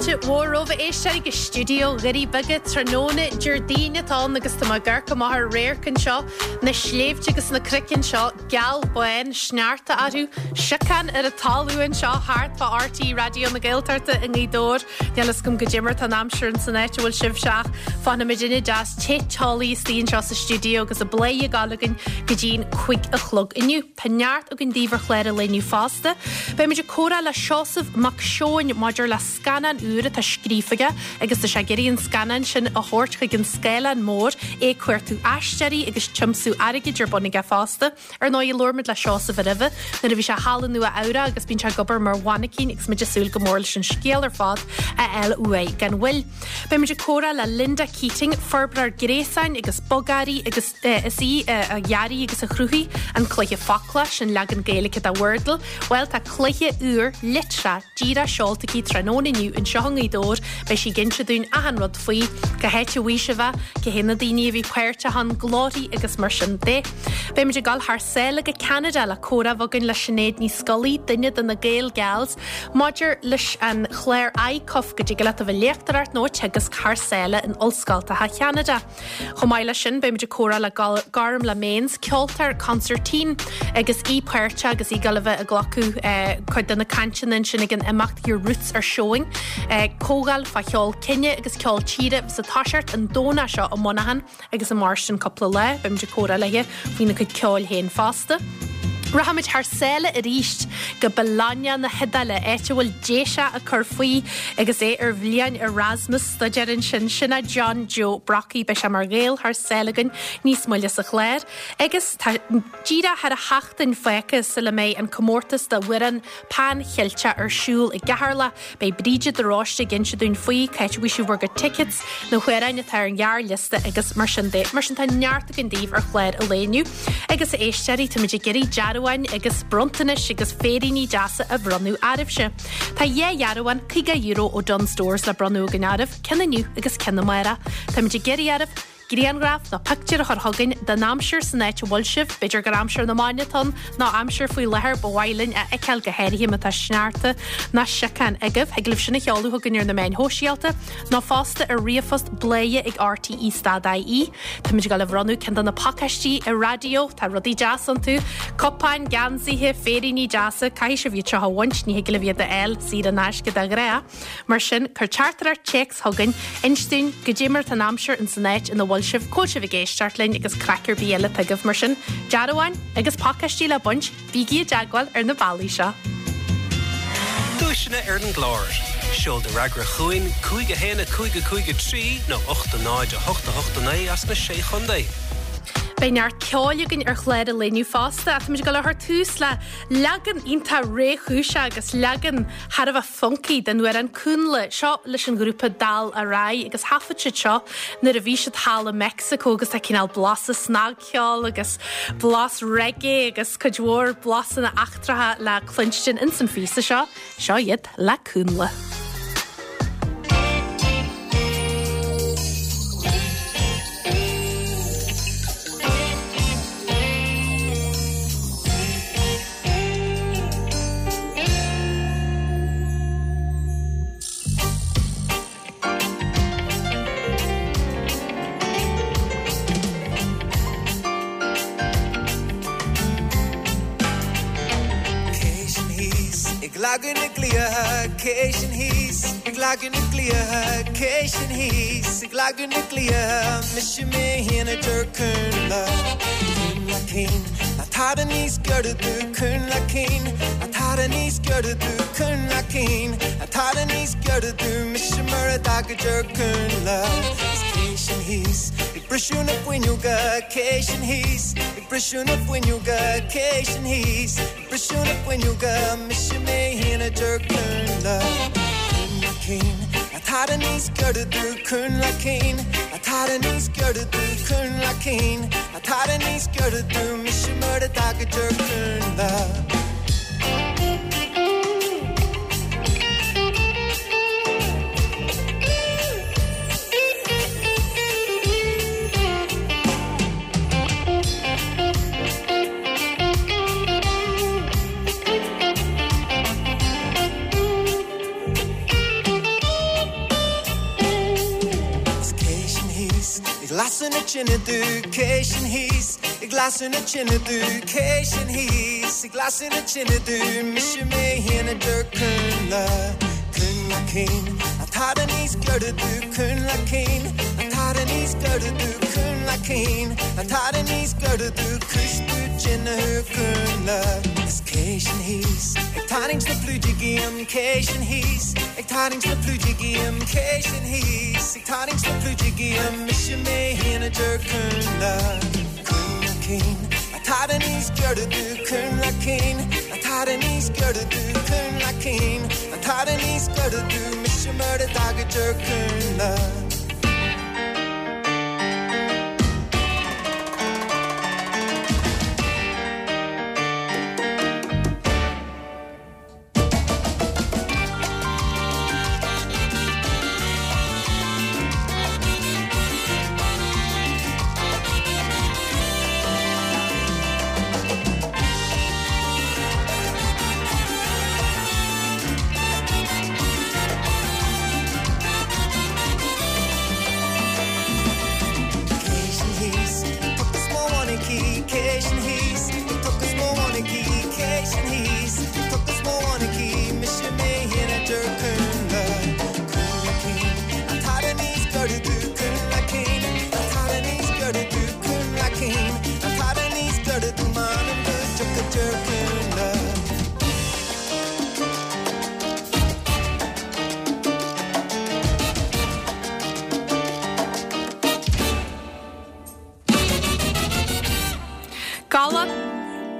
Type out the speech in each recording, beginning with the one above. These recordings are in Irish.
Fáilte mhór romhaibh a éisteoirí go stiúideo Dhoirí Beaga tráthnóna Déardaoin atá ann agus tá mé ag amharc amach ar radharc anseo, na sléibhte agus na cnoic anseo geal bán sneachta orthu, siocán ar an talamh anseo thart fá RTÉ Raidió na Gaeltachta i nGaoth Dobhair. Níl fhios agam goidé mar atá an aimsir ins an áit a bhfuil sibhse ach fanfaidh muidinne deas te teolaí istigh anseo sa stiúideo agus an plé ag gabháil againn go dtí'n 5 a chlog inniu. Tá neart againn daoibh ar chlár an lae inniu fosta. Beimid ag comhrá le Seosamh Mac Seoin maidir le scannán úr atá scríofa aige agus tá sé ag iarraidh an scannán sin a thabhairt chuig an scáileán mór, é ag cuartú aisteoirí agus tiomsú airgid ar bun aige fosta. Ar ndóigh, labhair muid le Seosamh roimhe nuair a bhí sé thall i Nua Eabhrac agus bíonn sé ag obair mar mhainicín agus muid ag súil go mór leis an scéal ar fad a fháil uaidh gan mhoill. Beimid ag comhrá le Linda Keating, forbróir gréasáin agus bogearraí agus is í a dhearaigh agus a chruthaigh an cluiche Focla, sin leagan Gaeilge de Wordle. Bhuel, tá cluiche úr litreach díreach seolta aici tráthnóna inniu anseo i nGaoth Dobhair. Beidh sí ag inse dúinn achan rud faoi, cá háit a bhfuair sibh é, cé hé na daoine a bhí páirteach ann, glórthaí agus mar sin de. Beimid ag dul thar sáile go Ceanada le comhrá a bheith againn le Sinéad Ní Scolaí, duine de na Gael Gals, Maidir leis an chlár ICUF, go dtig leat a bheith ag léachtóireacht nó ag teagasc thar sáile in ollscoltacha Cheanada. Chomh maith leis sin, beimid ag comhrá le Gormlaith Mains, ceoltóir consairtín, agus í páirteach agus í ag dul a bheith ag glacadh cuid de na cainteanna ansin ag an imeacht Your Roots Are Showing, comhdháil fá cheol cine agus ceol tíre a bheas ag toiseacht an Domhnach seo i Muineachán. Agus i mairstin cúpla lá, beimid ag comhrá léi faoina cuid ceoil féin fosta. Rachaimid thar sáile arís go Bologna na hIodáile, áit a bhfuil Déiseach ag cur faoi agus é ar bhliain Erasmus staidéir ansin. Sin é John Joe Brockie. Beidh sé mar Ghael thar sáile againn níos moille sa chlár. Agus tá díreach thar sheachtain fágtha sula mbeidh an comórtas d'amhrán Pan Cheilteach ar siúl i gCeatharlach. Beidh Bríde de Róiste ag inse dúinn faoi, cá háit a bhfaighidh sibh bhur gcuid tickets, na hamhráin atá ar an ghearrliosta agus mar sin de. Mar sin tá neart againn daoibh ar chlár an lae inniu. Agus a éisteoirí, táimid ag iarraidh dearbháin agus bronntanais agus féiríní deasa a bhronnadh oraibhse. Tá dhá dhearbhán €50 ó Dunnes Stores le bronnadh againn oraibh, ceann inniu agus ceann amárach. Táimid ag iarraidh oraibh Grianghraf nó pictiúr a chur chugainn den aimsir san áit a bhfuil sibh, b'fhéidir gur aimsir na mban atá ann nó aimsir faoi láthair ba mhaith linn a fheiceáil go háirithe má tá sneachta nó siocán agaibh. Thig libh sin a sheoladh chugainn ar na meáin shóisialta nó fosta ar ríomhphost bladhaire ag rte stad ie. Táimid ag dul a bhronnadh ceann de na pacáistí raidió, tá rudaí deas iontu, cupáin, geansaithe, féiríní deasa, caithfidh sibh iad seo a bhaint, ní thig libh iad a fháil saor in aisce de ghnáth. Mar sin, cuir teachtaireacht téacs chugainn, inis dúinn goidé mar atá an aimsir ins an áit ina bhfuil sibh, cá bhfuil sibh ag éisteacht linn agus craic ar bith eile atá agaibh. Mar sin, dearbháin agus pacáistí le baint, bígí i dteagmháil ar na bealaí seo. Duaiseanna ar an gclár. Seol do fhreagra chugainn, 5 1 5 5 3 nó 8 0 8 8 9 as na Sé Chontae. Beidh neart ceoil againn ar chlár an lae inniu fosta ach táimid ag dul a chur tús le leagan iontach réchúiseach agus leagan thar a bheith funky den amhrán Cúnla, seo leis an ghrúpa Dal Araidh agus thaifead siad seo nuair a bhí siad thall i Meicsiceo agus tá cineál blasa snagcheoil agus blas reggae agus cuid mhór blasanna eachtracha le cluinstin ins an phíosa seo. Seo iad le Cúnla. Cé sin thíos ag leagan na gcliatha, cé sin thíos ag leagan na gcliatha, cé sin thíos ag leagan na gcliatha, mise mé féin a deir Cúnla, Cúnla cinn, ná tada níos giorra domh, Cúnla cinn, ná tada níos giorra domh, Cúnla cinn, ná tada níos giorra domh, mise mar a dtaga deir Cúnla. Is cé sin thíos ag briseadh na fuinneoga, cé sin thíos ag briseadh na fuinneoga, cé sin thíos ag briseadh na fuinneoga, mise mé féin a deir Cúnla. Cúnla cinn, ná tada níos giorra domh, Cúnla cinn, ná tada níos giorra domh, Cúnla cinn, ná tada níos giorra domh, mise mar a dtaga deir Cúnla. tine domh, cé sin thíos ag lasadh na tine domh, cé sin thíos ag lasadh na tine domh, mise mé féin a deir Cúnla, Cúnla Cinn, an t-fhada níos giorra domh, Cúnla Cinn, an t-fhada níos giorra domh, Cúnla Cinn, an t-fhada níos giorra domh, cúis tú tine thú Cúnla. Is cé sin thíos ag tarraingt na pluide díom, cé sin thíos ag tarraingt na pluide díom, cé sin thíos ag tarraingt na pluide díom, mise mé féin a deir Cúnla, Cúnla Cinn, an t-fhada níos giorra domh, Cúnla Cinn, an t-fhada níos giorra domh, Cúnla Cinn, an t-fhada níos giorra domh, mise mar a d'fhág a deir Cúnla.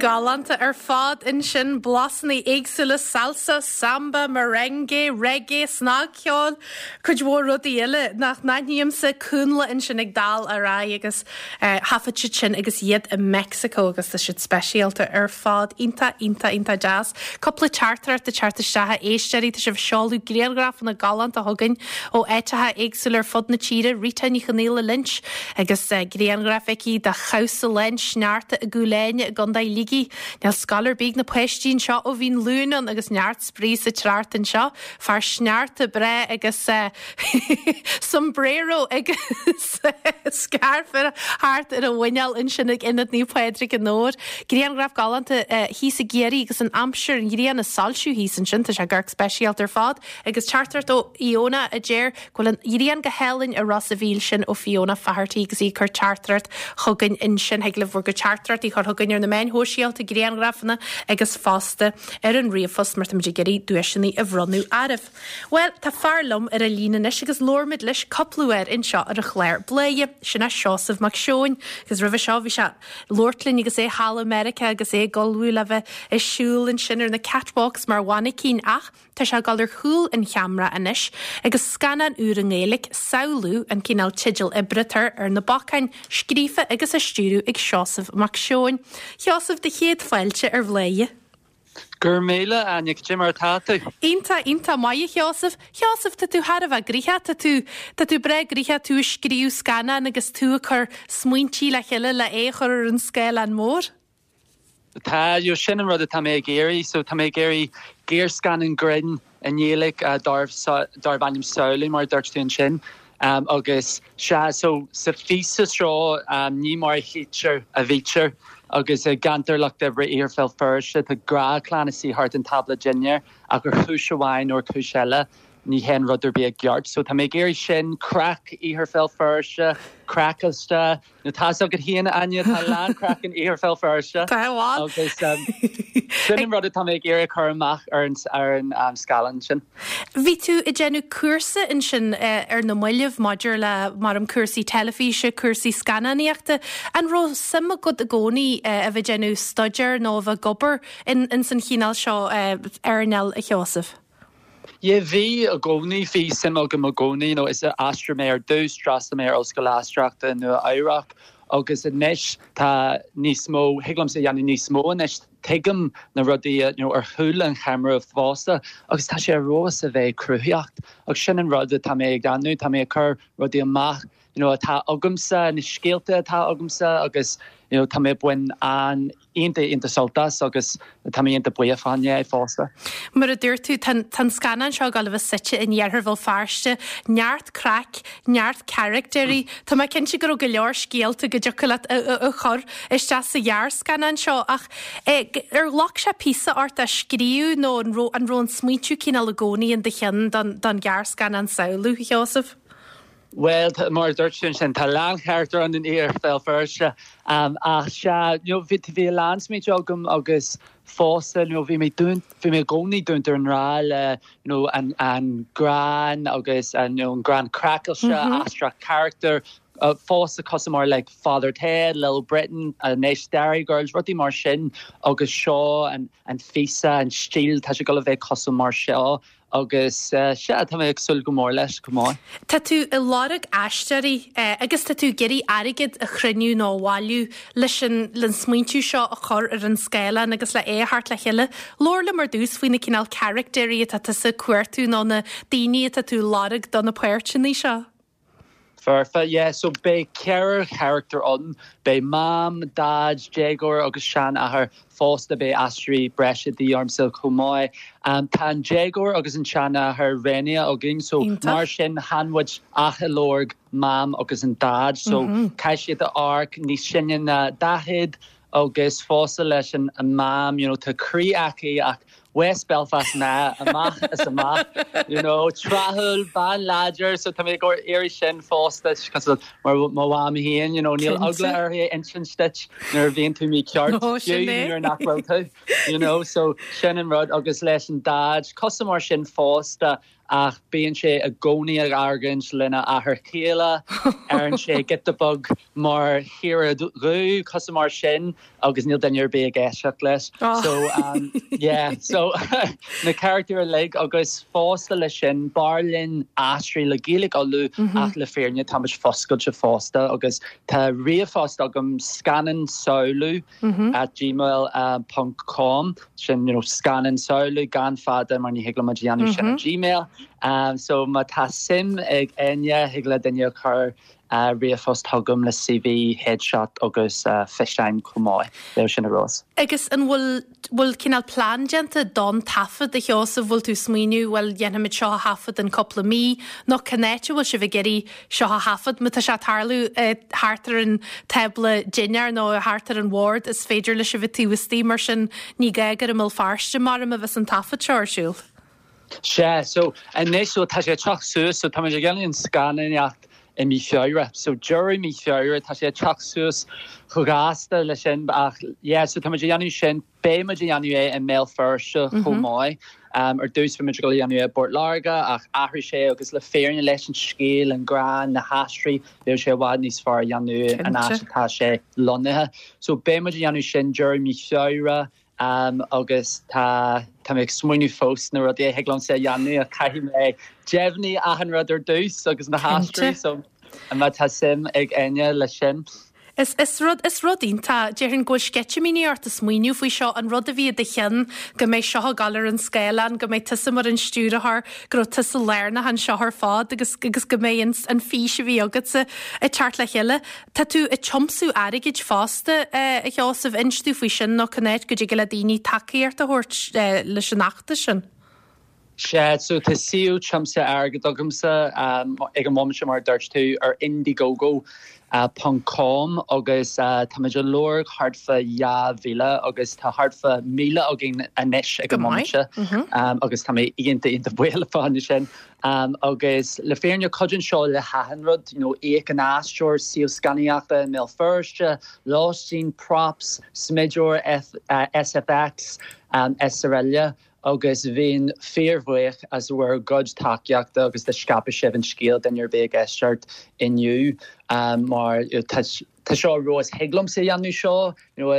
Galánta ar fad ansin, blasanna éagsúla, salsa, samba, merengue, reggae, snagcheol, cuid mhór rudaí eile nach n-aithnímse, Cúnla ansin ag dul ar aghaidh agus thaifead siad sin agus iad i Meicsiceo agus tá siad speisialta ar fad. Iontach, iontach, iontach deas. Cúpla teachtaireacht ag teacht isteach a éisteoirí, tá sibh ag seoladh grianghrafanna galánta chugainn ó áiteacha éagsúla ar fud na tíre, Rita Ní Chonaola Lynch agus grianghraf aici de chabhsa lán sneachta i gCúil Áine i gContae Shligigh. Níl scoil ar bith ag na páistí anseo ó bhí an Luan ann agus neart spraoi sa trácht anseo. Fear sneachta breá agus sombrero agus scairf thart ar a mhuineál ansin ag Ionad Naomh Pádraig i nDobhar. Grianghraf galánta thíos i gCiarraí agus an aimsir, an ghrian ag soilsiú thíos ansin. Tá sé ag amharc speisialta ar fad. Agus teachtaireacht ó Iona a deir go bhfuil an ghrian go hálainn i Ros a' Mhíl sin ó Fiona Faherty agus í ag cur teachtaireacht chugainn ansin. Thig libh bhur gcuid teachtaireachtaí a chur chugainn ar na meáin shóisialta, grianghrafanna agus fosta ar an ríomhphost mar táimid ag iarraidh duaiseanna a bhronnadh oraibh. Bhuel, tá fear liom ar an líne anois agus labhair muid leis cúpla uair anseo ar an chlár Bladhaire, sin é Seosamh Mac Seoin agus roimhe seo bhí sé ag labhairt linn agus é thall i Meiriceá agus é ag ullmhú le bheith ag siúl ansin ar na catwalks mar mhainicín ach tá sé ag dul ar chúl an cheamara anois agus scannán úr i nGaeilge, Samhlú, an cineál teideal oibre atá ar na bacáin, scríofa agus á stiúradh ag Seosamh Mac Seoin. Sheosamh, do chéad fáilte ar Bhladhaire. Go raibh míle, Áine, cad é mar atá tú? Iontach, iontach maith, a Sheosaimh. Sheosaimh, tá tú thar a bheith gnoitheach, tá tú, tá tú breá gnoitheach, tú ag scríobh scannán agus tú ag cur smaointí le chéile le é a chur ar an scáileán mór. Tá, you know, sin an rud atá mé ag iarraidh, so tá mé ag iarraidh gearrscannán grinn i nGaeilge darb, darb ainm Samhlú, mar a dúirt tú ansin. Agus sea, so sa phíosa seo ní mar a chítear a bhítear agus i gceantar lucht oibre Iarthar Bhéal Feirste tá gnáthchlann ina suí thart an tábla dinnéir ach ar chúis amháin nó ar chúis eile ní théann rud ar bith i gceart. So tá mé ag iarraidh sin, craic Iarthar Bhéal Feirste, craiceáilte, Nó tá 'fhios agat féin, a Áine, tá a lán craic in Iarthar Bhéal Feirste. Tá, bhuel. Agus sin an rud atá mé ag iarraidh a chur amach ar an ar an scáileán sin. Bhí tú ag déanamh cúrsa ansin ar na mallaibh maidir le, maram, cúrsaí teilifíse, cúrsaí scannánaíochta. An raibh suim agat i gcónaí a bheith ag déanamh staidéir nó a bheith ag obair ins an chineál seo earnáil, a Sheosaimh? Yeah, bhí i gcónaí, bhí suim agam i gcónaí, you know, is aisteoir mé ar dtús, d'fhreastail mé ar Ollscoil Aisteoireachta i Nua Eabhrac agus anois tá níos mó, thig liomsa a dhéanamh níos mó anois. Tuigim na rudaí you know ar chúl an cheamara fosta agus tá sé ar fheabhas a bheith cruthaitheach agus sin an rud atá mé ag déanamh, tá mé ag cur rudaí amach you know atá agamsa, na scéalta atá agamsa agus you know tá mé ag baint an iontach iontach sult as agus tá mé iontach buíoch fá choinne é fosta. Mar a dúirt tú, tá an scannán seo ag dul a bheith suite in iarthar Bhéal Feirste, neart craic, neart caractéirí. Tá mé cinnte go raibh go leor scéalta go dtiocfadh leat a chur isteach sa ghearrscannán seo ach ar ghlac sé píosa ort é a scríobh nó an raibh an raibh an smaointiú cineál i gcónaí in do cheann don ghearrscannán Samhlú, a Sheosaimh? Bhuel, mar a dúirt tú ansin, tá a lán charachtar ann in Iarthar Bhéal Feirste. Ach sea, you know, bhí, bhí a lán smaointe agam agus fosta, you know, bhí mé dúnt, bhí mé i gcónaí dúnta i ngrá le, you know, an, an greann agus an, you know, an greann craiceáilte, aisteach carachtar, fosta cosúil mar like Father Ted, Little Britain, anois Derry Girls, rudaí mar sin agus seo an, an phíosa, an stíl, tá sé ag dul a bheith cosúil mar seo. Agus sea, tá mé ag súil go mór leis chomh maith. Tá tú ag lorg aisteoirí agus tá tú ag iarraidh airgead a chruinniú nó a bhailiú leis an le an smaointiú seo a chur ar an scáileán agus le é a thabhairt le chéile. Labhair liom ar dtús faoi na cineál caractéirí atá tusa ag cuartú nó na daoine atá tú ag lorg do na páirteanna seo. Foirfe, yeah. So beidh ceithre charachtar ann. Beidh Mam, Daid, déagóir agus seanathair. Fosta beidh aisteoirí breise de dhíth ormsa chomh maith. Tá an déagóir agus an seanathair roghnaithe againn so mar sin chan muid ach ag lorg Mam agus an Daid. So caithfidh siad a amharc níos sine ná 40 agus fosta leis an Mam, you know, tá croí aici ach West Belfast mná amach is amach, you know, tráthúil, bean láidir, so tá mé ag iarraidh sin fosta, cosúil mar mo mham féin, you know, níl eagla uirthi a insint duit nuair a bhíonn tú mícheart, fiú nuair nach bhfuil tú, you know, so sin an rud agus leis an Daid, cosúil mar sin fosta, ach bíonn sé i gcónaí ag argóint lena athair céile, deireann sé giota beag mar chaora dhubh, cosúil mar sin, agus níl duine ar bith ag éisteacht leis. So um, yeah, so na carachtair uilig agus fosta leis sin, b'fhearr linn aisteoirí le Gaeilge Uladh mm -hmm. ach le fírinne táimid foscailte fosta agus tá ríomhphost agam scannán samhlú at gmail ponc com sin you know scannán samhlú gan fada mar ní thig liom a dhéanamh sin ar gmail so má tá suim ag éinne thig le duine a chur ríomhphost chugam le CV, headshot agus físeáin chomh maith bheadh sin ar fheabhas. Agus an bhfuil bhfuil cineál plean déanta don taifead a Sheosaimh, bhfuil tú ag smaoineamh bhuel dhéanfaimid seo a thaifead in cúpla mí nó cén áit a bhfuil sibh ag iarraidh seo a thaifead. Má tá sé ag tarlú thart ar an tábla dinnéir nó thart ar an bhord, is féidir leis a bheith taobh istigh, mar sin ní gá gur i mBéal Feirste maram a bheas an taifead seo ar siúl. Sea, so anois so tá sé ag teacht suas, so táimid ag déanamh an scannánaíocht i mí Feabhra, so deireadh mí Feabhra, tá sé ag teacht suas chomh gasta leis sin ach yeah, so táimid ag déanamh sin. Beidh muid ag déanamh é i mBéal Feirste chomh maith. Ar dtús bhí muid ag dul a dhéanamh é i bPort Láirge ach athraigh sé agus le fírinne leis an scéal, an greann, na haisteoirí, bheadh sé i bhfad níos fearr a dhéanamh an áit atá sé lonnaithe. So beidh muid ag déanamh sin deireadh mí Feabhra agus tá tá mé ag smaoineamh fós na rudaí a thig liomsa a dhéanamh ach caithfidh mé deimhniú achan rud ar dtús agus na haisteoirí so má tá suim ag éinne leis sin. Is, is rud, is rud iontach, déarfainn go bhfuil sceitimíní ort ag smaoineamh faoi seo, an rud a bhí i do cheann, go mbeidh seo ag dul ar an scáileán, go mbeidh tusa mar an stiúrthóir, go raibh tusa lárnach anseo ar fad agus, agus go mbeidh an, an fís a bhí agatsa ag teacht le chéile. Tá tú ag tiomsú airgid fosta, a Sheosaimh, inis domh faoi sin nó cén áit go dtig le daoine tacaíocht a thabhairt leis an fheachtas sin. Sea, so tá suíomh tiomsaithe airgid agamsa ag an bhomaite mar a dúirt tú ar indiegogo ponc com agus táimid ag lorg thart fá 2,000 agus tá thart fá 1,000 againn anois ag an mbomaite agus tá mé iontach iontach buíoch fá choinne sin. Agus le fírinne cuidíonn seo le hachan rud, you know íoc an aisteoir, suíomh scannánaíochta i mBéal Feirste, lóistín, props, smideoir, SFX, srl. agus bheinn fíorbhuíoch as bhur gcuid tacaíochta agus dá scaipfeadh sibh an scéal duine ar bith ag éisteacht inniu mar tá seo ar fheabhas thig liomsa a dhéanamh seo you know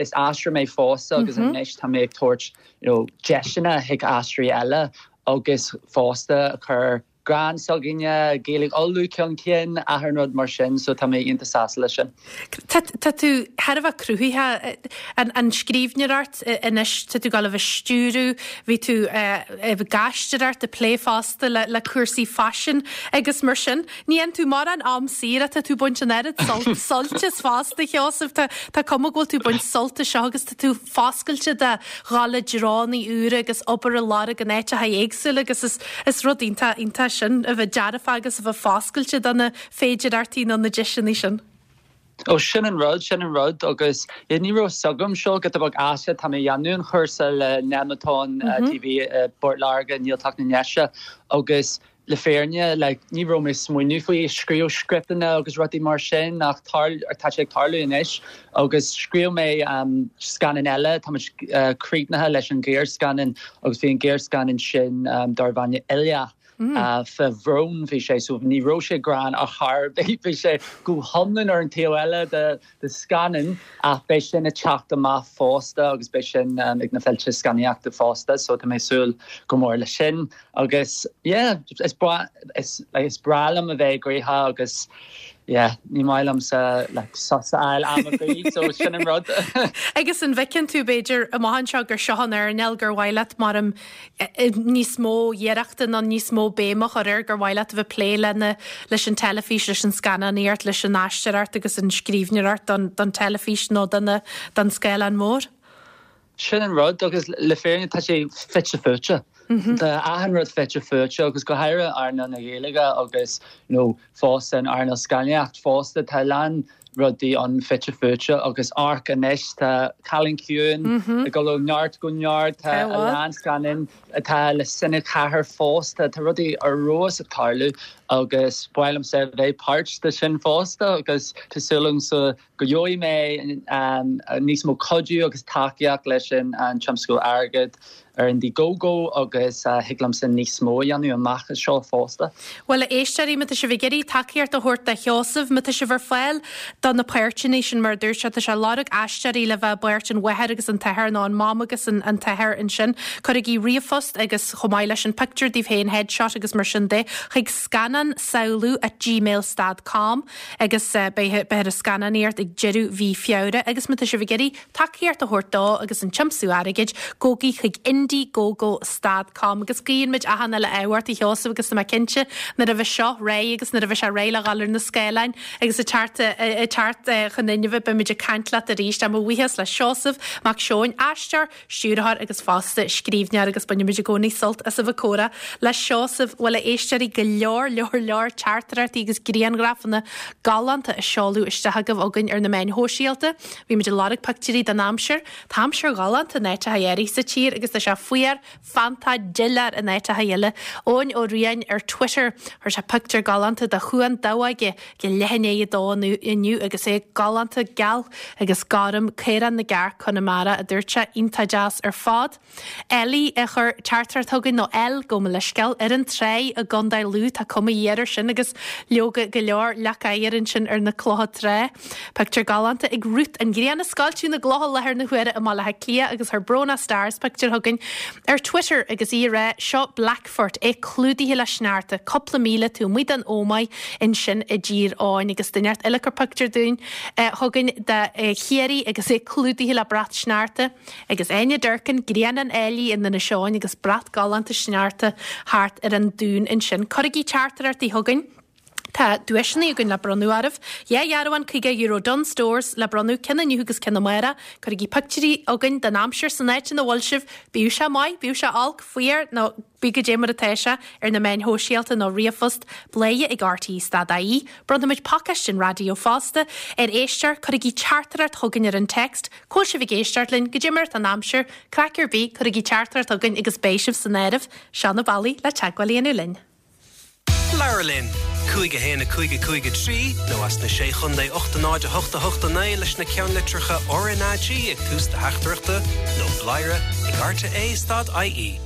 is aisteoir mé fosta agus anois tá mé ag tabhairt you know deiseanna chuig aisteoirí eile agus fosta a chur. greann s'againne, Gaeilge Uladh chun cinn, achan rud mar sin, so tá mé iontach sásta leis sin. Tá tú thar a bheith cruthaitheach, an scríbhneoireacht anois, tá tú ag gabháil a bheith ag stiúradh, bhí tú ag aisteoireacht, ag plé fosta le cúrsaí faisin agus mar sin. Ní fhaigheann tú mórán am saor ach tá tú ag baint an oiread sult as fosta, a Sheosaimh. Tá cuma go bhfuil tú ag baint sult as seo agus tá tú foscailte do dhul i dtreonna úra agus obair a lorg in áiteacha éagsúla agus is is rud iontach iontach sin a bheith dearfach agus a bheith foscailte do na féidearthachtaí nó na deiseanna sin. Ó sin an rud, sin an rud agus yeah ní raibh fhios agam seo giota beag aisteach, tá mé ag déanamh an chúrsa le Nemeton TV i bPort Láirge i nGaeltacht na nDéise agus Le fírinne, like, ní raibh mé ag smaoineamh faoi scríobh scripteanna agus rudaí mar sin ach tá sé ag tarlú anois agus scríobh mé scannán eile, tá muid críochnaithe leis an ghearrscannán agus bhí an gearrscannán sin darb ainm Oileach fá bhrón bhí sé so ní raibh sé greann ar chor ar bith, bhí sé go hiomlán ar an taobh eile de de scannán ach beidh sin ag teacht amach fosta agus beidh sin ag na féilte scannánaíochta fosta so tá mé ag súil go mór leis sin agus yeah is breá is like is breá liom a bheith gnoitheach agus yeah ní maith liomsa like sos a fháil am ar bith so sin an rud. Agus an bhfeiceann tú b'fhéidir amach anseo gur seo an earnáil gur mhaith leat mar níos mó iarrachta nó níos mó béim a chur air gur mhaith leat a bheith ag plé lena, leis an teilifís, leis an scannánaíocht, leis an aisteoireacht agus an scríbhneoireacht don, don teilifís nó don, don scáileán mór. Sin an rud agus le fírinne tá sé fite fuaite. Tá achan rud fite fuaite agus go háirithe earnáil na Gaeilge agus you know fosta an earnáil scannánaíocht fosta tá a lán rudaí ann fite fuaite agus amharc anois tá Cailín Ciúin ag dul ó neart go neart, tá a lán scannán atá le Cine 4 fosta, tá rudaí ar fheabhas ag tarlú agus ba mhaith liomsa a bheith páirt de sin fosta agus tá súil agamsa go gheobhaidh mé níos mó cuidiú agus tacaíocht leis an tiomsú airgid ar Indiegogo agus thig liomsa níos mó a dhéanamh amach as seo fosta. Bhuel, a éisteoirí, má tá sibh ag iarraidh tacaíocht a thabhairt do Sheosamh, má tá sibh ar fáil do na páirteanna sin, mar a dúirt sé, tá sé ag lorg aisteoirí le bheith i bpáirt an mháthair agus an t-athair nó an mam agus an t-athair ansin, cuirigí ríomhphost agus chomh maith leis an pictiúr daoibh féin, headshot agus mar sin de, chuig scannánsamhlú at gmail stad com agus beidh beifear ag scannánaíocht ag deireadh mhí Feabhra agus má tá sibh ag iarraidh tacaíocht a thabhairt dó agus an tiomsú airgid, gabhaigí chuig indiegogo stad com agus guíonn muid achan uile ádh ort a Sheosaimh agus tá mé cinnte nuair a bheidh seo réidh agus nuair a bheidh sé réidh le dhul ar na scáileáin agus ag teacht ag teacht chun inmhe beidh muid ag caint leat arís. Tá mo bhuíochas le Seosamh Mac Seoin, aisteoir, stiúrthóir agus fosta scríbhneoir agus bainimid i gcónaí sult as a bheith ag comhrá le Seosamh. Bhuel, a éisteoirí, go leor, leor, leor teachtaireachtaí agus grianghrafanna galánta á seoladh isteach agaibh chugainn ar na meáin shóisialta. Bhí muid ag lorg pictiúirí den aimsir. Tá aimsir ghalánta in áiteacha áirithe sa tír agus tá sé fuar, feannta, doiléir in áiteacha eile. Eoin Ó Riain ar Twitter, chuir sé pictiúr galánta de Chuan Damhóige ag leath i ndiaidh a dó inniu agus é galánta geal agus gorm, Caorán na gCearc, Conamara, a dúirt sé, iontach deas ar fad. Ellie a chuir teachtaireacht chugainn, nó Elle, gabh mo leithscéal, ar an tráigh i gContae Lú, tá cuma ghéar air sin agus leoga go leor leac oighir ansin ar na clocha trá. Pictiúr galánta ag Ruth, an ghrian ag scoilteadh na gcloch i láthair na huaire i mBaile Átha Cliath agus chuir Bróna Stars pictiúr chugainn ar Twitter agus í ag rá, seo Blackfort, é clúdaithe le sneachta, cúpla míle taobh amuigh den Ómaigh ansin i dTír Eoghain agus duine inteacht eile a chuir pictiúr dúinn chugainn de Chiarraí agus é clúdaithe le brat sneachta agus Áine Durkin, Grianán Áilí in Inis Eoghain agus brat galánta sneachta thart ar an dún ansin. Cuirigí teachtaireachtaí chugainn. Tá duaiseanna againn le bronnadh oraibh. Dhá dhearbhán €50 Dunnes Stores le bronnadh, ceann inniu agus ceann amárach. Cuirigí pictiúirí chugainn den aimsir san áit ina bhfuil sibh, bíodh sé maith, bíodh sé olc, fuar nó bíodh goidé mar atá sé, ar na meáin shóisialta nó ríomhphost, bladhaire ag rte stad ie. Bronnfaimid pacáiste an raidió fosta ar éisteoir. Cuirigí teachtaireacht chugainn ar an text, cá bhfuil sibh ag éisteacht linn, goidé mar atá an aimsir, craic ar bith, cuirigí teachtaireacht chugainn agus beidh sibh san áireamh. Seo na bealaí le teagmháil a dhéanamh linn. Labhair linn! 5 1 5 5 3 nó as na Sé Chontae 8 0 8 8 9 leis na ceannlitreacha RnaG ag tús do theachtaireachta nó bladhaire ag rte stad ie.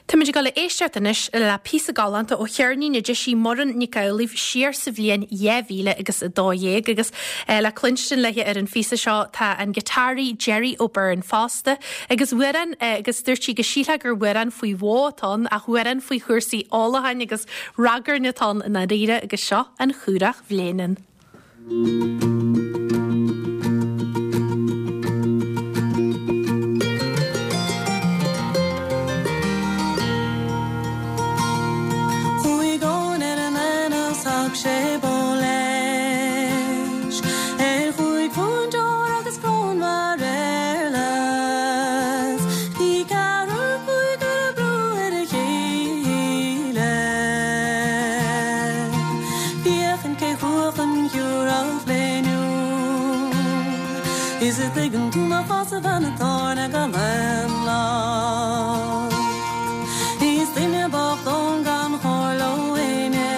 Táimid ag dul a éisteacht anois le píosa galánta ó cheirnín a d'eisigh Muireann Nic Amhlaoibh siar sa bhliain 2000 agus 12 agus le cluinstin léi ar an phíosa seo tá an giotáraí Gerry O'Beirne fosta agus amhrán agus dúirt sí go sílfeá gur amhrán faoi bhó atá ann ach amhrán faoi chúrsaí ólacháin agus ragairne atá ann i ndáiríre agus seo An Churach Bhléineann. Chuaigh Eoin ar an aonach 's thug sé bó leis Ar chúig phunt óir agus cróin mar éarlais Bhí ceathrar cúigear ag brú ar a chéile Féachaint cé chuach an Chiúrach Léiniúil Is a dtuigeann tú mo chás a bhean an tábhairne gan aon locht Is duine bocht Eoin gan chomhairle ó éinne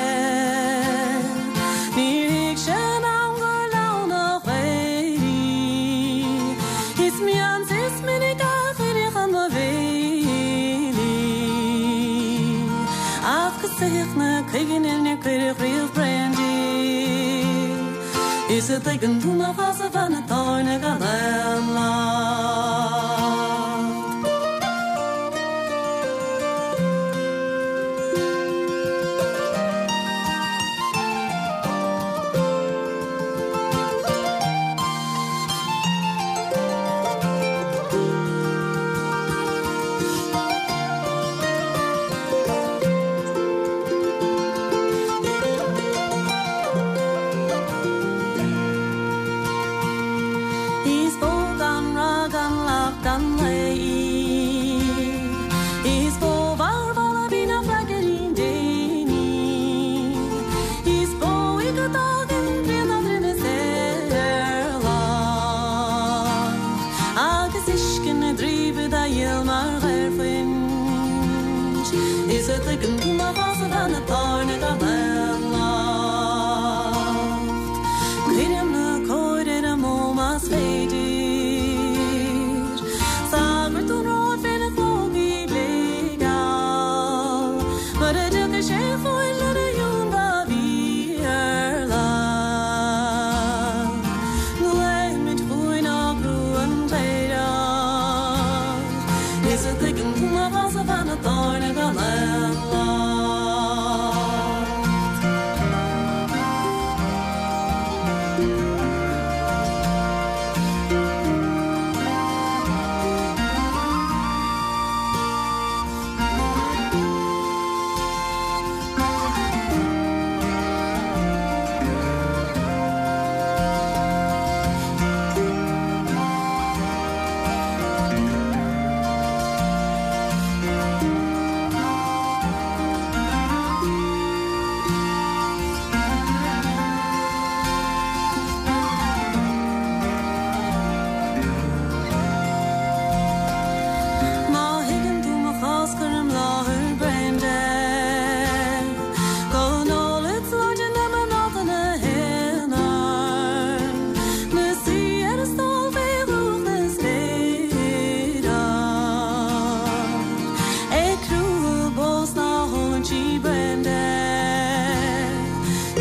Níor thuig sé in am gur leann a chaoirí Is mion is minic a chuireadh chun mo bhéil í Ach go soitheach na cuiginne níor cuireadh riamh braon di. Is a dtuigeann tú mo chás a bhean an tábhairne gan aon locht. Is bó gan rath gan lacht gan lao í. Is bó mharbh a bhí nach freagairín d'éin í. Is bó í go dtagann pian dá droim is ar lach. Agus uisce na dtrí dá dhíol mar ghairfuint. Is a dtuigeann tú mo chás a bhean an tábhairne gan aon locht. Cuirim na cóir ar an mbó más féidir. Sagart ón Róimh féna chlógaí bléigeal. Mura dtiocfaidh sé chugainn lena ionbhá mhíorlach. Glaofaimid chugainn ár gcrú an cléireach. Is a dtuigeann tú mo chás a bhean an tábhairne gan aon locht. Má thuigeann tú mo chás cuir im láthair braon de. Go n-ólfad sláinte na mná na haonar. 'Na suí ar a stól fé dhúch na spéire. Ag crúthadh bó 's ná hólann sí braon de.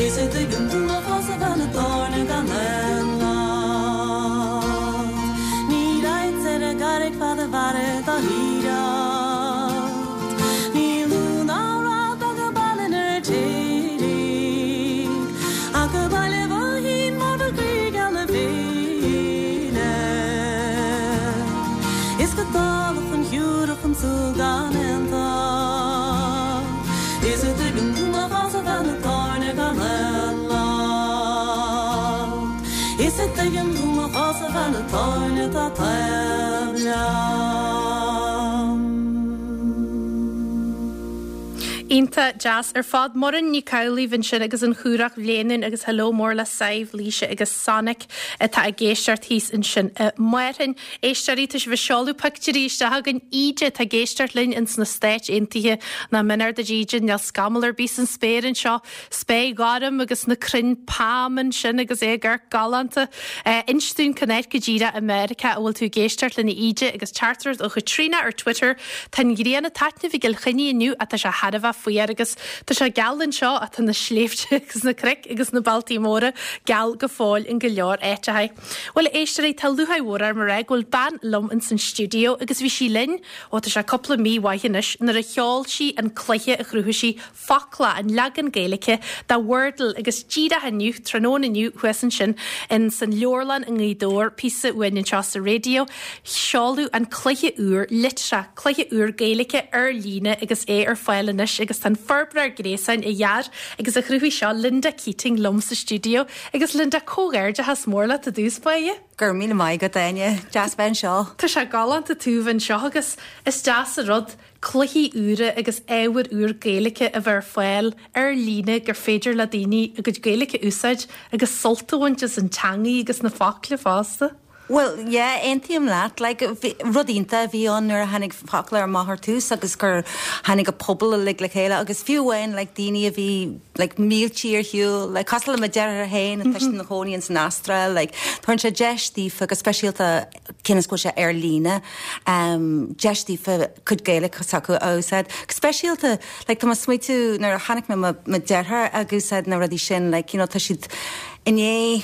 Is a dtuigeann tú mo chás a bhean an tábhairne gan aon locht. Ní raghadsa ar an gcarraig fad a mhairfead dá hiarracht. Ní lú ná rath beag an baile an Fheirtéaraigh. Ach go Baile Bhoithín mar ba croí geal na féile. Is go Tulach an Chiúrach an tsúil gan aon tocht. Is a dtuigeann tú mo chás a bhean an tábhairne gan aon locht. Is a dtuigeann tú mo chás a bhean an tábhairne atá taobh liom. Iontach deas ar fad. Muireann Nic Amhlaoibh ansin agus an Chúrach Bhléanúin agus hello mór le Sadhbh, Laoise agus Sonic atá ag éisteacht thíos ansin i Márthainn. Éisteoirí, tá sibh ag seoladh pictiúirí isteach chugainn. Íde atá ag éisteacht linn ins na Stáit Aontaithe. Nach méanar duit Íde, níl scamall ar bith san spéir anseo. Spéir ghorm agus na crainn pailm ansin agus é ag amharc galánta. Inis dúinn cén áit go díreach i Meiriceá a bhfuil tú ag éisteacht linn a Íde agus teachtaireacht ó Chaitríona ar Twitter, Tá an ghrian ag taitneamh i gCill Chainnigh inniu ach tá sé thar a bheith fuar agus tá sé geal anseo ach tá na sléibhte agus na cnoic agus na bealtaí móra geal go fóill in go leor áiteacha. Bhuel a éisteoirí, tá lúcháir mhór orm a rá go bhfuil bean liom ins an stiúideo agus bhí sí linn, ó tá sé cúpla mí mhaith anois, nuair a sheol sí an cluiche a chruthaigh sí, Focla, an leagan Gaeilge de Wordle agus díreach inniu, tráthnóna inniu, thuas ansin in san leabharlann i nGaoth Dobhair, píosa uainn anseo sa raidió, seoladh an cluiche úr, Litreach, cluiche úr Gaeilge ar líne agus é ar fáil anois agus tá an forbróir gréasáin a dhear agus a chruthaigh seo, Linda Keating liom sa stiúideo. Agus Linda, comhghairdeachas mór leat i dtús báire. Go raibh míle maith agat, Áine. Deas bheith anseo. Tá sé galánta tú bheith anseo agus is deas an rud cluichí úra agus ábhar úr Gaeilge a bheith ar fáil ar líne gur féidir le daoine a gcuid Gaeilge a úsáid agus sult a bhaint as an teangaidh agus na focla fosta. Bhuel, yeah, aontaím leat. Like, rud iontach a bhí ann nuair a tháinig Focla amach ar tús agus gur tháinig an pobal uilig le chéile agus fiú amháin like daoine a bhí like míltí ar shiúl, like cosúil le mo deartháir féin atá ina chónaí ins an Astráil, like tugann sé deis daofa go speisialta cionn is go bhfuil sé ar líne, deis daofa cuid Gaeilge s'acu a úsáid. Go speisialta, like tá mé ag smaoitiú nuair a chonaic mé mo mo deartháir ag úsáid na rudaí sin, like you know tá siad i ndiaidh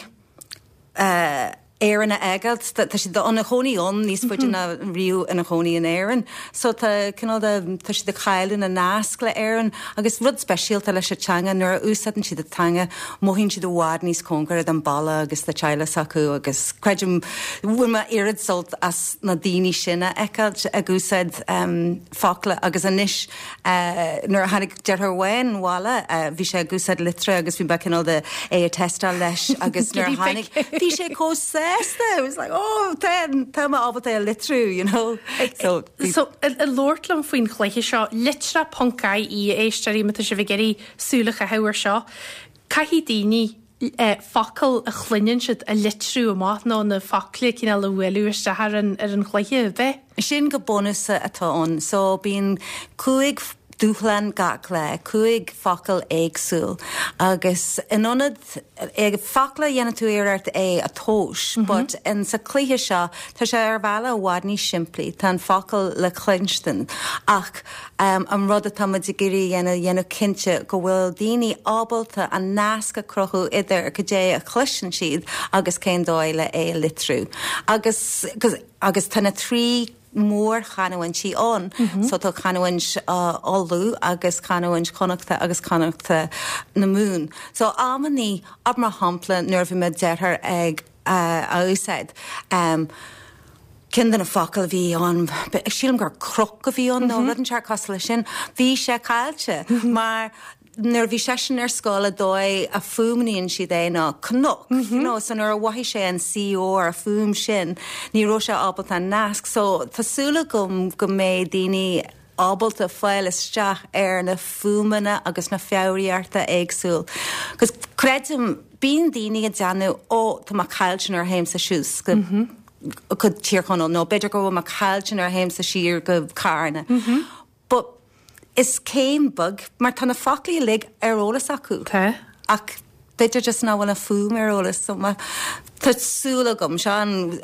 eh Éirinn a fhágáilt, tá siad ina chónaí ann níos faide ná riamh ina chónaí in Éirinn. So tá cineál de, tá siad ag cailleadh na nasc le Éirinn agus rud speisialta leis an teanga nuair a úsáideann siad an teanga mothaíonn siad i bhfad níos cóngaraí don baile agus do teaghlach s'acu agus creidim bhain mé oiread sult as na daoine sin a fheiceáilt ag úsáid focla agus anois nuair a tháinig deartháir amháin abhaile bhí sé ag úsáid Litreach agus bhí mé cineál de é a teisteáil leis agus nuair a tháinig bhí sé chomh sásta it was like oh tá tá mé ábalta é a litriú you know so So ag labhairt liom faoin chluiche seo litreach ponc ie a éisteoirí má tá sibh ag iarraidh súil a chaitheamh ar seo. Caithfidh daoine focail a chluineann siad a litriú amach nó na focla cineál a bhualadh isteach ar an ar an chluiche, ab ea? Sin go bunúsach atá ann. So bíonn 5 dúshlán gach lá, 5 focal éagsúil agus in ionad focla dhéanann tú iarracht é a thomhas but in sa cluiche seo tá sé ar bhealach i bhfad níos simplí, tá an focal le cluinstin ach An rud atá muid ag iarraidh a dhéanamh, dhéanamh cinnte go bhfuil daoine ábalta an nasc a chruthú idir cad é a chloiseann siad agus cén dóigh le é a litriú. Agus, agus tá na trí mhórchanúintí ann, so tá canúint Uladh agus canúint Chonnachta agus canúint na Mumhan. So amannaí, mar shampla, nuair a bhí mo deartháir ag a úsáid. Ceann de na focail a bhí ann, sílim gur croc a bhí ann nó rud inteacht cosúil leis sin, bhí sé caillte mar nuair a bhí seisean ar scoil an dóigh a fuaimníonn siad é ná cnoc, you know, so nuair a mhothaigh sé an CR, an fuaim sin, ní raibh sé ábalta an nasc. So tá súil agam go mbeidh daoine ábalta fáil isteach ar na fuaimeanna agus na foghraíochta éagsúil. 'Cause creidim, bíonn daoine ag déanamh, ó, tá mé caillte nuair a théimse suas go go Tír Chonaill nó b'fhéidir go bhfuil mé caillte nuair a théimse siar go Carna. But is céim beag, mar tá na foclaí uilig ar eolas acu. Tá. Ach b'fhéidir just nach bhfuil an fuaim ar eolas so má tá súil agam, seo an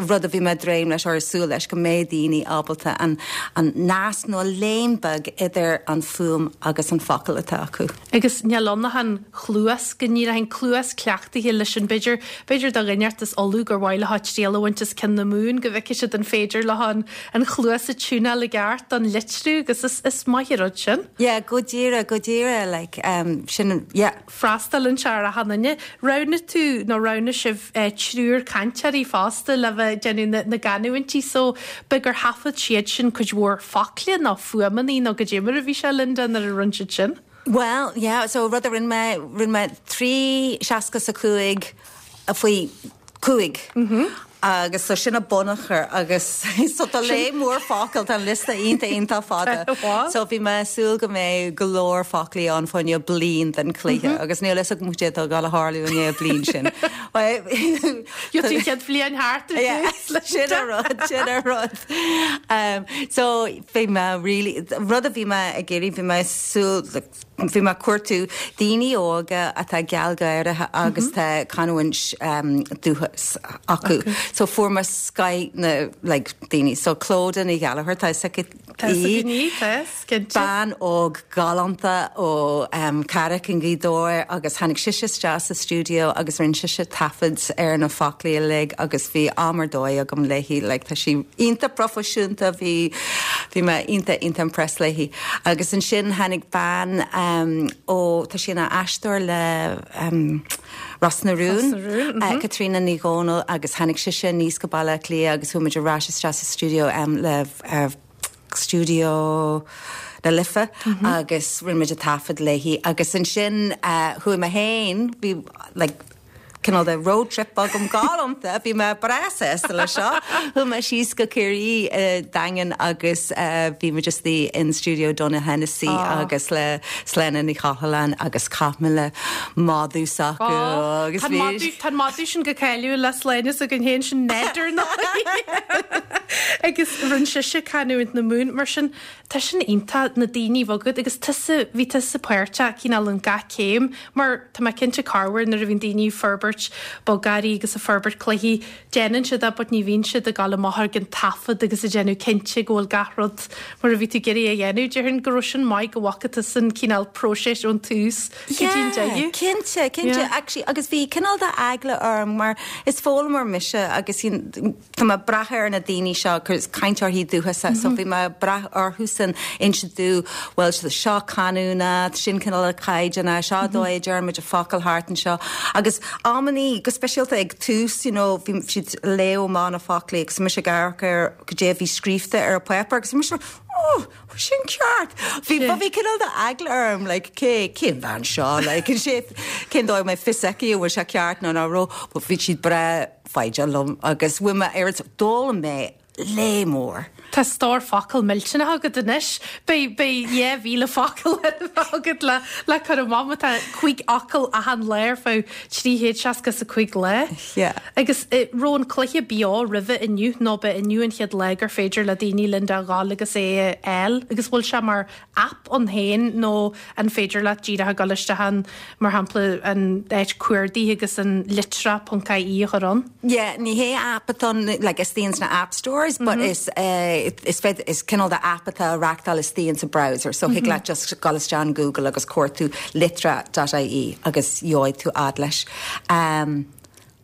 rud a bhí mé ag dréim leis or ag súil leis, go mbeidh daoine ábalta an an nasc nó an léim beag idir an fuaim agus an focal atá acu. Agus níl ann ach an chluas, go ndíreach an cluas cleachtaithe leis an b'fhéidir, b'fhéidir do dhuine inteacht as Uladh gur mhaith leo triail a bhaint as ceann na Mumhan go bhfeicfidh siad an féidir leo an an chluas a tiúnáil i gceart don litriú agus is is maith an rud sin. Yeah, go díreach, go díreach, like, sin, yeah. Freastalaíonn sé ar achan duine. Roghnaigh tú, nó roghnaigh sibh, triúr cainteoirí fosta le bheith ag déanamh na gcanúintí so b'fhéidir gur thaifead siad sin cuid mhór focla nó fuaimeanna nó goidé mar a bhí sé, Linda, nuair a rinne siad sin? Bhuel, yeah, so rud a rinne mé, rinne mé 3 60 's a 5 faoi 5. Agus so sin an bunachar agus so tá léith mór focal, tá an liosta iontach iontach fada. So bhí mé ag súil go mbeidh go leor foclaí ann fá choinne bliain den cluiche agus níl fhios agam cad é atá ag dul a tharlú i ndiaidh bliain sin. Gheobhaidh tú an chéad bhliain thart ar dtús leis Sin an rud, sin an rud. So bhí mé really, rud a bhí mé ag iarraidh, bhí mé ag súil, Bhí mé ag cuartú daoine óga atá gealgháireach agus tá canúint dúchas acu. So fuair mé scoith na like daoine. So Clodagh Ní Ghallchóir, tá fhios agat Tá fhios againn í, tá fhios, cinnte. Bean óg galánta ó Carraig i nGaoth Dobhair agus tháinig sise isteach sa stiúideo agus rinne sise taifead ar na foclaí uilig agus bhí am ar dóigh agam léi. Like tá sí iontach proifisiúnta, bhí bhí mé iontach iontach impressed léi. Agus ansin tháinig bean ó, tá sí ina aisteoir le Ros na Rún, Caitríona Ní Dhomhnaill agus tháinig sise aníos go Baile Átha Cliath agus chuaigh muid ar ais isteach sa stiúideo le Stiúideo na Life agus rinne muid an taifead léi agus ansin chuaigh mé féin, bhí like, cineál de road trip agam galánta, bhí mé breá sásta leis seo. Chuaigh mé síos go Ciarraí i Daingean agus bhí muid istigh in stiúideo Donogh Hennessy agus le Sláine Ní Choileáin agus chaith mé le madadh s'acu agus bhí. Tá an madadh sin go cáiliúil le Sláine s'againn féin sin Ned ar ndóigh agus rinne sise canúint na Mumhan mar sin Tá sin iontach, na daoine a bheith agat agus tusa, bhí tusa páirteach cineál in gach céim mar tá mé cinnte corruair nuair a bhíonn daoine ag forbairt bogearraí agus ag forbairt cluichí, déanann siad é but ní bhíonn siad ag dul amach ag an taifead agus ag déanamh cinnte go bhfuil gach rud mar a bhí tú ag iarraidh a dhéanamh. Déarfainn go raibh sin maith go bhfaca tusa an cineál próiseas ón tús go dtí an deireadh. Yeah, cinnte, cinnte. Actually, agus bhí cineál de eagla orm mar is foghlaimeoir mise agus Tá mé ag brath ar na daoine seo, cainteoirí dúchasacha, so bhí mé ag brath orthusan inse domh, bhuel, seo canúint, sin cineál caighdeán, seo an dóigh a deir muid an focal thart anseo. Agus amannaí, go speisialta ag tús, you know, bhí siad ag léamh amach na foclaí agus mise ag amharc ar goidé a bhí scríofa ar an páipéar agus bhí mise, oh, sin ceart! Bhí, but bhí cineál de eagla orm, like, cé, cén bhean seo, like, cén dóigh a mbeidh fios aici an bhfuil sé ceart nó nach raibh, but bhí siad breá, foighdeach liom agus bhain mé oiread, d'fhoghlaim mé léith mór. Tá stór focal millteanach agat anois. Beidh, beidh 2,000 focal agat le, le cur amach má tá 5 fhocal achan lá ar feadh 365 lá. Yeah. Agus raibh an cluiche beo roimhe inniu nó ba inniu an chéad lá gur féidir le daoine Linda a ghabháil agus é a fháil agus bhfuil sé mar aip ann féin nó an féidir leat díreach a dhul isteach ann, mar shampla, an áit cuardaigh agus an litreach.ie a chur ann? Yeah, ní hé app atá ann, like, istigh ins na app stores, but is eh, is féidir, is cineál de app atá á reachtáil istigh ins an browser, so thig leat just dul isteach in Google agus cuartú litreach.ie agus gheobhaidh tú fhad leis. Um,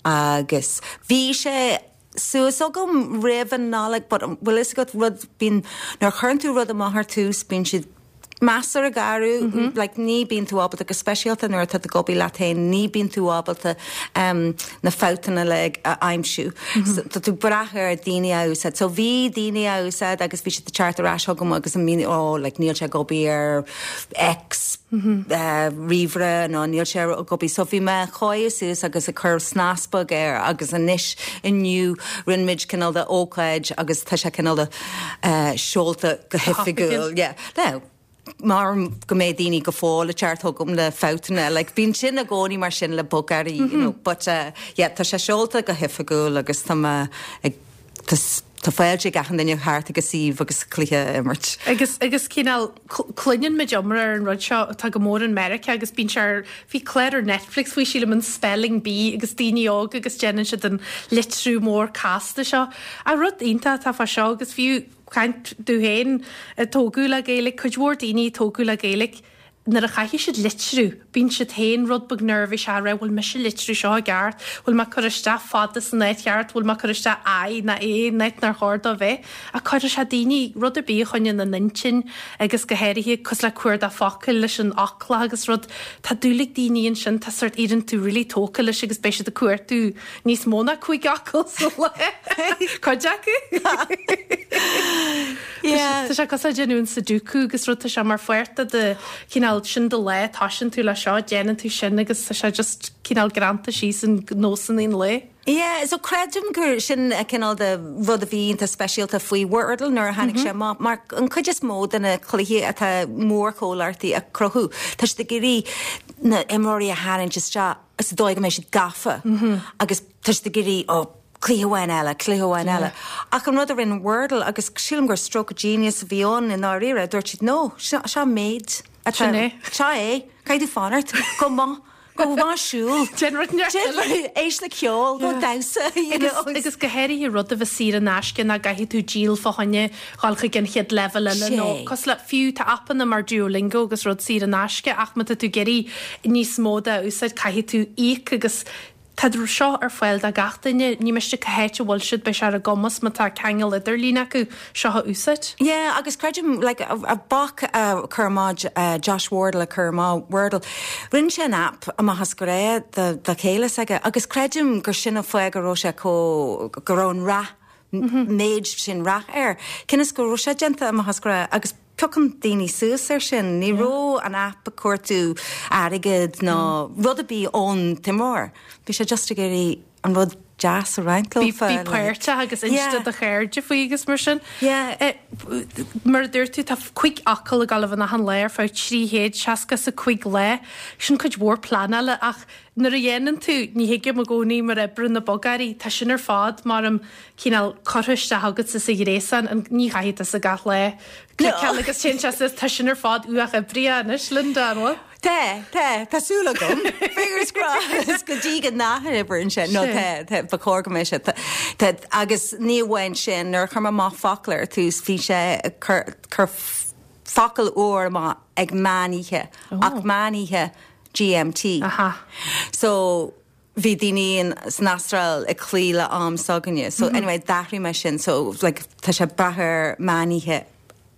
agus bhí sé suas agam roimh an Nollaig but bhfuil fhios agat rud, bíonn, nuair a chuireann tú rud amach ar tús bíonn siad measartha garbh, like ní bíonn tú ábalta, go speisialta nuair atá tú ag obair leat féin, ní bíonn tú ábalta na fabhtanna uilig a aimsiú. So tá tú ag brath ar daoine a úsáid. So bhí daoine á úsáid agus bhí siad ag teacht ar ais chugam agus ag míniú, oh like níl sé ag obair ar X ríomhaire nó níl sé ag obair. So bhí mé ag coinneáil suas agus ag cur snas beag air agus anois inniu rinne muid cineál de ócáid agus tá sé cineál de seolta go hoifigiúil. Yeah. Now, mar go mbeidh daoine go fóill ag teacht chugam le fabhtanna, like bíonn sin i gcónaí mar sin le bogearraí, you know, but yeah, tá sé seolta go hoifigiúil agus tá mé ag Tá fáilte ag achan duine theacht ag an suíomh agus cluiche a imirt. Agus, agus cineál, cluineann muid iomrá ar an rud seo atá go mór in Meiriceá agus bíonn sé ar, bhí clár ar Netflix faoi sílim, an Spelling Bee agus daoine óga agus déanann siad an litriú mór casta seo. Ach rud iontach atá fá seo agus fiú caint domh féin a tógadh le Gaeilge, cuid mhór daoine a tógadh le Gaeilge, Nuair a chaithfidh siad litriú, bíonn siad féin rud beag neirbhíseach a rá bhfuil mise ag litriú seo i gceart, bhfuil mé ag cur isteach fada san áit cheart, bhfuil mé ag cur isteach I ná A in áit nár chóir dó bheith. Ach cuirfidh sé daoine, rud ar bith a choinníonn an intinn agus go háirithe cosúil le cuardach focail leis an fhoclach agus rud, tá dúil ag daoine ansin, tá sórt éiríonn tú really tógtha leis agus beidh siad ag cuartú níos mó ná 5 fhocal sa lá, cuid acu. Yeah. Tá sé cosúil le déanamh an Sudoku agus rud, tá sé mar pháirt de do chineál. cineál, sin do lá, toisíonn tú le seo, déanann tú sin agus tá sé just cineál greanta síos in nósanna an lae. Yeah, so creidim gur sin a cineál de rud a bhí iontach speisialta faoi Wordle nuair a tháinig sé amach, mar an cuid is mó de na cluichí atá mórchomhlachtaí a cruthú, tá siad ag iarraidh na imreoirí a tharraingt isteach sa dóigh go mbeidh siad gafa agus tá siad ag iarraidh, oh, cluiche amháin eile, cluiche amháin eile. Ach an rud a rinne Wordle, agus sílim gur stroke of genius a bhí ann i ndáiríre, dúirt siad, no, seo an méid atá, Sin é. seo é, caithfidh tú fanacht, go maith. Gabh ag siúl. Déan rud inteacht eile. Éist le ceol, go damhsa, you know. Agus go háirithe rud a bheith saor in aisce nach gcaithfidh tú díol fá choinne dhul chuig an chéad leibhéal eile nó cosúil le, fiú tá aipeanna mar Duolingo agus rud saor in aisce ach má tá tú ag iarraidh níos mó de a úsáid caithfidh tú íoc agus Tá seo ar fáil do gach duine, ní miste cá háit a bhfuil siad, beidh sé ar a gcumas má tá ceangal idirlín acu, seo a úsáid. Yeah, agus creidim, like, a boc a chur amach, Josh Wardle a chur amach Wordle, rinne sé an app amach as grá do do chéile s'aige agus creidim gur sin an fáth go raibh sé chomh, go raibh an rath, méid sin rath air, cionn is go raibh sé déanta amach as grá agus piocann daoine suas ar sin. Ní raibh an app ag cuartú airgead ná rud ar bith ón t-imreoir. Bhí sé just ag iarraidh an rud deas a roinnt Bí leofa. Bí páirteach agus inse do do chairde faoi agus mar sin. Yeah. Mar a dúirt tú, tá 5 fhocal ag dul a bheith ann achan lá ar feadh 365 lá. Sin cuid mhór pleanála ach nuair a dhéanann tú, ní thuigim i gcónaí mar oibreann na bogearraí, tá sin ar fad mar am cineál curtha isteach agatsa sa ghréasán, an, ní chaithfidh tusa gach lá cliceáil agus téann sé suas, tá sin ar fad uathoibrithe anois, Linda, an bhfuil? Tá, tá, tá súil agam. Fingers crossed go dtí go n-ath-oibríonn sé. No, tá, tá, ba chóir go mbeadh sé. Tá, tá, agus ní amháin sin, nuair a chuir mé amach focal ar tús, bhí sé ag cur, cur focal úr amach ag meán oíche, ach meán oíche GMT. Aha. So, bhí daoine san Astráil ag cloí le am s'againne. So anyway, d'athraigh mé sin. So like tá sé ag brath ar meán oíche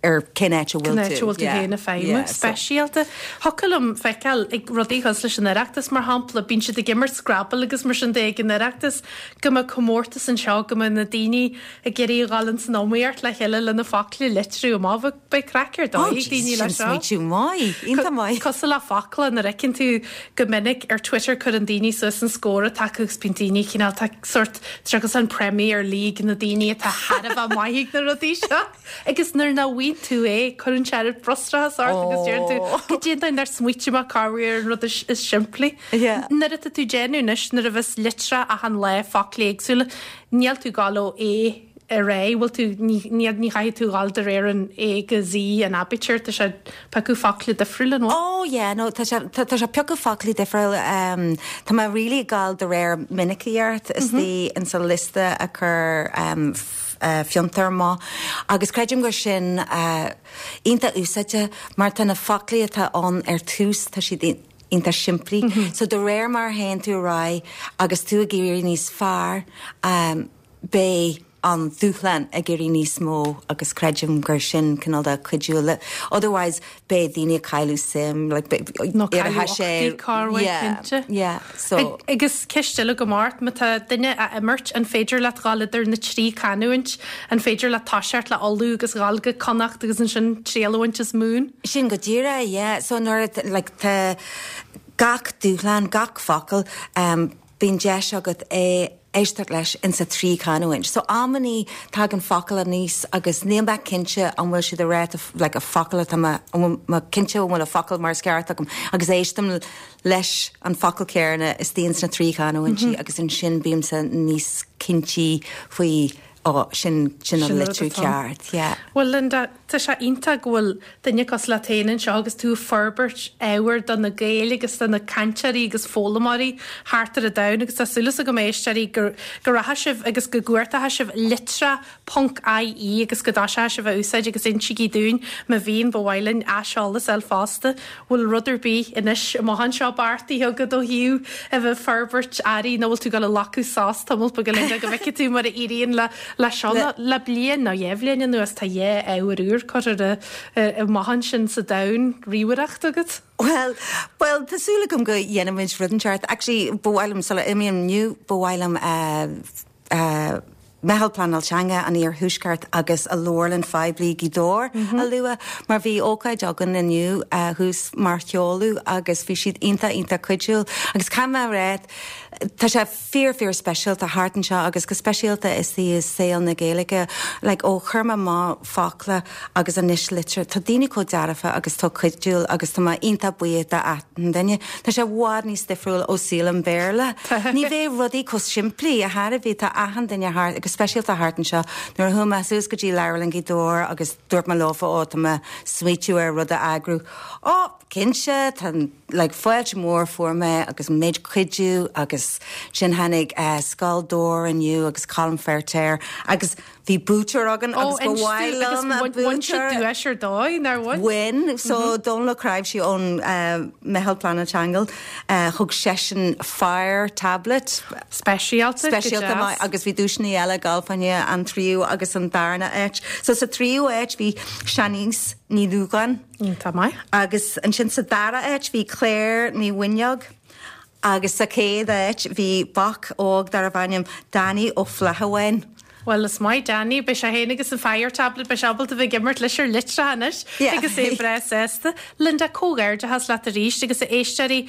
ar cén áit a bhfuil tú. Cén áit a bhfuil tú féin ag feidhmiú. Speisialta. Thiocfadh liom feiceáil ag rudaí cosúil leis an Oireachtas, mar shampla, bíonn siad ag imirt Scrabble agus mar sin de ag an Oireachtas, go mbeadh comórtas anseo, go mbeadh na daoine ag iarraidh a dhul ins an iomaíocht le chéile le na focla a litriú amach. Beidh craic ar dóigh ag daoine leis seo. Smaoitiú maith, iontach maith. Cosúil le focla, nuair a fheiceann tú go minic ar Twitter cuireann daoine suas an scór atá acu agus bíonn daoine cineál, tá sórt, tá sé an Premier League na daoine atá thar a bheith maith ag na rudaí seo. Agus nuair nach bhfaigheann tú é, cuireann sé an frustrachas ort agus deireann tú, goidé an dóigh nár smaoitigh mé corruair ar an rud is simplí. Nuair atá tú ag déanamh anois, nuair a bheas litreacha achan lá, focla éagsúla, níl tú ag dul ó A ar aghaidh, bhfuil tú, ní, ní, ní chaithfidh tú dhul de réir an A go Z an aibítir, tá sé ag piocadh focla difriúla, an bhfuil? Oh yeah, no, tá sé, tá, tá sé ag piocadh foclaí difriúla, um, tá mé really ag gabháil de réir minicíocht istigh in sa liosta a chuir um, eh, Fiontar amach agus creidim gur sin eh, iontach úsáideach mar tá na foclaí atá ann ar tús, tá siad iontach simplí. So de réir mar a théann tú ar aghaidh agus tú ag éirí níos fearr, um, beidh an dúshlán ag éirí níos mó agus creidim gur sin cineál de cuidiú le otherwise beidh daoine ag cailleadh suim like beidh Nó cailleadh uchtaí corruair yeah cinnte. yeah so. Agus ceist eile agam ort, má tá duine á imirt, an féidir leat dhul idir na trí canúint, an féidir leat toiseacht le Uladh agus dhul go Connacht agus ansin triail a bhaint as Mumhan? Sin go díreach yeah so nuair a like tá gach dúshlán gach focal um bíonn deis agat é éisteacht leis insa trí chanúint. So amannaí tagann focal aníos agus níl mé cinnte an bhfuil siad ag rá like a focal atá mé, an bhfuil mé cinnte an bhfuil a focal mar is ceart agam agus éistim leis an focal céanna istigh ins na trí chanúintí agus ansin bímse níos cinntí faoi ó sin sin an litriú ceart, yeah. Bhuel Linda, tá sé iontach go bhfuil duine cosúil leat féin anseo agus tú ag forbairt ábhair do na Gaeil agus do na cainteoirí agus foghlaimeoirí thart ar an domhan agus tá súil agam a éisteoirí go go rachaidh sibh agus go gcuartóidh sibh litreach ponc ie agus go dtoiseoidh sibh a úsáid agus insígí dúinn má bhíonn, ba mhaith linn aiseolas a fháil fosta. Bhfuil rud ar bith anois amach anseo beartaithe agat ó thaobh a bheith ag forbairt earraí nó bhfuil tú ag dul a ghlacadh sos tamall beag Linda go bhfeicfidh tú mar a éiríonn le le seo nó le bliain nó dhá bhliain anuas tá dhá ábhar úr curtha amach ansin sa domhan ríomhaireachta agat. Bhuel, bhuel, tá súil agam go dhéanfaimid rud inteacht. Actually, ba mhaith liom, sula imím inniu, ba mhaith liom eh, eh, Meitheal Pleanáil Teanga an Iarthuaiscirt agus a Leabharlann Phoiblí Gaoth Dobhair a lua mar bhí ócáid againn inniu thuas mar sheoladh agus bhí siad iontach iontach cuidiúil agus caithfidh mé a rá tá sé fíor fíor speisialta thart anseo agus go speisialta istigh i saol na Gaeilge like ó chuir mé amach focla agus anois litir tá daoine chomh dearfa agus tá cuidiúil agus tá mé iontach buíoch d'achan duine. Tá sé i bhfad níos difriúil ó saol an Bhéarla. Ní bheidh rudaí chomh simplí ar chor ar bith. Tá achan duine thart, go speisialta thart anseo. Nuair a chuaigh mé suas go dtí Leabharlann Ghaoth Dobhair agus dúirt mé leofa, ó tá mé smaoitiú ar rud a eagrú. Ó, cinnte, tá like fáilte mór fuair mé agus an méid cuidiú agus sin tháinig Scoil Dobhair inniu agus Colm Feirtéar agus Bhí buaiteoir againn agus ba mhaith liom an buaiteoir. Bhain sé duais ar dóigh, nár bhain? Bhain. So Dónal Ó Cnáimhsí ón Meitheal Pleanáil Teanga, thug seisean Fire Tablet. Speisialta, go deas. Speisialta maith agus bhí duaiseanna eile ag gabháil fá choinne an tríú agus an darna áit. So sa tríú áit bhí Shanice Ní Dhúgáin. Iontach maith. Agus ansin sa dara áit bhí Claire Ní Mhuineog. Agus sa chéad áit bhí boc óg darbh ainm Danny Ó Flathabháin. Bhuel, is maith Danny, beidh sé féin agus an Fire Tablet, beidh sé ábalta bheith ag imirt leis ar litreacha anois agus é breá sásta. Linda, comhghairdeachas leat arís agus a éisteoirí,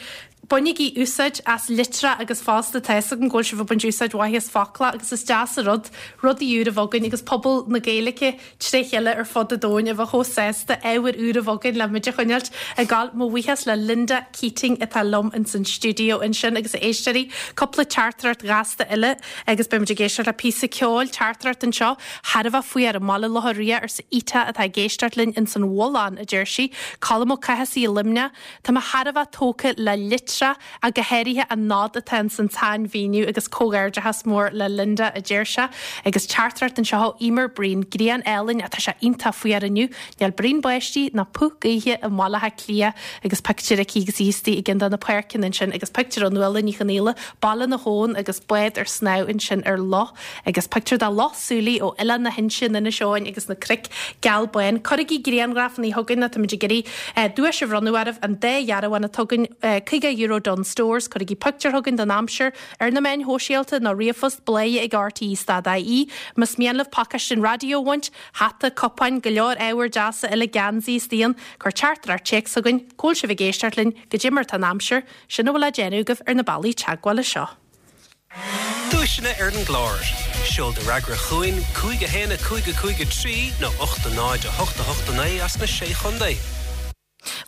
bainigí úsáid as litreacha agus fosta tá fhios agam go bhfuil sibh ag baint úsáid mhaith as focla agus is deas an rud rudaí úr a bheith againn agus pobal na Gaeilge tré chéile ar fud an domhain a bheith chomh sásta ábhar úr a bheith againn le muid a choinneáilt ag gabháil. Mo bhuíochas le Linda Keating atá liom ins an stiúideo ansin agus a éisteoirí, cúpla teachtaireacht ghasta eile agus beidh muid ag éisteacht le píosa ceoil, teachtaireacht anseo thar a bheith faoi ar an mBaile Locha Riach arsa Ita atá ag éisteacht linn ins an Bhullán, a deir sí. Colm Ó Cathasaigh i Luimneach, Tá mé thar a bheith tógtha le litreacha ach go háirithe an nod atá ins an tsainmhíniú agus comhghairdeachas mór le Linda, a deir sé. Agus teachtaireacht anseo ó Emer Breen, Grian álainn, tá sé iontach fuar inniu, níl braon báistí ná puth gaoithe i mBaile Átha Cliath agus pictiúr aici agus í istigh i gceann de na páirceanna ansin agus pictiúr ó Nuala Ní Chonghaile, Baile na hAbhann agus bád ar snámh ansin ar loch agus pictiúr de Loch Súilí ó Oileán na hInse in Inis Eoghain agus na cnoic geal bán. Cuirigí grianghrafanna chugainn nó táimid ag iarraidh duais a bhronnadh oraibh, an dá dhearbhán atá againn, €50 Dunnes Stores. Cuirigí pictiúr chugainn den aimsir ar na meáin shóisialta nó ríomhphost bladhaire ag rte stad ie. Más mian libh pacáiste an raidió a bhaint, hata, cupáin, go leor ábhair deasa eile, geansaí is d'aon, cuir teachtaireacht téacs chugainn, cá bhfuil sibh ag éisteacht linn, goidé mar atá an aimsir, sin a bhfuil le déanamh agaibh ar na bealaí teagmhála seo. Duaiseanna ar an gclár. Seol do fhreagra chugainn, 5 1 5 5 3 nó 8 0 8 8 9 as na Sé Chontae.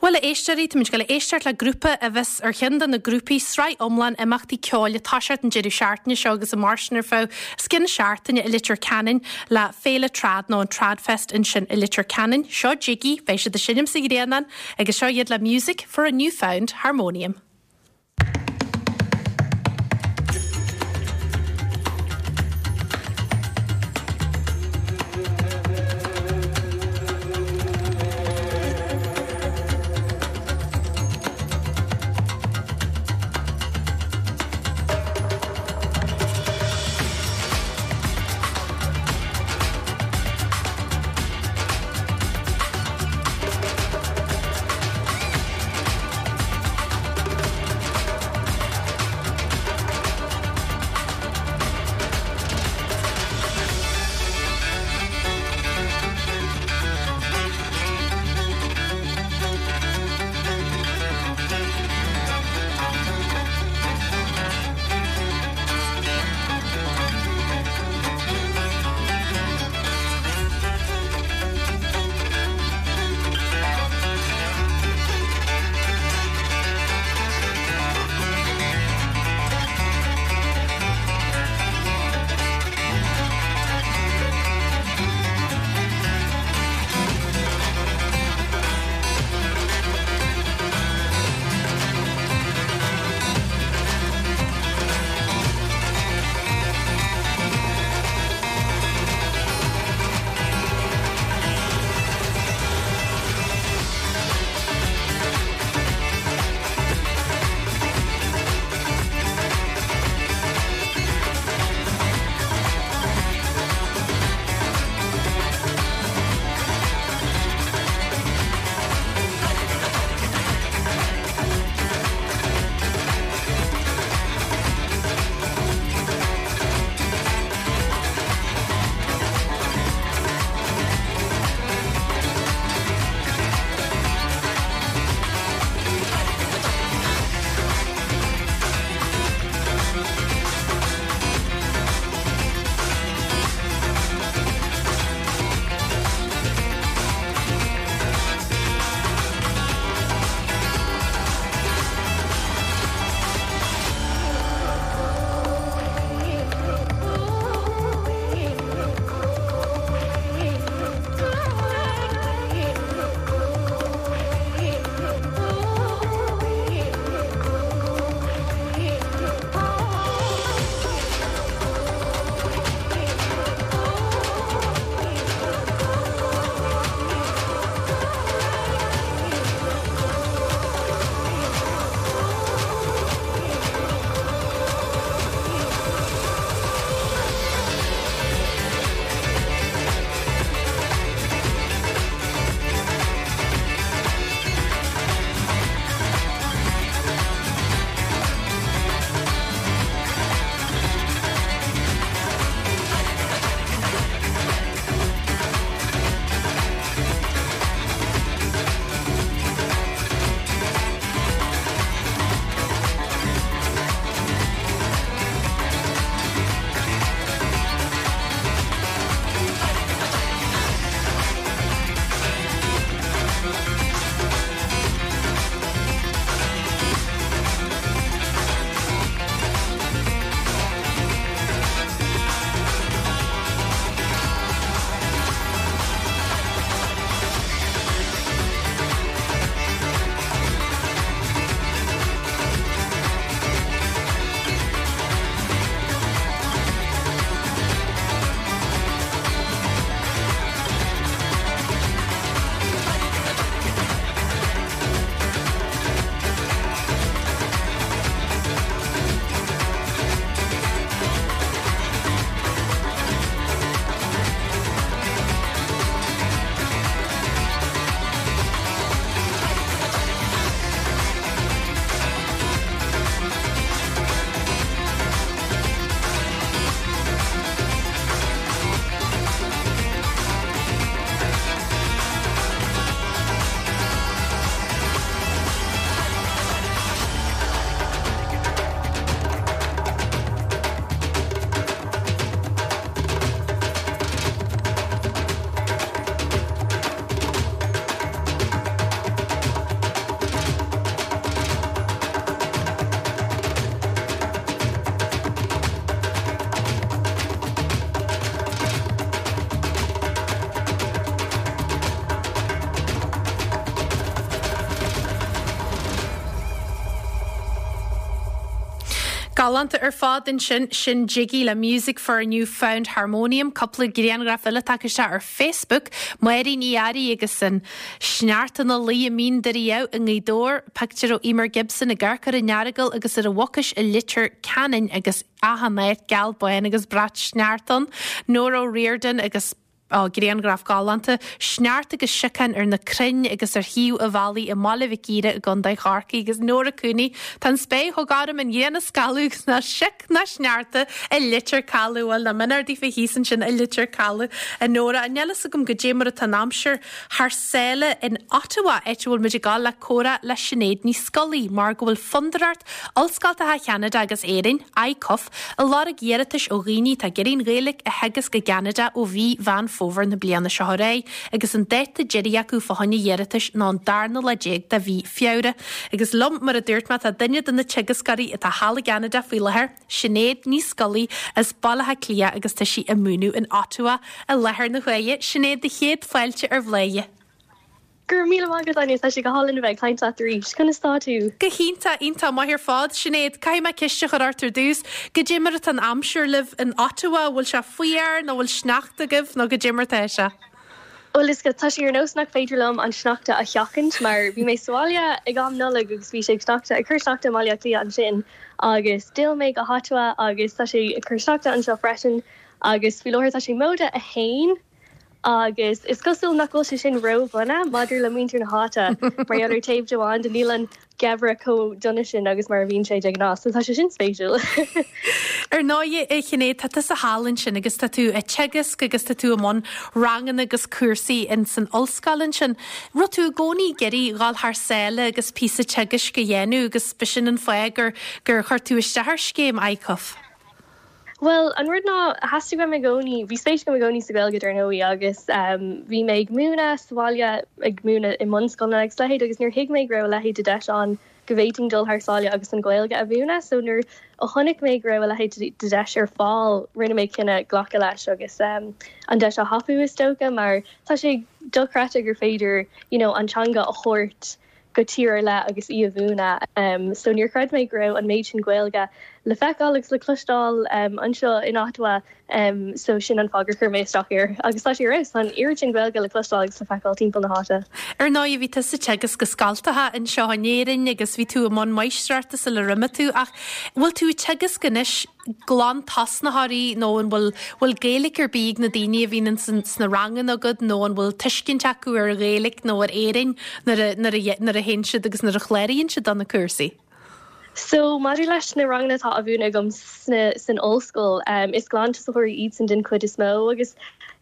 Bhuel, a éisteoirí, táimid ag dul a éisteacht le grúpa a bheas ar cheann de na grúpaí sraith iomlán imeachtaí ceoil ag toiseacht an deireadh seachtaine seo agus ag mairstean ar feadh os cionn seachtaine i Leitir Ceanainn le Féile Trad nó an Tradfest ansin i Leitir Ceanainn. Seo Jiggy, beidh siad ag seinm sa Ghrianán agus seo iad le Music for a New Found Harmonium. Galánta ar fad ansin, sin Jiggy le Music for a New Found Harmonium, cúpla grianghraf eile tagtha isteach ar Facebook, Máirín Ní Fhearraigh agus an sneachta ina luí i Mín Doire Dhamh i nGaoth Dobhair, pictiúr ó Emer Gibson ag amharc ar an Earagail agus ar an Mhucais i Leitir Ceanainn agus achan áit geal bán agus brat sneachta ann, Nóra O'Riordan agus. Á, grianghraf galánta, sneachta agus siocán ar na crainn agus ar thaobh an bhealaigh i mBaile Mhic Íre i gContae Chorcaí agus Nóra Cooney, tá an spéir chomh gorm, an ghrian ag scalladh agus ná sioc ná sneachta i Leitir Caladh. Bhuel, nach mionúr daofa thíos ansin i Leitir Caladh, a Nóra. Níl fhios agam goidé mar atá an aimsir thar sáile in Ottawa, áit a bhfuil muid ag gabháil le comhrá le Sinéad Ní Scolaí, mar go bhfuil Fondúireacht Ollscoltacha Cheanada agus Éirinn, ICUF, Ag lorg iarratais ó dhaoine atá ag iarraidh an Ghaeilge a theagasc i gCeanada ó mhí Mheán Fómhair na bliana seo ar aghaidh agus an dáta deiridh acu fá choinne iarratais ná an darna lá déag de mhí Feabhra. Agus liom, mar a dúirt mé, tá duine de na teagascóirí atá thall i gCeanada faoi láthair, Sinéad Ní Scolaí as Baile Átha Cliath agus tá sí ag múineadh in Ottawa i láthair na huaire. Sinéad, do chéad fáilte ar Bhladhaire. Go raibh míle maith agat, Áine, tá sé go hálainn a bheith ag caint leat arís. Conas tá tú? Go hiontach, iontach maith ar fad. Sinéad, caithfidh mé ceist a chur ort ar dtús. Goidé mar atá an aimsir libh in Ottawa? Bhfuil sé fuar nó bhfuil sneachta agaibh nó goidé mar atá sé? Bhuel, is tá sé ar nós nach féidir liom an sneachta a sheachaint mar bhí mé sa bhaile ag am Nollag agus bhí sé ag sneachta, ag cur sneachta i mBaile Átha Cliath ansin agus d'fhill mé go hOttawa agus tá sé ag cur sneachta anseo freisin agus faoi láthair tá sé móide a haon. Agus is cosúil nach bhfuil sé sin ró-dhona maidir le muintir na háite, mar gheall ar taobh amháin de, níl an geimhreadh chomh dona sin agus mar a bhíonn sé de ghnáth, so tá sé sin spéisiúil. Ar ndóigh, a Shinéad, tá tusa thall ansin agus tá tú ag teagasc agus tá tú i mbun ranganna agus cúrsaí in san ollscoil ansin. Raibh tú i gcónaí ag iarraidh dhul thar sáile agus píosa teagaisc a dhéanamh agus b'shin an fáth gur gur chuir tú isteach ar scéim ICUF? Bhuel, an rud ná, theastaigh uaim i gcónaí, bhí spéis agam i gcónaí sa Ghaeilge dar ndóigh agus bhí mé ag múineadh sa bhaile, ag múineadh i mbunscoileanna agus a leithéid agus níor thuig mé go raibh a leithéid de deis ann go bhféadfainn dul thar sáile agus an Ghaeilge a mhúineadh. So nuair a chonaic mé go raibh a leithéid de deis ar fáil, rinne mé cinneadh glacadh leis agus an deis a thapú is dócha mar tá sé dochreidte gur féidir you know an teanga a thabhairt go tír ar leith agus í a mhúineadh. So níor chreid mé go raibh an méid sin Gaeilge le feiceáil agus le cloisteáil anseo in Ottawa so sin an fáth gur chuir mé isteach air. Agus tá sé ar fheabhas, tá an oiread sin Gaeilge le cloisteáil agus le feiceáil timpeall na háite. Ar ndóigh bhí tusa ag teagasc i scoltacha anseo in Éirinn agus bhí tú i mbun máistreachta sular imigh tú ach bhfuil tú ag teagasc anois glantosnaitheoirí nó an bhfuil bhfuil Gaeilge ar bith ag na daoine a bhíonn ins sna ranganna agat nó an bhfuil tuiscint acu ar an Ghaeilge nó ar Éirinn nuair a nuair a nuair a théann siad agus nuair a chláraíonn siad do na cúrsaí? So maidir leis na ranganna atá á mhúineadh agam sna san ollscoil, is glantosaitheoirí iadsan den chuid is mó agus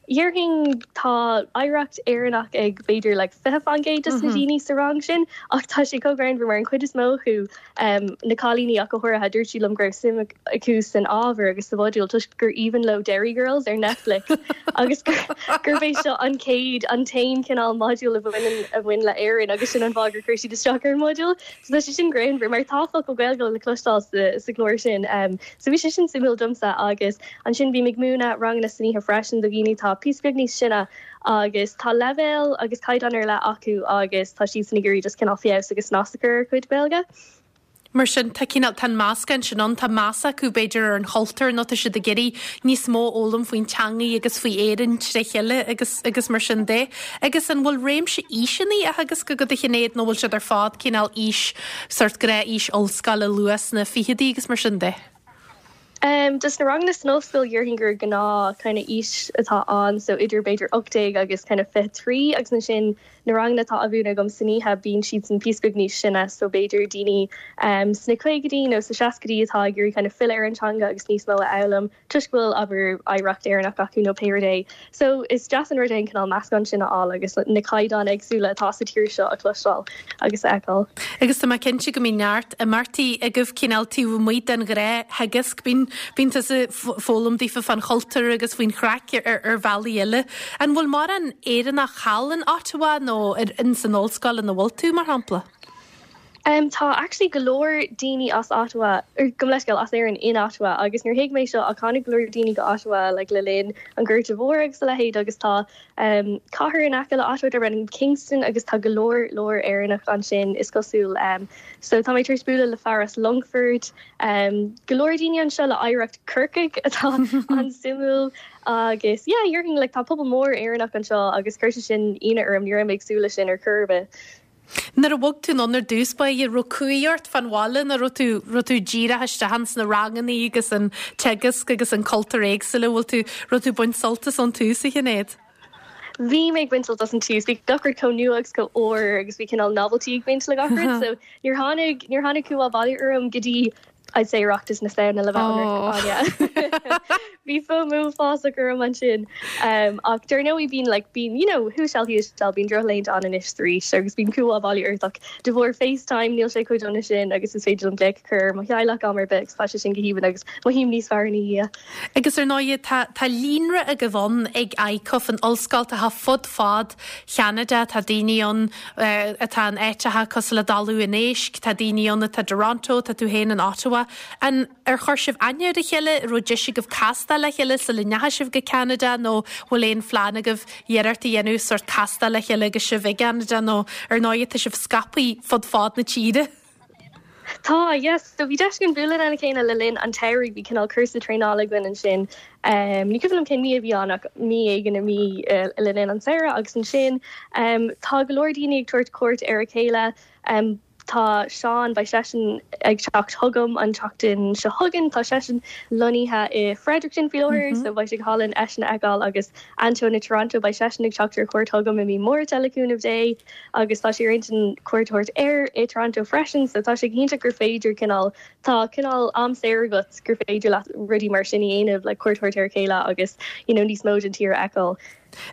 dhéarfainn tá oidhreacht Éireannach ag b'fhéidir like 20% de na daoine sa rang sin ach tá sé chomh greannmhar mar an chuid is mó acu na cailíní ach go háirithe, dúirt siad liom go raibh suim acu san ábhar agus sa mhodúl toisc gur aoibhinn leo Derry Girls ar Netflix agus gurb é seo an chéad, an t-aon chineál modúl a bhaineann, a bhain le Éirinn agus sin an fáth gur chuir siad isteach ar an modúl. So tá sé sin greannmhar mar tá focal Gaeilge le cloisteáil sa, sa gclár sin. So bhí sé sin suimiúil domsa agus ansin bím ag múineadh ranganna san oíche freisin do dhaoine atá píosa beag níos sine agus tá leibhéal agus caighdeán ar leith acu agus tá siadsan ag iarraidh just cineál feabhas agus snas a chur ar a gcuid Gaeilge. Mar sin, tá cineál, tá an meascán sin ann, tá meas acu b'fhéidir ar an chultúr nó tá siad ag iarraidh níos mó a fhoghlaim faoin teangaidh agus faoi Éirinn tré chéile agus, agus mar sin de. Agus an bhfuil réimse aoiseanna á theagasc agat a Shinéad nó bhfuil siad ar fad cineál aois, sórt gnáth-aois ollscoile luath sna ficheadaí agus mar sin de? Dos na ranganna san ollscoil dhéarfainn gur gnáth kind of aois atá ann so idir b'fhéidir 18 agus kind of 23 agus ansin na ranganna atá á mhúineadh agam san oíche bíonn siadsan píosa beag níos sine so b'fhéidir daoine sna caogaidí nó sa seascaidí atá ag iarraidh kind of filleadh ar an teanga agus níos mó a fhoghlaim toisc go bhfuil abair oidhreacht Éireannach acu nó pé rud é. So is deas an rud é an cineál meascán sin a fháil agus na caighdeáin éagsúla atá sa tír seo a chloisteáil agus a fheiceáil. Agus tá mé cinnte go mbíonn neart imeachtaí agaibh cineál taobh amuigh den ghnáth-theagasc. Bíonn, bíonn tusa ag foghlaim daofa fán chultúr agus faoin chraic ar, ar bhealaí eile. An bhfuil mórán Éireannach thall in Ottawa nó ar, in san ollscoil ina bhfuil tú, mar shampla? Em tá actually go leor daoine as Ottawa, or gabh mo leithscéal, as Éirinn in Ottawa agus níor thuig mé seo ach tháinig go leor daoine go Ottawa like le linn an Ghorta Mhóir agus a leithéid agus tá em cathair in aice le Ottawa darb ainm Kingston agus tá go leor leor Éireannach ansin is cosúil em so tá mé tar éis bualadh le fear as Longfort em go leor daoine anseo le oidhreacht Corcaigh atá an-suimiúil agus yeah déarfainn like tá pobal mór Éireannach anseo agus chuir sé sin ionadh orm ní raibh mé ag súil leis sin ar chor ar bith. Nuair a bhog tú anonn ar dtús báire, raibh cumhaidh ort fán bhaile nó raibh tú, raibh tú díreach isteach ins na rangannaí agus an teagasc agus an cultúr éagsúil, bhfuil tú, raibh tú ag baint sult as ón tús, a Shinéad? Bhí mé ag baint sult as an tús. Bhí gach rud chomh nua agus chomh úr agus bhí cineál novelty ag baint le gach rud so níor tháinig, níor tháinig cumhá baile orm go dtí I'd say Oireachtas na Samhna le bheith ionraic, Áine. Bhí FOMO uafásach orm ansin. Ach dar ndóigh bíonn like bíonn you know who shall he shall bíonn drochlaethanta ann anois is arís agus bíonn cumhá baile ort ach de bharr FaceTime níl sé chomh dona sin agus is féidir liom glaoch a chur ar mo theaghlach am ar bith agus tá sé sin go haoibhinn agus mothaím níos fearr ina dhiaidh. Agus ar ndóigh tá tá líonra agaibh ann ag ICUF, an ollscoil atá fud fad Cheanada, tá daoine ann atá in áiteacha cosúil le Talamh an Éisc, tá daoine ann atá i dToronto, tá tú féin in Ottawa. An ar chuir sibh aithne ar a chéile, an raibh deis agaibh castáil le chéile sula ndeachaigh sibh go Ceanada nó bhfuil aon phlean agaibh iarracht a dhéanamh sórt castáil le chéile agus sibh i gCeanada nó ar ndóigh tá sibh scaipthe fud fad na tíre? Tá, yes. So bhí deis againn bualadh lena chéile le linn an tsamhraidh, bhí cineál cúrsa traenála againn ansin. Ní cuimhin liom cén mí a bhí ann ach mí éigin i mí le linn an tsamhraidh agus ansin tá go leor daoine ag tabhairt cuairt ar a chéile. Tá Seán, beidh seisean ag teacht chugam an tseachtain seo chugainn, tá seisean lonnaithe i Fredericton faoi láthair so beidh sé go hálainn eisean a fheiceáil agus Antóin i Toronto, beidh seisean ag teacht ar cuairt chugam i mí Márta le cúnamh Dé. Agus tá sé ar intinn cuairt a thabhairt air i Toronto freisin, so tá sé go hiontach gur féidir cineál, tá cineál am saor agat gur féidir leat rudaí mar sin a dhéanamh, like cuairt a thabhairt ar a chéile agus you know níos mó den tír a fheiceáil.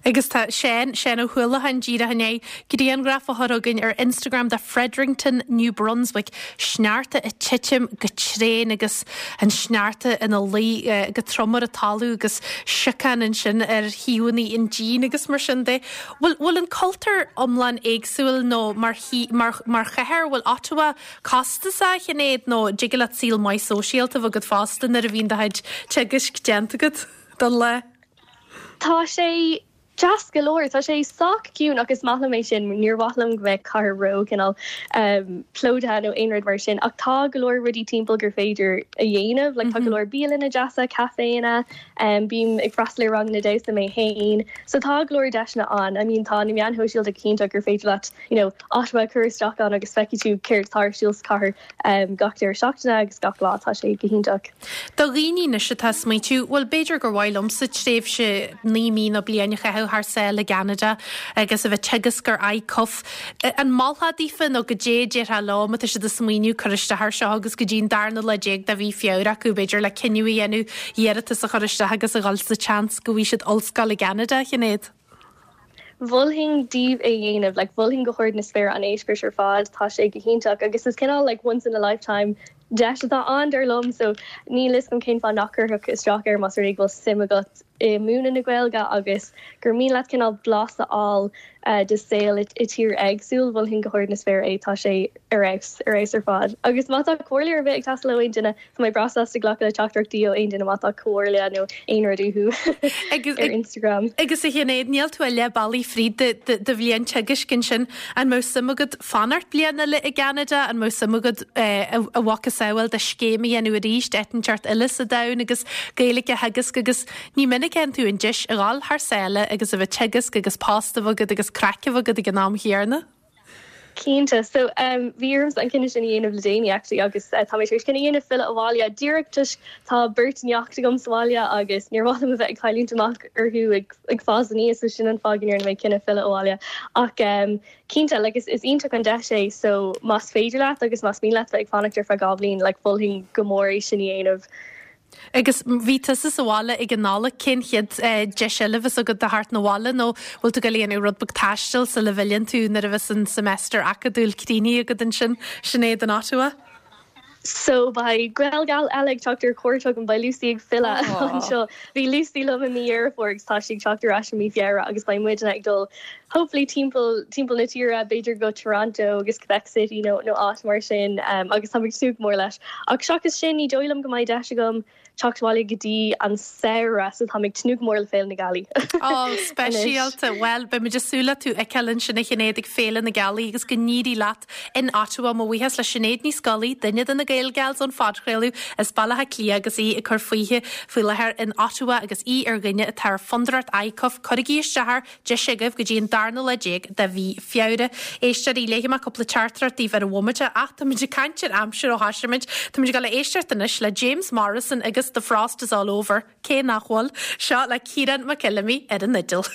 Agus tá Seán, Seán Ó hUallacháin díreach i ndiaidh grianghraf a chur chugainn ar Instagram de Fredericton, New Brunswick, sneachta ag titim go tréan agus an sneachta ina luí go trom ar an talamh agus siocán ansin ar thaobhanna an dín agus mar sin de. Bhfuil, bhfuil an cultúr iomlán éagsúil nó mar, mar, mar chathair, bhfuil Ottawa costasach, a Shinéad, nó dtig leat saol maith sóisialta a bheith agat fosta nuair a bhíonn do chuid teagaisc déanta agat don lá? Tá sé deas go leor. Tá sé sách ciúin ach is maith liom é sin. Níor mhaith liom go mbeadh cathair ró cineál plódaithe nó aon rud mar sin ach tá go leor rudaí timpeall gur féidir a dhéanamh. Like tá go leor bialanna deasa, caiféanna. Bím ag freastal ar ranganna damhsa mé féin, so tá go leor deiseanna ann. I mean tá na meáin shóisialta go hiontach gur féidir leat you know Ottawa a chur isteach ann agus feicfidh tú céard atá ar siúl sa chathair gach deireadh seachtaine agus gach lá, tá sé go hiontach. Do dhaoine anois atá ag smaointiú, bhuel b'fhéidir gur mhaith liomsa tréimhse 9 mí nó bliain a chaitheamh thar sáile i gCeanada agus a bheith ag teagasc ar ICUF, An molfá daofa nó goidé a déarfá leo má tá siad ag smaoineamh cur isteach air seo agus go dtí an darna lá déag de mhí Feabhra acu b'fhéidir le cinneadh a dhéanamh iarratas a chur isteach agus a dhul sa tseans go bhfaighidh siad ollscoil i gCeanada, a Shinéad? Mholfainn daoibh é a dhéanamh, like mholfainn go hard na spéire an eispéireas ar fad, tá sé go hiontach agus is cineál like once in a lifetime deis atá ann dar liom so níl fhios agam cén fáth nach gcuirfeadh isteach air más rud é go bhfuil suim agat i múineadh na Gaeilge agus gur mian leat cineál blas a fháil de saol i tír éagsúil, mholfainn go hard na spéire é, tá sé ar fheabhas, ar fheabhas ar fad. Agus má tá comhairle ar bith ag teastáil ó aon duine, tá mé breá sásta glacadh le teachtaireachtaí ó aon duine má tá comhairle nó aon rud uathu ar Instagram. Agus a Shinéad, níl tú ach leath bealaigh fríd do bhliain teagaisc ansin, an mbeadh suim agat fanacht bliain eile i gCeanada, an mbeadh suim agat a mhacasamhail de scéim a dhéanamh arís, áit inteacht eile sa domhan agus Gaeilge a theagasc agus ní minic a fhaigheann tú an deis a dhul thar sáile agus a bheith ag teagasc agus post a bheith agat agus craic a bheith agat ag an am chéanna. Cinnte. So, bhí ormsa an cinneadh sin a dhéanamh le déanaí actually agus tá mé tar éis cinneadh a dhéanamh filleadh abhaile díreach toisc tá beirt neacht agam sa bhaile agus níor mhaith liom a bheith ag cailliúint amach orthu ag ag fás aníos so sin an fáth go ndearna mé cinneadh filleadh abhaile. Ach cinnte, like is is iontach an deis é so más féidir leat agus más mian leat bheith ag fanacht ar feadh 2 bhliain like mholfainn go mór é sin a dhéanamh. Agus bhí tusa sa bhaile ag an Nollaig, cén chéad deis eile a bheas agat do theacht 'na bhaile nó bhfuil tú ag dul a dhéanamh rud beag taistil sula bhfilleann tú nuair a bheas an semester acadúil críochnaithe agat ansin, Sinéad in Ottawa? So beidh Gaelgal eile ag teacht ar cuairt chugam, beidh Lucy ag filleadh anseo. Bhí Lucy liom i mí Dheireadh Fómhair agus tá sí ag teacht ar ais i mí Feabhra agus beidh muidne ag dul hopefully timpeall timpeall na tíre, b'fhéidir go Toronto agus Quebec City nó nó áit mar sin agus táim ag tnúth go mór leis. Ach seachas sin ní dóigh liom go mbeidh deis agam teacht abhaile go dtí an samhradh so táim ag tnúth go mór le Féile na Gealaí. Ó, speisialta. Bhuel, beidh muid ag súil le tú a fheiceáil ansin a Shinéad ag Féile na Gealaí agus go n-éirí leat in Ottawa. Mo bhuíochas le Sinéad Ní Scolaí, duine de na Gaelgals ón phodchraoladh as Baile Átha Cliath agus í ag cur fúithi faoi láthair in Ottawa agus í ar dhuine atá ar Fondúireacht ICUF. Cuirigí isteach air Deis agaibh go dtí an darna lá déag de mhí Feabhra. Éisteoirí, léifidh mé cúpla teachtaireacht daoibh ar an bhomaite ach táimid ag caint ar aimsir ó thoisigh muid. Táimid ag dul a éisteacht anois le James Morrison agus The Frost Is All Over, cé nach bhfuil? Seo le Ciarán Mac Fheilimí ar an fhidil.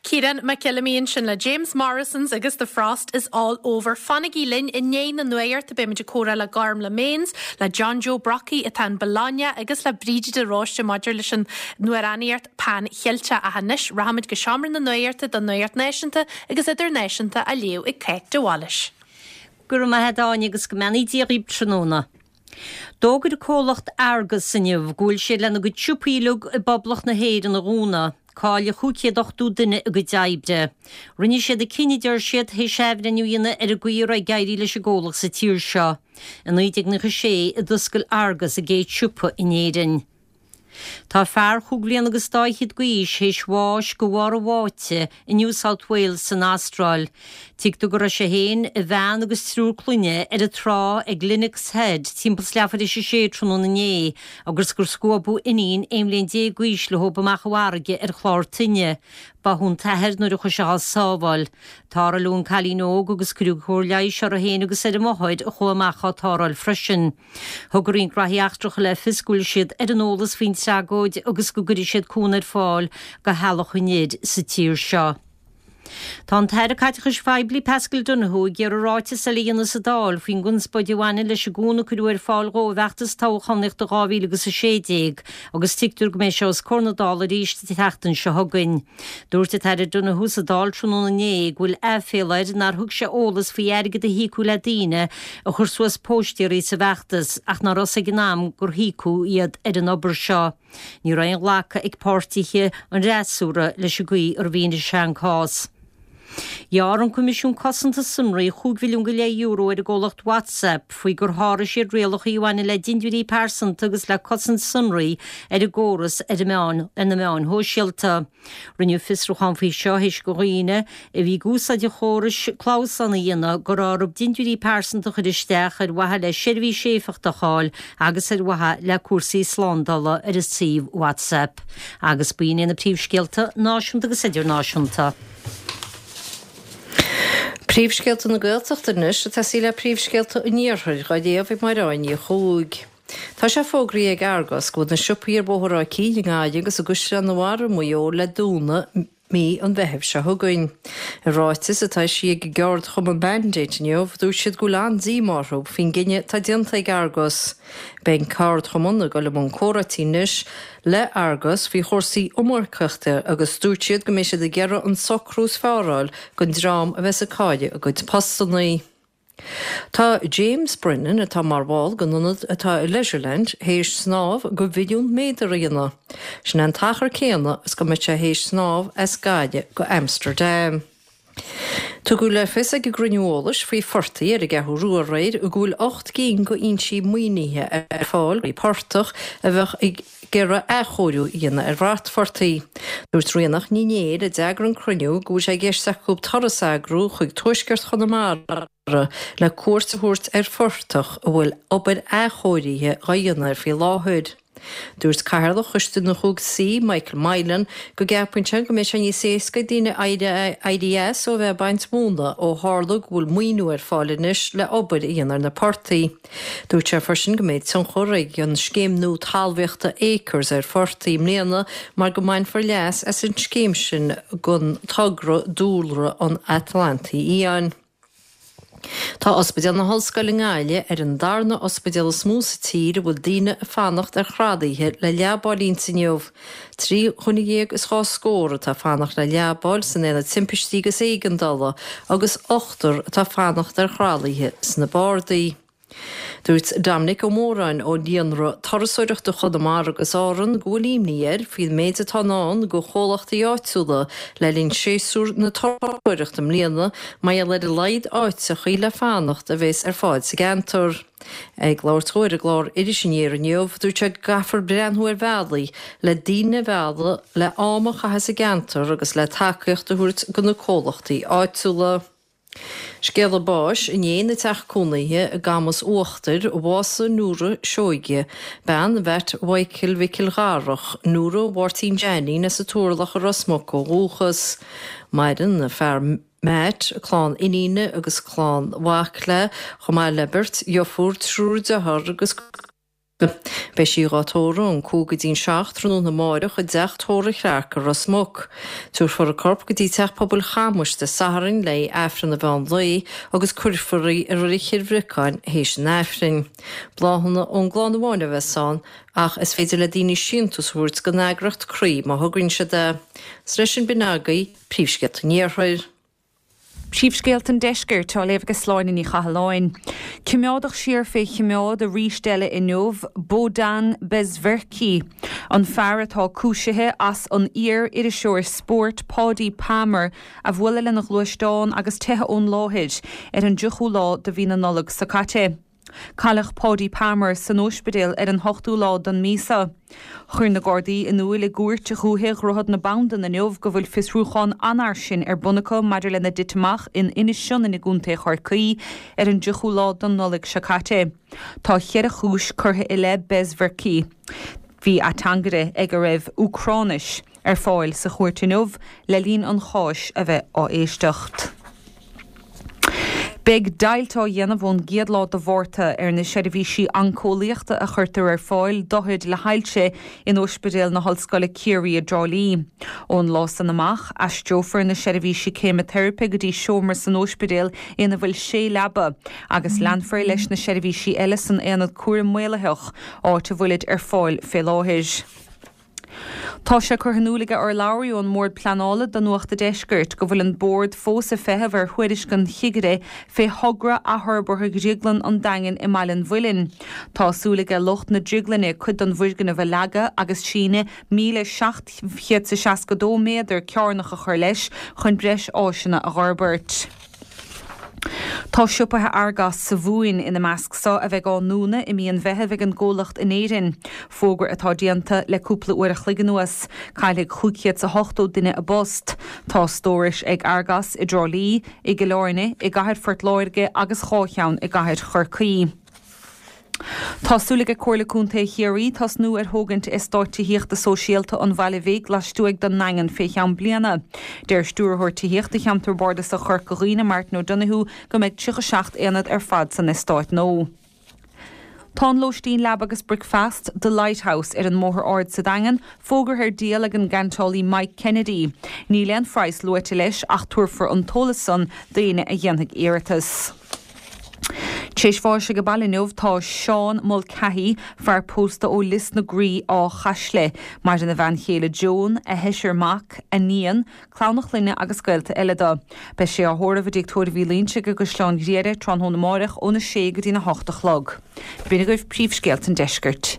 Ciarán Mac Fheilimí ansin le James Morrison's agus The Frost is All Over. Fanaigí linn i ndiaidh na nuachta beimid ag comhrá le Gormlaith Mains, le John Joe Brockie atá in Bologna agus le Bríde de Róiste maidir leis an amhránaíocht Pan Cheilteach ach anois rachaimid go seomra na nuachta don nuacht náisiúnta agus idirnáisiúnta á léamh ag Cáit de Bhailís. Go raibh maith a't Áine agus go mbeannaí Dia dhaoib tráthnóna. D'fhógair an comhlacht Argos inniu go bhfuil siad lena gcuid siopaí uilig i bPoblacht na hÉireann a dhúnadh. Caillfidh 580 duine a gcuid oibre. Rinne siad an cinneadh, deir siad, théis athbhreithniú a dhéanamh ar an gcaoi a raibh ag éirí leis an gcomhlacht sa tír seo. I 1996 a d'oscail Argos a gcéad siopa in Éirinn. Tá fear chúig bhliana agus dá fhichead d'aois théis bháis de bharr a bháite i New South Wales san Astráil. Tuigtear go raibh sé féin, a bhean agus triúr clainne ar an trá ag Lennox Head timpeall 's leathuair théis a sé tráthnóna inné agus gur scuabadh iníon 11 mbliain d'aois leob amach an bhfarraige ar chlár toinne. Báthadh an t-athair nuair a chuaigh sé dhá sábháil. Tarrtháladh an cailín óg agus cuireadh cóir leighis uirthi féin agus ar a máthair a chuaigh amach á tarrtháil freisin. Thug an Roinn Graithí Eachtracha le fios go bhfuil siad ar an eolas faoin tragóid agus go gcuirfidh siad cúnamh ar fáil do theaghlach an fhir sa tír seo. Tá an tAire Caiteachais Phoiblí Paschal Donohoe ag iarraidh ráiteas eile a dhéanamh sa Dáil faoin gconspóid a bhaineann leis an gcúnamh a cuireadh ar fáil dhó i bhfeachtas toghchánaíochta 2016 agus tuigtear go mbeidh sé os comhair na Dála arís an tseachtain seo chugainn. Dúirt an tAire Donohoe sa Dáil tráthnóna inné go bhfuil aiféala air nár thug sé eolas faoi airgead a híocadh le daoine a chuir suas póistéirí sa bhfeachtas ach ná raibh a fhios ag an am gur híocadh iad ar an obair seo. Ní raibh aon ghlacadh ag páirtithe an fhreasúra leis an gcaoi ar mhínigh sé an cás. Ghearr an Coimisiún Cosanta Sonraí €5 mhilliún go leith euro ar an gcomhlacht WhatsApp faoi gur sháraigh siad rialacha a bhaineann le dintiúirí pearsanta agus le cosaint sonraí ar an gcóras ar ar na meáin shóisialta. Rinneadh fiosrúchán faoi seo théis do dhaoine a bhí ag úsáid an chórais clamhsán a dhéanamh go raibh orthu dintiúirí pearsanta a chur isteach ar mhaithe le seirbhís éifeachtach a fháil agus ar mhaithe le cúrsaí slándála ar an suíomh WhatsApp. Agus b'in iad na príomhscéalta náisiúnta agus idirnáisiúnta. Príomhscéalta na Gaeltachta anois ag tosaí le príomhscéalta an Iarthair dhá léamh ag Máire Áine Ní Chuaig. Tá sé fógraithe ag Argos go bhfuil na siopaí ar Bhóthar Áth Cinn i nGaillimh agus i gCaisleán an Bharraigh i Maigh Eo le dúnadh mí an Mheithimh seo chugainn. I ráiteas atá eisithe ag an gceardchumann Mandate inniu, dúirt siad go bhfuil an-díomá orthu faoin gcinneadh atá déanta ag Argos. Beidh an ceardchumann ag dul i mbun comhráití anois le Argos faoi chúrsaí iomarcaíochta agus dúirt siad go mbeidh siad ag iarraidh an socrú is fearr a fháil don dream a bheas ag cailleadh a gcuid postannaí. Tá James Brennan, atá mar bhall den ionad atá i Leisureland, théis snámh de mhilliún méadar a dhéanamh. Sin é an t-achar céanna is go mbeadh sé théis snámh as Gaillimh go Amsterdam. Tugadh le fios ag an gcruinniú eolais faoi phortaigh ar an gCeathrú Rua aréir go bhfuil 8 gcinn d'fhoinsí maoinithe ar fáil do portach a bheadh ag iarraidh athchóiriú a dhéanamh ar bhratphortaigh. Dúirt Ríonach Ní Néill, a d'eagraigh an cruinniú, go bhfuil sé i gceist acu turas a eagrú chuig tuaisceart Chonamara le cuairt a thabhairt ar phortach a bhfuil obair athchóirithe dhá dhéanamh air faoi láthair. Dúirt Cathaoirleach Choiste na Chúig Saoi, Michael Moylan, go gceapann sé go mbeidh sé níos éasca ag daoine éirí as ó bheith ag baint móna ó tharla go bhfuil maoiniú ar fáil anois le obair a dhéanamh ar na portaigh. Dúirt sé freisin go mbeidh tionchar ag an scéim nua talmhaíochta Acres ar phortaigh i mbliana mar go mbainfear leas as an scéim sin don togra Dúlra an Atlantaigh Fhiáin. Tá Ospidéal na hOllscoile i nGaillimh ar an darna ospidéal is mó sa tír a bhfuil daoine ag fanacht ar thralaithe le leabáil inti inniu. 13 dhuine is dhá scór atá ag fanacht le leabáil san Aonad Timpistí agus Éigeandála agus ochtar atá ag fanacht ar thralaithe sna bardaí. Dúirt Dominic Ó Móráin ó Líonra Turasóireachta Chonamara agus Árann go bhfuil imní air faoin méid atá i ndán do chomhlachtaí áitiúla le linn séasúr na turasóireachta i mbliana mar gheall ar a laghad áiteachaí le fanacht a bheas ar fáil sa gceantar. Ag labhairt dó ar an gclár Iris Aniar inniu, dúirt sé go gcaithfear breathnú ar bhealaí le daoine a mhealladh le am a chaitheamh sa gceantar agus le tacaíocht a thabhairt do na comhlachtaí áitiúla. Scéala báis inné ina teach cónaithe i gCamus Uachtair, bhásaigh Nóra Seoige, bean Mheait Mhichael Mhicil Dharach, Nóra Mháirtín Jeainín as an Turlach i Ros Muc ó dhúchas. Maireann a fear Matt, clann iníne agus clann mhac léi, chomh maith le beirt dheirfiúr, triúr dearthár agus. Beidh sí dhá tórramh ón 5 go dtí'n 7 tráthnóna amáireach i dTeach Tórraimh Chlarke i Ros Muc. Tabharfar a corp go dtí Teach Pobail Chamuis Dé Sathairn le haghaidh Aifreann an mheán lae agus cuirfear í i Reilig Chill Bhriocáin théis an Aifrinn. Bláthanna ón gclann amháin a bheas ann ach is féidir le daoine síntiús a thabhairt don eagraíocht Croí má thograíonn siad é. 'S leis sin b'in agaibh Príomhscéalta an Iarthair. Príomhscéalta an Deiscirt á léamh ag Sláine Ní Chathalláin. Coimeádadh siar fé choimeád arís eile inniu Bohdan Bezverkhyi, an fear atá cúisithe as an iar-iriseoir spóirt Paudie Palmer a bhualadh lena ghluaisteán agus teitheadh ón láthair ar an dtríochú lá de mhí na Nollag seo caite. Cailleadh Paudie Palmer san óispidéal ar an hochtú lá den mhí seo. Chuir na Gardaí in iúil i gCúirt Dhúiche Dhroichead na Bandan inniu go bhfuil fiosrúchán an-fhairsing ar bun acu maidir lena dtit amach in Inis Sionainn i gContae Chorcaí ar an dtríochú lá den Nollaig seo caite. Tá cheithre chúis curtha i leith Bezverkhyi. Bhí ateangaire ag a raibh Úcráinis ar fáil sa chúirt inniu le linn an cháis a bheith á éisteacht. Beidh deighilt á dhéanamh ón gcéad lá de Mhárta ar na seirbhísí oinceolaíochta a chuirtear ar fáil d'othair le hailse in Ospidéal na hOllscoile Ciarraí i dTrá Lí. Ón lá san amach, aistreofar na seirbhísí ceimiteiripe go dtí seomra san ospidéal ina bhfuil sé leaba agus leanfar leis na seirbhísí eile san Aonad Cúraim Maolaitheach, áit a bhfuilid ar fáil fé láthair. Tá sé curtha in iúl ag urlabhraí ón mBord Pleanála do Nuacht a' Deiscirt go bhfuil an Bord fós ag feitheamh ar thuairisc an chigire fé thogra athfhorbartha Dhrioglann an Daingin i mBaile an Mhuilinn. Tá súil aige lucht na drioglainne cuid den bhfoirgneamh a leagadh agus síneadh 1,762 méadar cearnach a chur leis chun breis áiseanna a dh'fhorbairt. Tá siopaithe Argos sa Mhumhain ina measc so a bheidh á ndúnadh i mí an Mheithimh ag an gcomhlacht in Éirinn, fógra atá déanta le cúpla uair a chloig anuas. Caillfidh 580 duine a bpost. Tá stórais ag Argos i dTrá Lí, i gCill Airne, i gcathair Phort Láirge agus 2 cheann i gcathair Chorcaí. Tá súil ag Comhairle Contae Chiarraí tosnú ar thógaint eastáit tithíochta sóisialta an Bhaile Bhig lastuaidh den nDaingean fé cheann bliana. Deir Stiúrthóir Tithíochta Cheantar Bardasach Chorca Dhuibhne, Martin O'Donoghue, go mbeidh 37 aonad ar fad san eastát nua. Tá an lóistín leaba agus bricfeast, The Lighthouse, ar an mBóthar Ard sa Daingean, fógartha ar díol ag an gceantálaí Mike Kennedy. Níl aon phraghas luaite leis ach tabharfar an t-eolas san d'éinne a dhéanfaidh iarratas. Tar éis bháis age baile inniu tá Seán Mulcahy, fear pósta ó Lios na Graí, Áth Chaisle. Maireann a bhean chéile Joan, a sheisear mac, a níon, clann a chlainne agus gaolta eile dó. Beidh sé á thórramh i dTigh Tórraimh Uí Loingsigh i gCaisleán Ghriaire tráthnóna amáireach óna sé go dtína hocht a chlog. B'in agaibh príomhscéalta an deiscirt.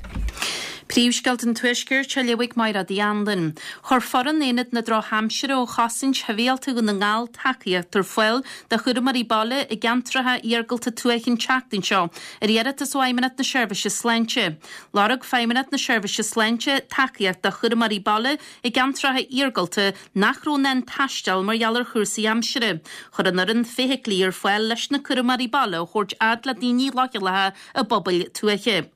Príomhscéalta an Tuaiscirt á léamh ag Mairéad Uí Anluain. Chuir foireann Aonad na Drochaimsire ó Chosaint Shibhialta Dhún na nGall tacaíocht ar fáil do chúramóirí baile i gceantracha iargúlta tuaithe an tseachtain seo ar iarratas ó Fheidhmeannacht na Seirbhíse Sláinte. Lorg Feidhmeannacht na Seirbhíse Sláinte tacaíocht do chúramóirí baile i gceantracha iargúlta nach raibh in ann taisteal mar gheall ar chúrsaí aimsire. Chuir an fhoireann feithiclí ar fáil leis na cúramóirí baile a thabhairt fhad le daoine leochaileacha i bpobail tuaithe.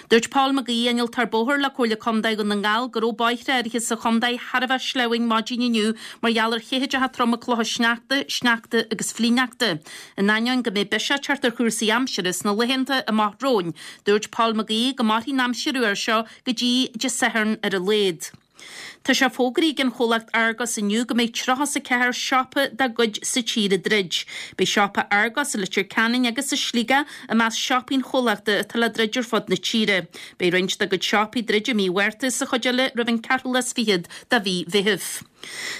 Dúirt Paul McGee, Innealtóir Bóthair le Comhairle Contae Dhún na nGall, go raibh bóithre áirithe sa chontae thar a bheith sleamhain maidin inniu mar gheall ar chithdeacha troma clocha sneachta, sneachta agus flichshneachta. In ainneoin go mbeidh biseach ag teacht ar chúrsaí aimsire sna laethanta amach romhainn, dúirt Paul McGee go mairfidh an aimsir fhuar seo go dtí Dé Sathairn ar a laghad. Tá sé fógraithe ag an chomhlacht Argos inniu go mbeidh 34 siopa dá gcuid sa tír ag druid. Beidh siopa Argos i Leitir Ceanainn agus i Sligeach i measc siopaí an chomhlachta atá le druid ar fud na tíre. Beidh roinnt dá gcuid siopaí ag druid i mí Mhárta is an chuid eile roimh an ceathrú lá is fichead de mhí Mheithimh.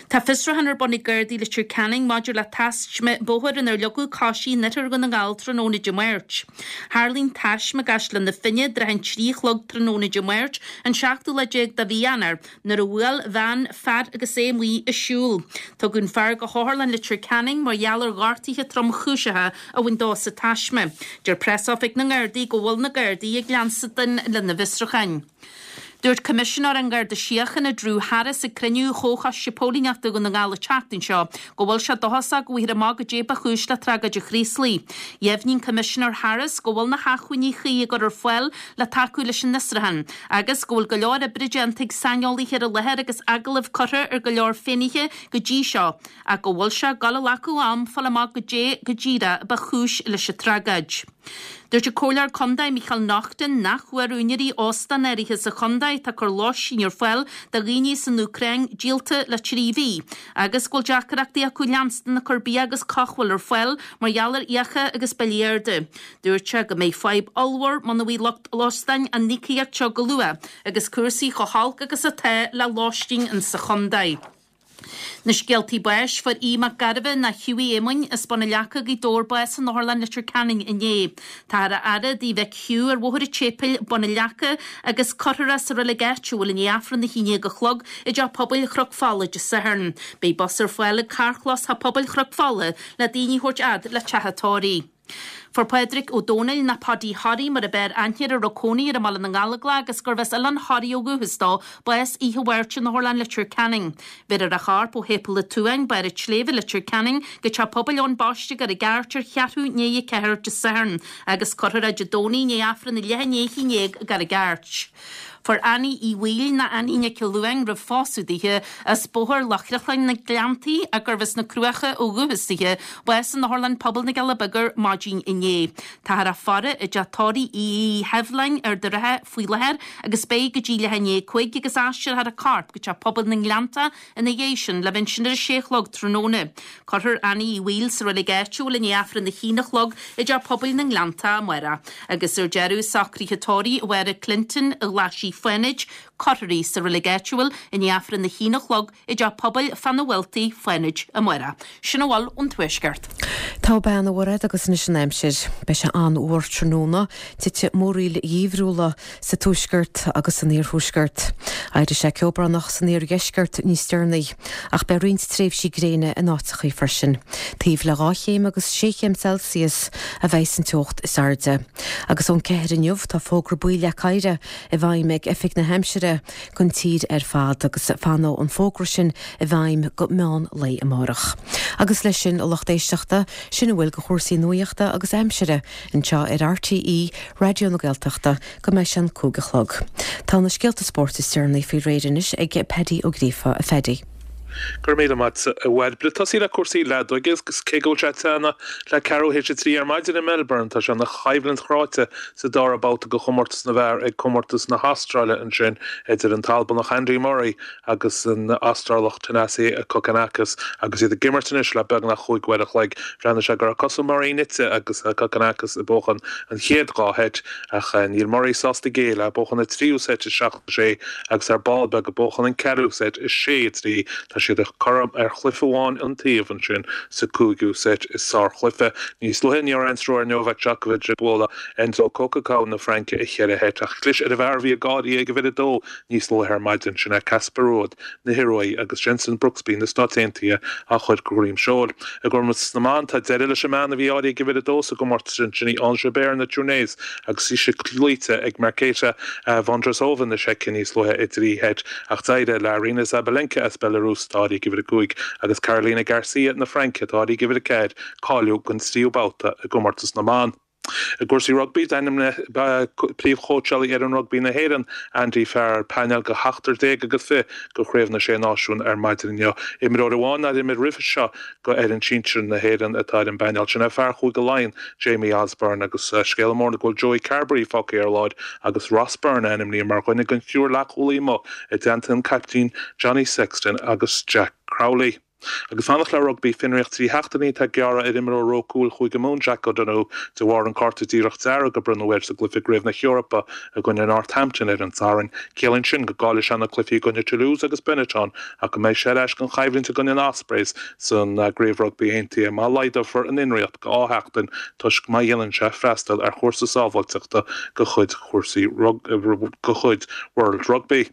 Tá fiosrúchán ar bun ag Gardaí Leitir Ceanainn maidir le taisme bóthair inar leagadh coisí in oirthear Dhún na nGall tráthnóna Dé Máirt. Tharla an taisme i gCaisleán na Finne i dtrátha an 3 a chlog tráthnóna Dé Máirt, an seachtú lá déag de mhí Eanáir, nuair a bhuail veain fear agus é amuigh ag siúl. Tugadh an fear go hOtharlann Leitir Ceanainn mar gheall ar ghortuithe tromchúiseacha a bhain dó sa taisme. Deir Preasoifig na nGardaí go bhfuil na Gardaí ag leanstan lena bhfiosrúcháin. Dúirt Coimisinéir an Gharda Síochána Drew Harris ag cruinniú Chomhchoiste Póilíneachta Dhún na nGall an tseachtain seo go bhfuil sé dóchasach go bhfaighfear amach goidé ba chúis le tragóid an Chraoslaigh. Dheimhnigh an Coimisinéir Harris go bhfuil na hacmhainní cuí á gcur ar fáil le tacú leis an fhiosrúchán agus go bhfuil go leor oibre déanta ag saineolaithe ar an láthair agus agallaimh curtha ar go leor finnéithe go dtí seo ach go bhfuil sé ag dul a ghlacadh am fáil amach goidé go díreach ba chúis leis an tragóid. Dúirt an Comhairleoir Contae Micheál Naughton nach bhfuair úinéirí óstán áirithe sa chontae atá ag cur lóistín ar fáil do dhaoine as an Úcráin díolta le 3 mhí agus go bhfuil deacrachtaí acu leanstan ag cur bia agus comhbhail ar fáil mar gheall ar fhiacha agus billí arda. Dúirt sé go mbeidh fadhb ollmhór muna bhfaighidh lucht óstáin an íocaíocht seo go luath agus cúrsaí chomh holc agus atá le lóistín insa chontae. Na scéaltaí báis, Fuair Aodh Mac Gairbheith nó Hughie Éamoinn as Bun an Leaca, Gaoth Dobhair bás in Otharlann Leitir Ceanainn inné. Táthar á fhaire i dtigh mhic Hugh ar Bhóthar an tSéipéil, Bun an Leaca, agus cuirfear é sa reilig áitiúil i ndiaidh Aifreann a haon déag a chlog i dTeach Pobail Chnoc Fola Dé Sathairn. Beidh bus ar fáil ag carrchlós Theach Pobail Chnoc Fola le daoine a thabhairt fhad le teach an tórraimh. Fuair Pádraig Ó Dónaill, nó Paudie Thoraí mar ab fhearr aithne air a raibh cónaí air i mBaile na nGallóglach agus gurbh as Oileán Thoraí ó dhúchas dó, bás oíche Mháirt in Otharlann Leitir Ceanainn. Bhéarfar a chorp ó Shéipéal an tSuain, Barr an tSléibhe, Leitir Ceanainn, go Teach Pobail Eoin Baiste i gCarraig Airt ar cheathrú i ndiaidh a ceathair Dé Sathairn agus cuirfear é Dé Domhnaigh i ndiaidh Aifreann a leath i ndiaidh a haon déag i gCarraig Airt. Fuair Annie Uí Bhaoill, nó Annie Nic Luain roimh phósadh dithe, as Bóthar Loch Chriochláin na Gleanntaí ach gurbh as na Cruacha ó dhúchas dithe, bás in Otharlann Pobail na gCealla Beaga ar maidin inné. Táthar á faire i dteach tórraimh Uí Sheibhleáin, Ard an Rátha, faoi láthair agus beidh go dtí leath i ndiaidh a 5 agus aistreofar a corp go Teach Pobail na nGleanntach ina dhiaidh sin le bheith ansin ar a sé a chlog tráthnóna. Cuirfear Annie Uí Bhaoill sa reilig áitiúil i ndiaidh Aifreann a haon a chlog i dTeach Pobail na nGleanntach amárach. Agus ar deireadh, socruithe tórraimh Mháire Clinton, Ghlaisigh Fánaid. Cuirfear í sa reilig áitiúil i ndiaidh Aifreann a haon a chlog i dTeach Pobail Fána Bhealtaigh, Fánaid, amárach. Sin a bhfuil ón Tuaisceart. Tá bean a Mhairéad agus anois an aimsir. Beidh sé an-fhuar tráthnóna, titfidh múraíl gheimhriúla sa tuaisceart agus san iarthuaisceart. Éireoidh sé ceobránach san iardheisceart níos deireanaí, ach beidh roinnt tréimhsí gréine in áiteachaí freisin. Taobh le 2 chéim agus 6 chéim Celsius a bheidh an teocht is airde. Agus ón 4 inniu tá fógra buí le oighre i bhfeidhm ag Oifig na hAimsire don tír ar fad agus fanfaidh an fógra sin i bhfeidhm go meán lae amárach. Agus leis sin, a lucht éisteachta, sin a bhfuil de chúrsaí nuachta agus aimsire anseo ar RTÉ Raidió na Gaeltachta go mbeidh sé an 5 a chlog. Tá na scéalta spóirt is deireanaí faoi réir anois ag Paddy Ó Gríofa. A Phaddy. Go raibh míle maith agat, a Bhairbre. Tosaí le cúrsaí leadóige agus cé go bhfuil sé ag teannadh le ceathrú théis a 3 ar maidin i Melbourne, tá sé ina choimhlint chráite sa dara babhta de chomórtas na bhfear ag Comórtas na hAstráile ansin idir an tAlbanach Andy Murray agus an Astrálach Thanasi Kokkinakis agus iad ag imirt anois le beagnach chúig uair a chloig. Bhreathnaigh sé go raibh cosa Murray nite agus Kokkinakis ag buachan an chéad dhá sheit ach níl Murray sásta géilleadh, buachan an tríú seit 7 6 agus ar ball beag ag buachan an ceathrú seit 6 3. Tá siad cothrom ar chluiche amháin an taobh ansin sa cúigiú seit. Is sárchluiche. Níos luaithe ní raibh aon stró ar Novak Djokovic ag bualadh Enzo Coquelicot na Fraince i cheithre sheit ach chlis ar an bhfear a bhí ag gáirí ag uimhir a dó níos luaithe ar maidin, sin é Casper Ruud na hIoruaí agus Jenson Brooksby na Stáit Aontaithe á chur de dhroim seoil. I gcomórtas na mban, tá deireadh leis an mbean a bhí áirithe ag uimhir a dó sa gcomórtas sin, sin í Ons Jabeur na Túinéise agus í cloíte ag Marketa Vondrousova na Seice níos luaithe i dtrí sheit ach d'éirigh le Aryna Sabalenka as Belarus, atá áirithe ag uimhir a cúig, agus Caroline Garcia na Fraince, atá áirithe ag uimhir a ceathair, cáiliú don tríú babhta i gcomórtas na mban. I gcúrsaí rugbaí, d'ainmnigh príomhchóitseálaí fhoireann rugbaí na hÉireann, Andy Farrell, painéal de sheachtar déag agus fiche do Chraobh na Sé Náisiún ar maidin inniu. Imreoir amháin nár imir roimhe seo do fhoireann sinsir na hÉireann atá ar an bpainéal sin, é fear Chúige Laighean, Jamie Osborne agus scéala mór ná go bhfuil Joey Carbery fágtha ar lár agus Ross Byrne ainmnithe mar dhuine den triúr leathchúlaí amuigh i dteannta an caiptín Johnny Sexton agus Jack Crowley. Agus fanacht le rugbaí, fionraíocht 3 sheachtainí atá gearrtha ar imreoir ró cúil Chúige Mumhan, Jack O'Donoghue, de bharr an cárta díreach dearg a bronnadh air sa gcluiche i gCraobh na hEorpa i gcoinne Northampton ar an Satharn. Ciallaíonn sin go gcaillfidh sé na cluichí i gcoinne Toulouse agus Benetton ach go mbeidh sé ar ais don choimhlint i gcoinne an Ospreys san gCraobh Rugbaí Aontaithe má laghdófar an fhionraíocht go 2 sheachtain toisc má dhéanann sé freastal ar chúrsa sábháilteachta de chuid chúrsaí de chuid World Rugby.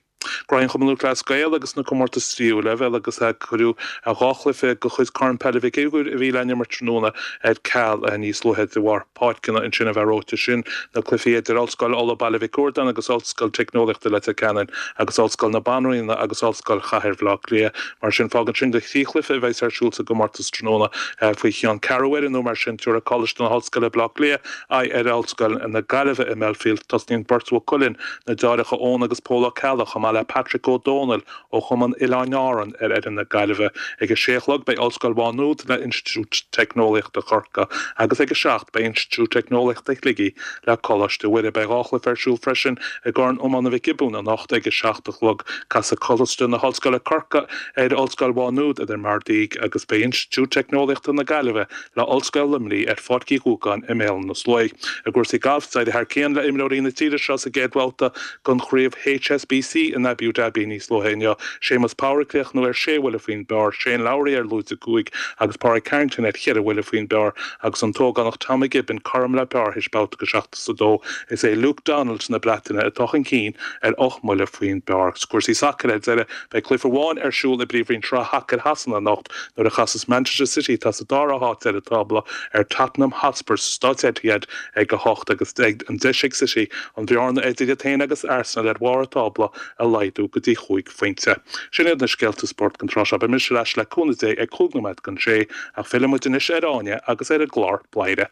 Graí an Chumann Lúthchleas Gael agus na comórtais tríú leibhéal agus cuireadh 2 chluiche de chuid Corn Peile Mhic Uidhir a bhí le n-imirt tráthnóna ar ceal níos luaithe de bharr páirceanna ansin a bheith reoite. Sin na cluichí idir Ollscoil Uladh Baile Mhic Riordáin agus Ollscoil Teicneolaíochta Leitir Ceanainn agus Ollscoil na Banríona agus Ollscoil Chathair Bhaile Átha Cliath. Mar sin fágann sin gur thrí chluiche a bheas ar siúl sa gcomórtas tráthnóna faoi cheann ceathrú uaire nó mar sin. Tabharfaidh Coláiste na hOllscoile Baile Átha Cliath aghaidh ar Ollscoil na Gaillimhe i mBelfield. Tosnaíonn beirt Mhaigh Cuilinn, na deartháireacha Eoin agus Pól Ó Ceallaigh, chomh maith le Patrick Ó Dónaill ó Chumann Oileáin Árann ar fhoireann na Gaillimhe. Ag a sé a chlog beidh Ollscoil Mhá Nuad le Institiúid Teicneolaíochta Chorcaí agus ag a 7 beidh Institiúid Teicneolaíochta Shligigh le Coláiste Mhuire. Beidh 2 chluiche ar siúl freisin i gCorn Iomána Mhic Giobúin anocht ag a 7 a chlog. Casfaidh Coláiste na hOllscoile Corcaigh ar Ollscoil Mhá Nuad i Dún Dealgan agus beidh Institiúid Teicneolaíochta na Gaillimhe le Ollscoil Luimnigh ar Pháirc Uí Ghúgáin i mBéal na Sluaighe. I gcúrsaí gailf, d'éirigh thar cionn le imreoirí na tíre seo sa gcéad bhabhta den chraobh HSBC in Abu Dhabi níos luaithe inniu. Séamus Power ag críochnú ar sé bhuille faoin bpar, Shane Lowry ar lúide 5 agus Pádraig Harrington ar cheithre bhuille faoin bpar agus an t-ógánach Tommy Gibbon cothrom le par théis babhta go 72. Is é Luke Donald na Breataine atá chun cinn ar ocht mbuille faoin bpar. Sa gcúrsaí sacair ar deireadh, beidh cluiche amháin ar siúl i bPríomhroinn Shraith Shacair Shasana anocht nuair a chasas Manchester City, atá sa dara háit ar an tábla, ar Tottenham Hotspur sa Stáid Etihad ag 8 agus beidh an deis ag City an bhearna idir iad féin agus Arsenal ar bharr an tábla a laghdú go dtí chúig phointe. Sin iad na scéalta spóirt don tráth seo. Beidh mise ar ais le cúnamh Dé ag 5 nóiméad don sé ach fillfidh muid anois ar Áine agus ar an gclár Bladhaire.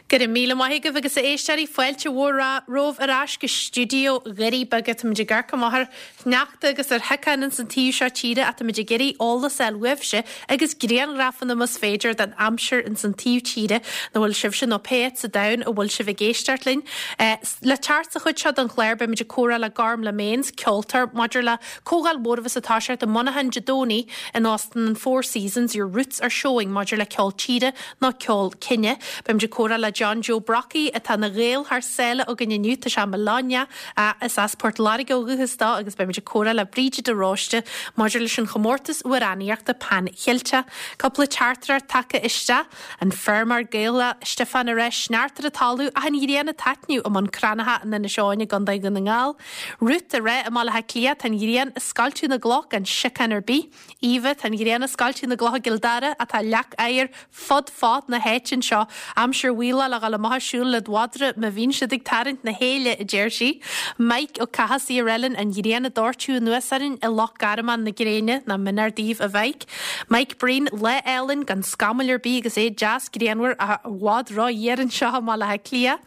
Go raibh míle maith agaibh agus a éisteoirí, fáilte mhór romhaibh ar ais go stiúideo Dhoirí Beaga. Táimid ag amharc amach ar shneachta agus ar shíocháin ins an taobh seo tíre ach táimid ag iarraidh eolas a fháil uaibhse agus grianghrafanna más féidir den aimsir ins an taobh tíre ina bhfuil sibhse nó pé áit sa domhan a bhfuil sibh ag éisteacht linn. Le teacht sa chuid seo den chlár beimid ag comhrá le Gormlaith Maines, ceoltóir, maidir le comhdháil mhór a bheas ag toiseacht i Monaghan Dé Domhnaigh in Óstán an Four Seasons, Your Roots Are Showing maidir le ceol tíre nó ceol cine. Beimid ag. comhrá le John Joe Brockie atá ina Ghael thar sáile againn inniu. Tá sé i mBologna. Is as Port Láirge ó dhúchas dó agus beimid ag comhrá le Bríde de Róiste maidir leis an chomórtas amhránaíochta Pan Cheilteach. Cúpla teachtaireacht tagtha isteach. An feirmeoir Gaelach Stiofán ag rá sneachta ar an talamh ach an ghrian ag taitneamh i mBun Cranncha in Inis Eoghain i gContae Dhún na nGall. Ruth ag rá i mBaile Átha Cliath tá an ghrian ag scoilteadh na gcloch gan siocán ar bith. Eva, tá an ghrian ag scoilteadh na gcloch i gCill Dara ach tá leac oighir fud fad na háite anseo. Aimsir mhaothálach le dhul amach ag siúl led mhadra má bhíonn siad ag tarraingt na héille, a deir sí. Mike Ó Cathasaigh ag rá linn an ghrian ag doirteadh anuas orainn i Loch Garman na gréine, nach mionéar daoibh a Mhike. Mike Breen, lá álainn gan scamaill ar bith agus é deas grianmhar ach i bhfad ró-fhuar anseo i mBaile Átha Cliath.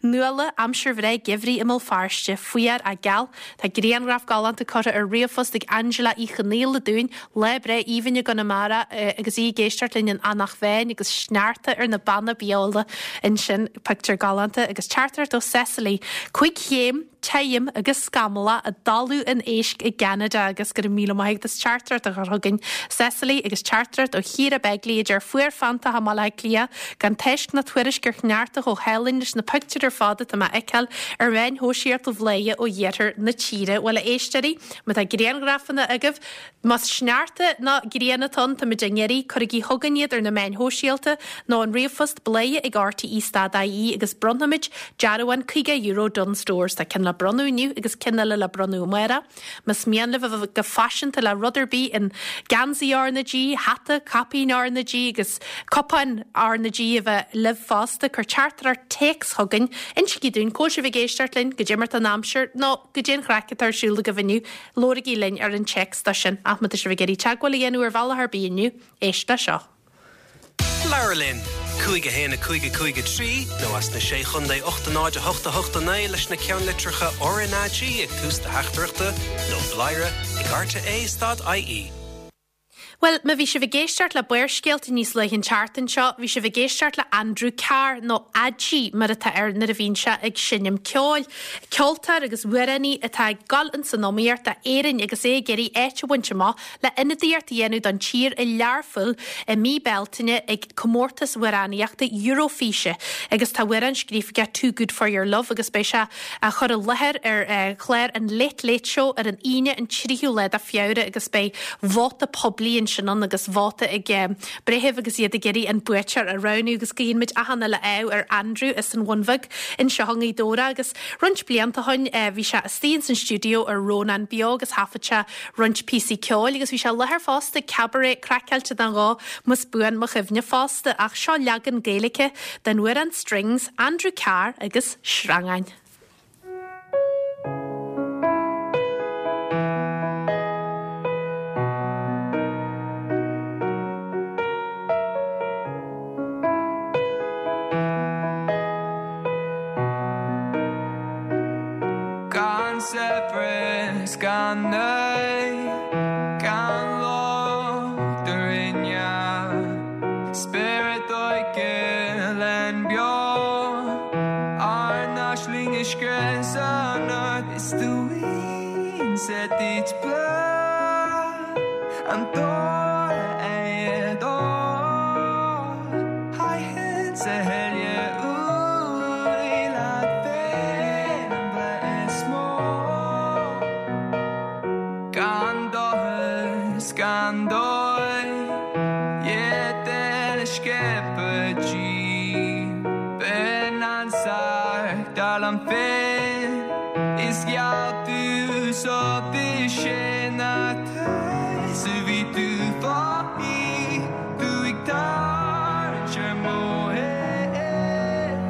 Nuala, aimsir bhreá geimhridh i mBéal Feirste, fuar ach geal. Tá grianghraf galánta curtha ar ríomhphost ag Angela Uí Chonaola dúinn, lá breá aoibhinn i gConamara agus í ag éisteacht linn in Eanach Mheáin agus sneachta ar na Beanna Beola ansin. Pictiúr galánta agus teachtaireacht ó Cecily. Cuig chéim, tirim agus scamallach i dTalamh an Éisc i gCeanada agus go raibh míle maith agat as teachtaireacht a chur chugainn, Cecily, agus teachtaireacht ó Chiara Begley a deir fuar feanntach i mBaile Átha Cliath gan tásc ná tuairisc ar shneachta chomh hálainn leis na pictiúir ar fad atá mé a fheiceáil ar mheáin shóisialta Bhladhaire ó iarthar na tíre. Bhuel, a éisteoirí, má tá grianghrafanna agaibh, más sneachta nó grian atá ann, táimid á n-iarraidh, cuirigí chugainn iad ar na meáin shóisialta nó an ríomhphost bladhaire ag rte stad ie agus bronnfaimid dearbhán €50 Dunnes Stores. Tá ceann le bronnadh inniu agus ceann eile le bronnadh amárach. Más mian libh a bheith go faiseanta le rud ar bith in geansaí R na G, hata, caipín R na G agus cupáin R na G a bheith libh fosta, cuir teachtaireacht téacs chugainn. Insígí dúinn cá bhfuil sibh ag éisteacht linn, goidé mar tá an aimsir nó goidé an chraic atá ar siúl agaibh inniu. Labhraigí linn ar an téacs dó sin. Ach má tá sibh ag iarraidh teagmháil a dhéanamh ar bhealach ar bith inniu, éist le seo. Labhair linn! 5 1 5 5 3 nó as na Sé Chontae 8 0 8 8 9 leis na ceannlitreacha RnaG ag tús do theachtaireachta nó bladhaire ag rte stad ie. Bhuel, má bhí sibh ag éisteacht le Barrscéalta níos luaithe an tseachtain seo, bhí sibh ag éisteacht le Andrew Carr, nó Adgie mar atá air nuair a bhíonn sé ag seinm ceoil. Ceoltóir agus amhránaí atá ag dul ins an iomaíocht d'Éirinn agus é ag iarraidh áit a bhaint amach le ionadaíocht a dhéanamh don tír i Learpholl i mí Bealtaine ag comórtas amhránaíochta Eurofíse agus tá amhrán scríofa aige Too Good For Your Love agus beidh sé á chur i láthair ar chlár an Late Late Show ar an Aoine an 3ú lá de Feabhra agus beidh vóta poiblí ansin ann agus vóta ag breithimh agus iad ag iarraidh an buaiteoir a roghnú agus guíonn muid achan uile ádh ar Andrew as an Bhun Bheag anseo i nGaoth Dobhair agus roinnt blianta ó shin bhí sé istigh ins an stiúideo ar Rónán Beo agus thaifead sé roinnt píosaí ceoil agus bhí sé i láthair fosta ag Cabaret Craiceáilte den dhó más buan mo chuimhne fosta ach seo leagan Gaeilge den amhrán Strings, Andrew Carr agus Sreangáin. Gan saibhreas, gan nádúr, gan locht a rinne spiorad óige linn beo, ár n-aisling a scrios anocht is dúinn sa duit bláth an dóigh é dó Haigheann sa thuile uaidh leat féin an bhreith is mó. Gan dochar 's gan dóigh, iad uile sciobtha díom. B'in an searc dar liom féin is gheall tú so bhí sé nach tú 's a bhí tú fágtha. Tú ag tarraingt ar mo thaobh,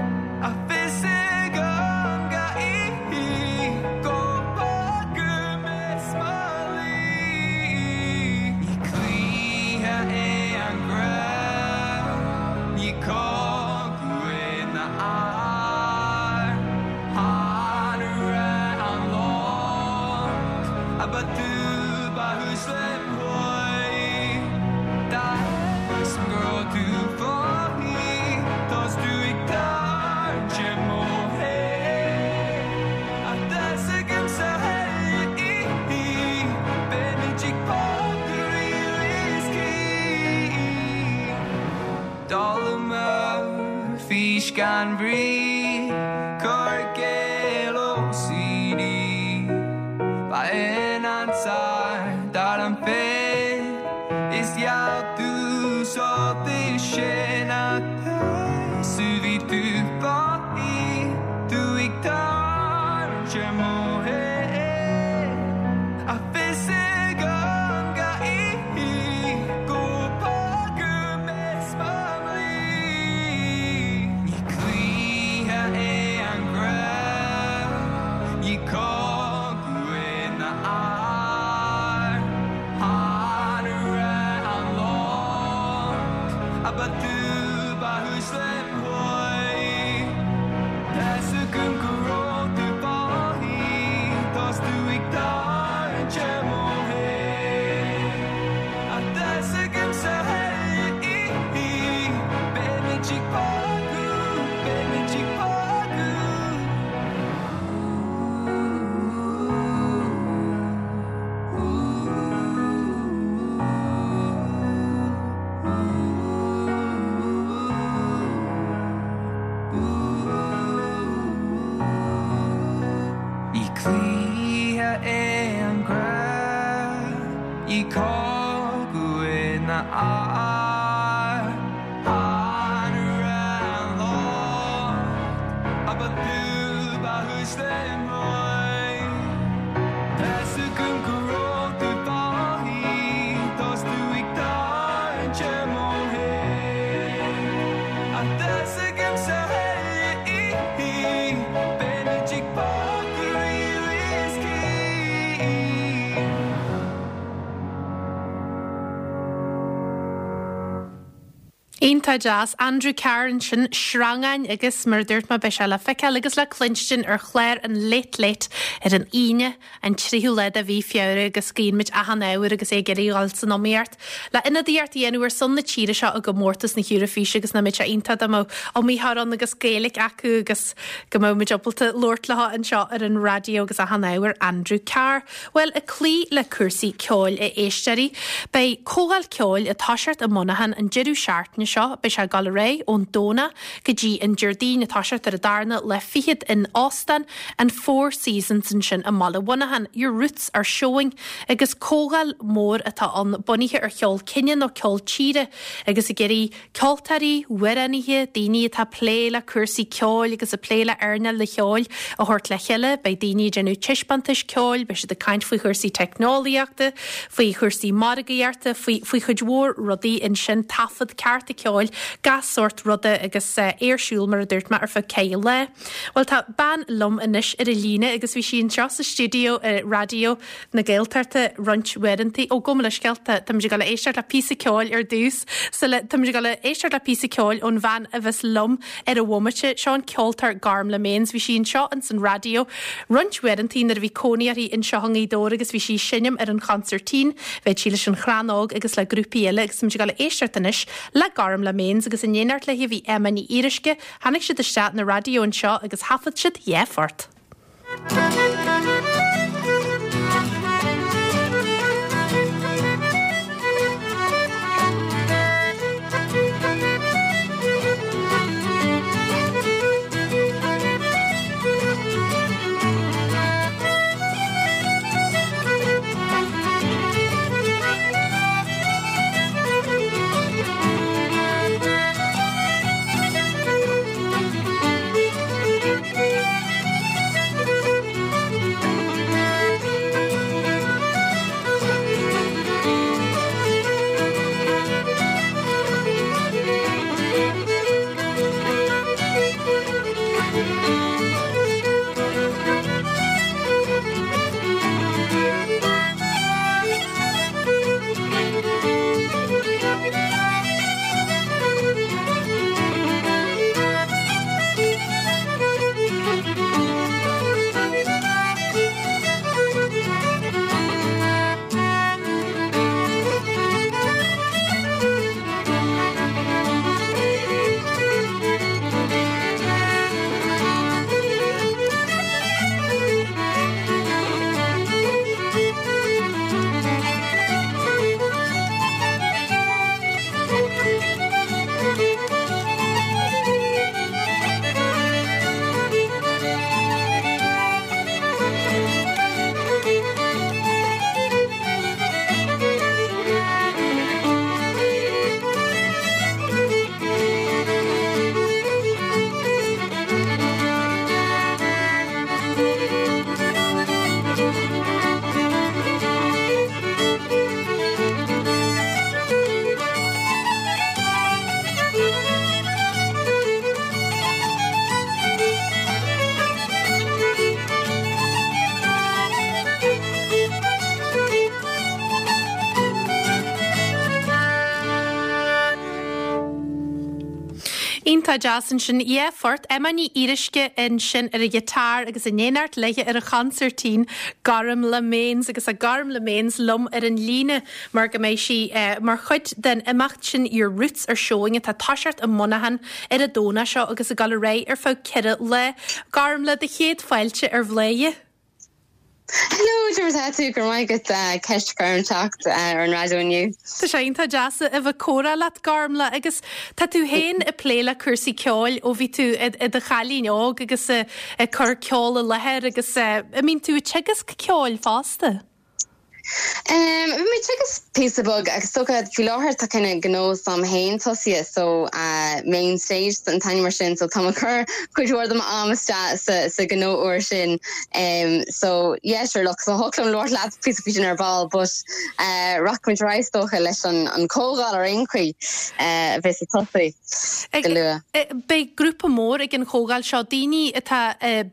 ach fios agam gach oíche go bhfágfaidh mé 's mo luí. Ní cluiche é an grá, ní cóir. Fís gan bhrí, cur i gcéill OCD. Ba in ansar dar an féith is gheall tú sórt sin ach bhí tú fáí tú ag tarraingt ar mo thaobh. Ach fios agam gach oíche go bhfágfaidh mé 's mo dhlí. Ní cluiche é an grá, ní cogadh é ná ár. Chan raibh an locht ach ba tú ba chúis lem chroí. Tá's agam go raibh tú fágtha, tá's tú ag tarraingt ar mo thaobh. Ach tá's agamsa chuile oíche, beimid ag bogadh, beimid ag bogadh. Ní cluiche é an grá, ní cogadh é ná ár. Chan raibh an locht ach ba tú ba chúis lem chroí. Tá's agam go raibh tú fágtha, tá's tú ag tarraingt ar mo thaobh. Ach tá's agamsa chuile oíche, beimid ag bogadh riamh is choíche. Iontach deas. Andrew Carr ansin, Sreangáin agus mar a dúirt mé beidh sé le feiceáil agus le cluinstin ar chlár an Late Late ar an Aoine an 3ú lá de mhí Feabhra agus guíonn muid achan ádh air agus é ag iarraidh dhul san iomaíocht le ionadaíocht a dhéanamh ar son na tíre seo i gcomórtas na hEurafíse agus nach mbeadh sé iontach dá mbeadh iomaitheoir ann agus Gaeilge acu agus go mbeadh muid ábalta labhairt leo anseo ar an raidió agus achan ádh ar Andrew Carr. Bhuel, ag cloí le cúrsaí ceoil, a éisteoirí, beidh comhdháil ceoil ag toiseacht i Muineachán an deireadh seachtaine seo. Beidh sé ag dul ar aghaidh ón Domhnach go dtí an Déardaoin, ag toiseacht ar an darna lá fichead in Óstán an Four Seasons ansin i mbaile Mhuineacháin. Your Roots Are Showing agus comhdháil mhór atá ann bunaithe ar cheol cine nó ceol tíre agus ag iarraidh Ceoltóirí, amhránaithe, daoine atá ag plé le cúrsaí ceoil agus ag plé le earnáil an cheoil a thabhairt le chéile. Beidh daoine ag déanamh taispeántais ceoil, beidh siad ag caint faoi chúrsaí teicneolaíochta, faoi chúrsaí margaíochta, faoi faoi chuid mhór rudaí ansin, taifead cearta ceoil, gach sórt ruda agus é ar siúl mar a dúirt mé ar feadh ceithre lá. Bhuel tá bean liom anois ar an líne agus bhí sí anseo sa stiúideo i Raidió na Gaeltachta roinnt uaireanta. Ó, gabh mo leithscéal, tá, táimid ag dul a éisteacht le píosa ceoil ar dtús. Sula, táimid ag dul a éisteacht le píosa ceoil ón bhean a bheas liom ar an bhomaite. Seo an ceoltóir Gormlaith Maines. Bhí sí anseo ins an raidió roinnt uaireanta nuair a bhí cónaí uirthi anseo i nGaoth Dobhair agus bhí sí ag seinm ar an chonsairtín. Bheadh sí leis an Chrann Óg agus le grúpaí eile agus táimid ag dul a éisteacht anois le Gormlaith Maines agus in éineacht léi bhí Emma Ní Fhíoruisce. Tháinig siad isteach na raidió anseo agus thaifead siad dhá phort. Iontach deas ansin. Yeah, phort. Emma Ní Fhíoruisce ansin ar an ghiotár agus in éineacht léi ar an chonsairtín, Gormlaith Maines agus tá Gormlaith Maines liom ar an líne mar go mbeidh sí mar chuid den imeacht sin Your Roots Are Showing atá ag toiseacht i Muineachán ar an Domhnach seo agus ag dul ar aghaidh ar feadh 4 lá. Gormlaith, do chéad fáilte ar Bhladhaire. Hello, cad é mar atá tú? Go raibh maith agat ceist a chur orm teacht ar an raidió inniu. Tá sé iontach deas a bheith ag comhrá leat, Gormlaith, agus tá tú féin ag plé le cúrsaí ceoil ó bhí tú i do chailín óg agus ag cur ceol i láthair agus an mbíonn tú ag teagasc ceoil fosta? Bhí mé ag teagasc píosa beag agus is dócha faoi láthair tá kind of gnó s'agam féin tosaithe so Main Stage an t-ainm air sin so tá mé ag cur cuid mhór de m'am isteach sa sa ghnó úr sin so yeah sure look so thiocfadh liom labhairt leat píosa faoi sin ar ball but rachaimid ar aghaidh is dócha leis an an comhdháil ar aon chaoi a bheas ag tosú. go luath. Beidh grúpa mór ag an chomhdháil seo, daoine atá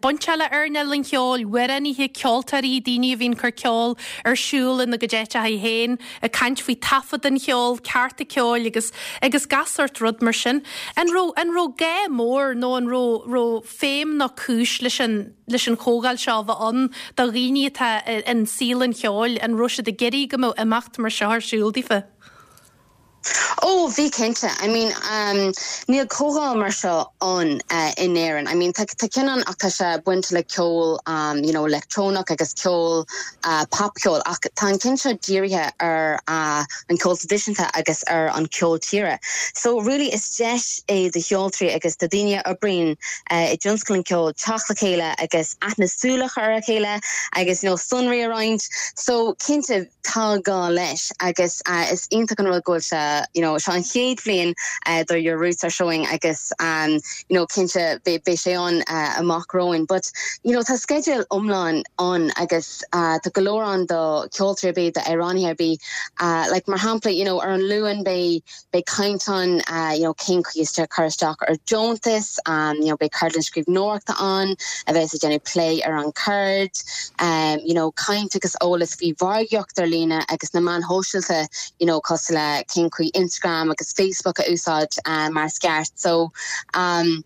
bainteach le earnáil an cheoil, amhránaithe, ceoltóirí, daoine a bhíonn ag cur ceol ar siúl ina gcuid áiteacha féin, ag caint faoi taifead an cheoil, cearta ceoil agus agus gach sórt rud mar sin. An raibh an raibh gá mór nó an raibh raibh feidhm nó cúis leis an leis an chomhdháil seo a bheith ann do dhaoine atá in saol an cheoil, an raibh siad ag iarraidh go mbeadh imeacht mar seo ar siúl daofa? Ó, bhí cinnte. I mean, níl comhdháil mar seo ann in Éirinn. I mean, tá ceann ann ach tá sé bainte le ceol, you know, leictreonach agus ceol, popcheol ach tá an ceann seo dírithe ar an ceol traidisiúnta agus ar an ceol tíre. So really is deis é do cheoltóirí agus do daoine a oibríonn i dtionscal an ceoil teacht le chéile agus aithne súl a chur ar a chéile agus, you know, sonraí a roinnt. So cinnte, tá gá leis agus is iontach an rud go bhfuil sé, you know, seo an chéad bhliain do Your Roots Are Showing agus you know, cinnte beidh sé ann amach romhainn. But you know, tá sceideal iomlán ann agus tá go leor ann do cheoltóirí ar bith, d'amhránaithe ar bith. Like mar shampla, you know, ar an Luan beidh Beidh caint ann you know cén chaoi is cur isteach ar deontas, you know beidh ceardlann scríbhneoireachta ann a bheas ag déanamh plé ar an cheird, you know caint agus eolas faoi mhargaíocht ar líne agus na meáin shóisialta you know cosúil le cén chaoi Instagram agus Facebook a úsáid mar is ceart. So um.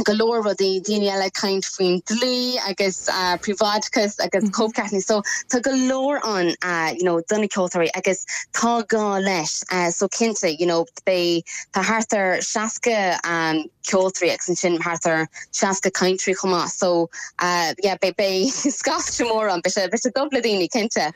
go leor rudaí, daoine eile ag caint faoin dlí agus príobháideachas agus cóipcheart. So tá go leor ann you know do na ceoltóirí agus tá gá leis. So cinnte you know beidh, tá thart ar 60 ceoltóirí agus ansin thart ar 60 cainteoirí chomh maith. So yeah beidh, beidh scaifte mór ann, beidh sé, beidh sé dubh le daoine cinnte.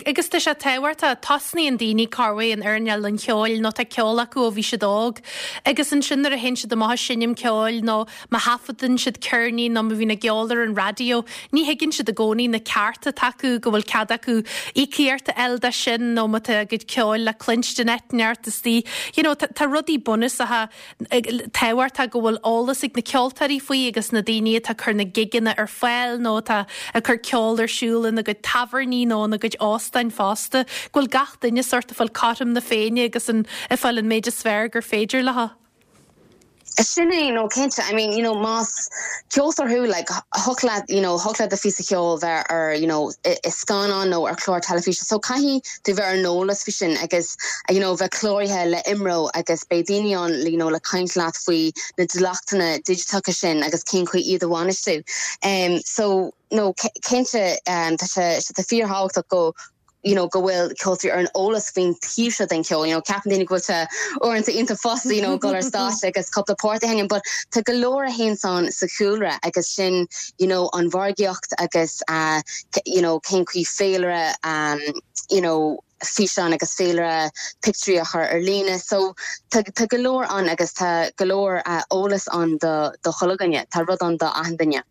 Agus tá sé tábhachtach, tosnaíonn daoine corruair in earnáil an cheoil nó tá ceol acu ó bhí siad óg. Agus ansin nuair a théann siad amach ag seinm ceoil nó má thaifeadann siad ceirnín nó má bhíonn a gceol ar an raidió, ní thuigeann siad i gcónaí na cearta atá acu, go bhfuil cead acu íocaíocht a fháil dó sin nó má tá a gcuid ceoil le cluinstin áit inteacht istigh. You know, tá rudaí bunúsacha tábhachtach go bhfuil eolas ag na ceoltóirí faoi agus na daoine atá ag cur na gigeanna ar fáil nó atá ag cur ceol ar siúl ina gcuid tábhairní nó ina gcuid óstáin fosta, go bhfuil gach duine sórt ag fáil cothrom na Féinne agus an ag fáil an méid is fearr gur féidir leo. Sin é, no cinnte, I mean, you know, más ceoltóir thú, like, thiocfadh leat, you know, thiocfadh le do phíosa ceoil bheith ar, you know, i scannán nó ar chlár teilifíse, so caithfidh tú bheith ar an eolas faoi sin agus, you know, bheith cláraithe le IMRO agus beidh daoine ann, you know, le caint leat faoi na dleachtanna digiteacha sin agus cén chaoi iad a bhainistiú. Um, so, no, cinnte, um, tá sé, tá fíorthábhachtach go you know, go bhfuil ceoltóirí ar an eolas faoin taobh seo den cheol. You know, ceapann daoine go bhfuil sé uaireanta iontach fusa, you know, dul ar stáitse agus cúpla port a sheinm, but tá go leor a théanns ann sa chúlra agus sin, you know, an mhargaíocht agus, uh, you know, cén chaoi féilire, um, you know, físeán agus féilire pictiúirí a chur ar líne. So tá, tá go leor ann agus tá go leor uh, eolas ann do, do chuile dhuine. Tá rud ann do achan duine.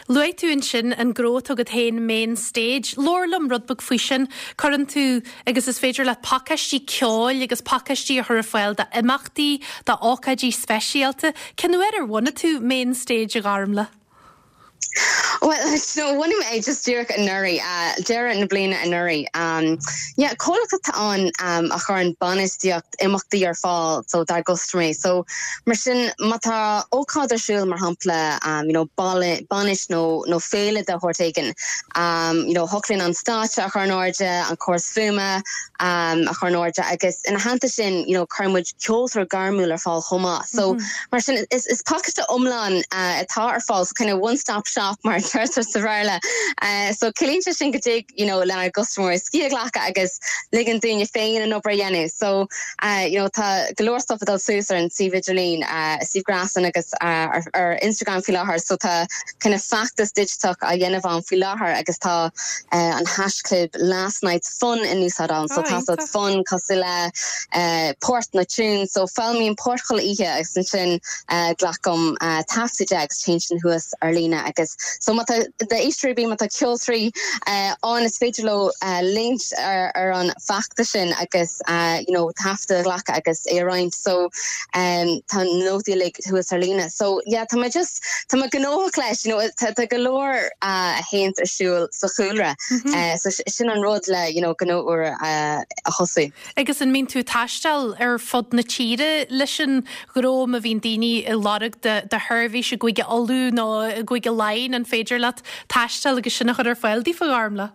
Luaigh tú ansin an gnó atá agat féin, Main Stage. Labhair liom rud beag faoi sin. Cuireann tú, agus is féidir leat pacáistí ceoil agus pacáistí a chur ar fáil d'imeachtaí, d'ócáidí speisialta. Cén uair ar bhunaigh tú Main Stage, a Ghormlaith? Bhuel, so bhunaigh mé é just díreach anuraidh, deireadh na bliana anuraidh. Yeah, comhlacht atá ann a chuireann bainistíocht imeachtaí ar fáil so dár gcustaiméirí. So mar sin má tá ócáid ar siúl mar shampla you know bainis nó nó féile de shórt éigin, you know thiocfadh linn an stáitse a chur in airde, an córas fuaime a chur in airde agus ina theannta sin you know cuireann muid ceoltóir gairmiúil ar fáil chomh maith. So Mar sin, is pacáiste iomlán atá ar fáil, so kind of one stop shop mar a deirtear sa Bhéarla. So ciallaíonn sé sin go dtig you know lenár gcustaiméirí scíth a ghlacadh agus ligean dúinne féin an obair a dhéanamh. So you know tá go leor stuff ag dul suas ar an suíomh idirlín, suíomh gréasáin agus ar Instagram faoi láthair. So tá kind of feachtas digiteach á dhéanamh ann faoi láthair agus tá an haischlib last night's fun in úsáid ann. So tá siad fun cosúil le port nó tune. So foghlaimím port chuile oíche agus ansin glacaim taifead de agus téann sin thuas ar líne agus so má tá d'éisteoirí ar bith má tá ceoltóirí ann is féidir leo leanúint ar an bhfeachtas sin agus you know taifead a ghlacadh agus é a roinnt. So tá na nótaí uilig thuas ar líne. So yeah tá mé just Tá mé gnóthach leis, you know, tá tá go leor a théanns ar siúl sa chúlra. So sin an rud le, you know, gnó úr a thosú. Agus an mbíonn tú ag taisteal ar fud na tíre leis an ghnó má bhíonn daoine ag lorg do do sheirbhís i gCúige Uladh nó i gCúige Laighean, an féidir leat taisteal agus sin a chur ar fáil daofa, a Ghormfhlaith?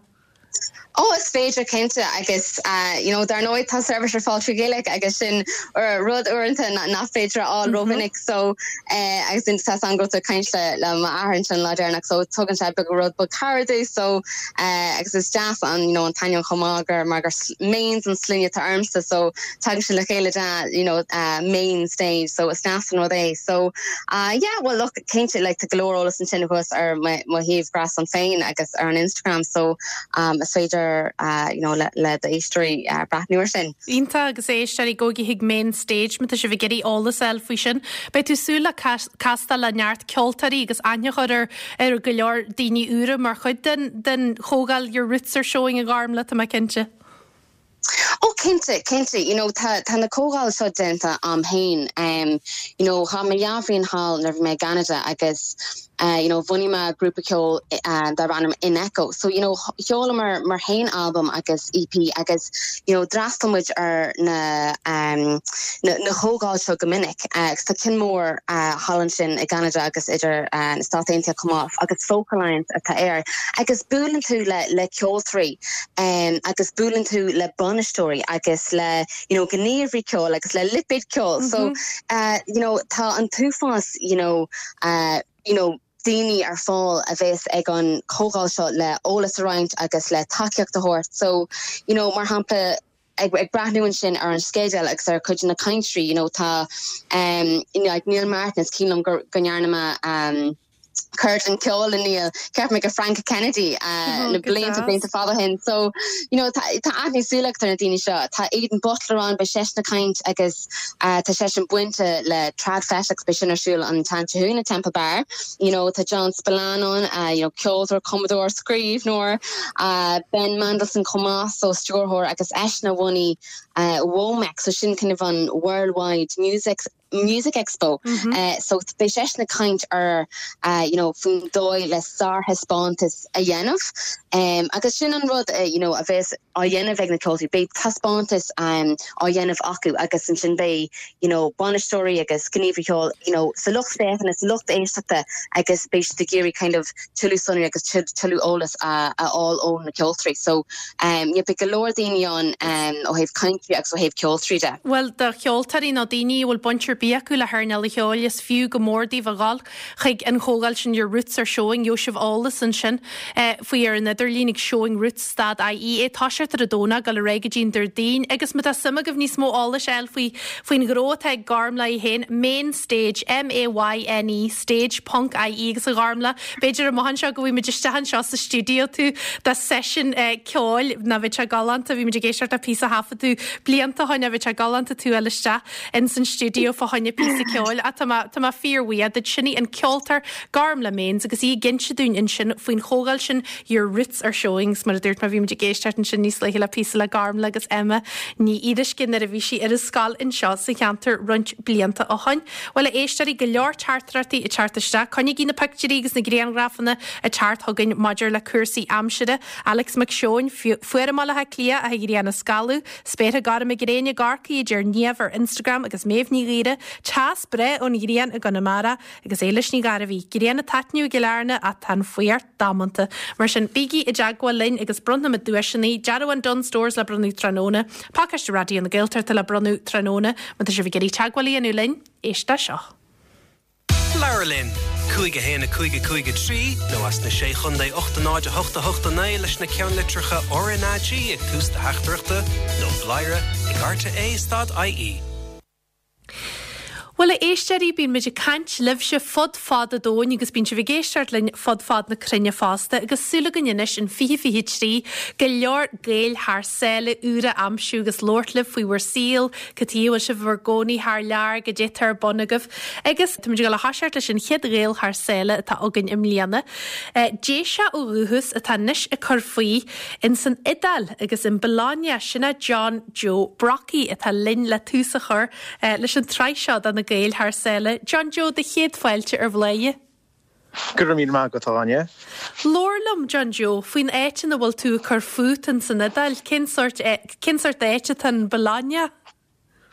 Ó, is féidir cinnte agus you know dar ndóigh tá seirbhís ar fáil trí Ghaeilge agus sin rud uaireanta nach féidir a fháil rómhinic so agus tá 's agam go raibh tú ag caint le le m'athair ansin an lá deireanach so tugann sé beag rud beag cabhair domh so agus is deas an you know an t-ainm chomh maith gur mar gur Maines an sloinne atá ormsa so tagann sin le chéile de you know main stage so is deas an rud é so yeah well look cinnte like tá go leor eolas ansin thuas ar mo shuíomh gréasáin féin agus ar an Instagram so is féidir you know le le d'éisteoirí breathnú ar sin. Iontach agus éisteoirí gabhaigí chuig Main Stage má tá sibh ag iarraidh eolas a fháil faoi sin. Beidh tú ag súil le castáil le neart ceoltóirí agus aithne a chur ar ar go leor daoine úra mar chuid den den chomhdháil Your Roots Are Showing a Ghormfhlaith, tá mé cinnte. Ó cinnte, cinnte, you know tá tá na comhdháil seo déanta a'm féin em you know chaith mé dhá bhliain thall nuair a bhí mé i gCeanada agus eh you know bhunaigh mé grúpa ceoil eh darb ainm In Echo so you know sheolamar muid féin albam agus EP agus you know d'fhreastail muid ar na em na na comhdháil seo go minic eh agus tá ceann mór eh thall ansin i gCeanada agus idir eh na Stáit Aontaithe chomh maith agus Folk Alliance atá air agus buaileann tú le le ceoltóirí agus buaileann tú le bainisteoirí agus le you know gníomhairí ceoil agus le lipéid ceoil so you know tá an t-uafás you know you know daoine ar fáil a bheas ag an chomhdháil seo le eolas a roinnt agus le tacaíocht a thabhairt so you know mar shampla ag ag breathnú ansin ar an sceideal agus ar chuid de na cainteoirí you know tá um you know like Neil Martin is cuimhin liom go go ndearna mé um ceardlann ceoil le Neil, ceapaim ag Frank Kennedy na blianta blianta fada ó shin. So, you know, tá aithne súl agat ar na daoine seo. Tá Aidan Butler ann, beidh seisean ag caint agus tá seisean bainte le TradFest agus beidh sin ar siúl an tseachtain seo chugainn i Temple Bar. You know, tá John Spillane ann, you know, ceoltóir, cumadóir, scríbhneoir, Ben Mandelson chomh maith, so stiúrthóir agus eisean a bhunaigh WOMEX, so sin kind of an Worldwide Music Music Expo. So beidh seisean ag caint ar you know faoin dóigh le sárthaispeántas a dhéanamh. Agus sin an rud you know a bheas á dhéanamh ag na ceoltóirí, beidh taispeántas á dhéanamh acu agus ansin beidh you know bainisteoirí agus gníomhairí ceoil you know sa lucht féachana, sa lucht éisteachta agus beidh siad ag iarraidh kind of tuilleadh sonraí agus tuilleadh eolas a fháil ó na ceoltóirí. So yeah, beidh go leor daoine ann ó thaobh cainteoirí agus ó thaobh ceoltóirí de. Bhuel, do cheoltóirí nó daoine a bhfuil baint ar bith acu le hearnáil an cheoil, is fiú go mór daoibh a dhul chuig an chomhdháil sin Your Roots Are Showing. Gheobhaidh sibh eolas ansin faoi ar an idirlíon ag showingroots dot ie. Ag toiseacht ar an Domhnach, dul ar aghaidh go dtí an Déardaoin. Agus má tá suim agaibh níos mó eolais a fháil faoi faoin ghnó atá ag Gormfhlaith í féin, Mayne Stage, M-A-Y-N-E, stage ponc ie agus a Ghormfhlaith, b'fhéidir amach anseo go bhfaighidh muid isteach anseo sa stiúideo tú do seisiún ceoil, ná bheadh sé galánta, bhí muid ag éisteacht le píosa a thaifead tú. blianta ó shoin bheadh sé galánta tú a fháil isteach ins an stiúideo fá choinne píosa ceoil ach tá mé, tá mé fíorbhuíoch duit. Sin í an ceoltóir Gormlaith Maines agus í ag inse dúinn ansin faoin chomhdháil sin Your Roots Are Showing agus mar a dúirt mé bhí muid ag éisteacht ansin níos luaithe le píosa le Gormlaith agus Emma Ní Fhíoruisce nuair a bhí sí ar an scoil anseo sa cheantar roinnt blianta ó shoin. Bhuel a éisteoirí, go leor teachtaireachtaí ag teacht isteach. Coinnígí na pictiúirí agus na grianghrafanna ag teacht chugainn maidir le cúrsaí aimsire. Alex Mac Seoin, Fuar i mBaile Átha Cliath ach an ghrian ag scalladh. Spéartha gorma gréine i gCorcaigh a deir Niamh ar Instagram agus Méabh Ní Ghaora, Teas breá ón ghrian i gConamara agus Éilis Ní Ghairbhí, Grian ag taitneamh i gCill Airne ach tá an fuacht damanta. Mar sin, bígí i dteagmháil linn agus bronnfaimid duaiseanna, dearbhán Dunnes Stores le bronnadh tráthnóna, pacáiste Raidió na Gaeltachta le bronnadh tráthnóna. Má tá sibh ag iarraidh teagmháil a dhéanamh linn, éist le seo. Labhair linn! 5 1 5 5 3 nó as na Sé Chontae 8 0 8 8 9 leis na ceannlitreacha RnaG ag tús do theachtaireachta nó bladhaire ag rte stad ie. Bhuel, a éisteoirí, bíonn muid ag caint libhse fud fad an domhain agus bíonn sibh ag éisteacht linn fud fad na cruinne fosta agus súil againn anois in 2023 go leor Gaeil thar sáile úra a aimsiú agus labhairt libh faoi bhur saol, cad chuige a bhfuil sibh i bhur gcónaí thar lear, goidé atá ar bun agaibh. Agus táimid ag dul a thoiseacht leis an chéad Ghael thar sáile atá againn i mbliana. Déiseach ó dhúchas atá anois ag cur faoi ins an Iodáil agus in Bologna, sin é John Joe Brockie atá linn le tús a chur leis an tsraith seo do na Gaeil thar sáile. John Joe, do chéad fáilte ar Bhladhaire. Go raibh míle maith agat, a Áine. Labhair liom, John Joe, faoin áit ina bhfuil tú ag cur fút in san Iodáil. Cén sórt, cén sórt áit atá in Bologna?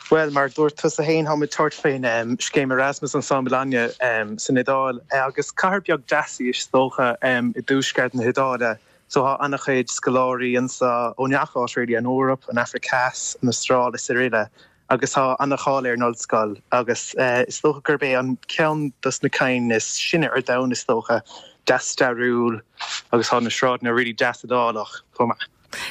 Bhuel, mar a dúirt tusa féin, táim ag tabhairt faoin scéim Erasmus anso i mBologna san Iodáil agus cathair beag deas í is dócha i dtuaisceart na hIodáile. So tá an-chuid scoláirí anso ó ngach áit really, an Eoraip, an Afraic Theas, an Astráil is araile agus tá an-cháil ar an ollscoil agus is dócha gurb é an ceann dos na cinn is sine ar domhan is dócha, deas stairiúil agus tá na sráideanna really deas Iodálach chomh maith.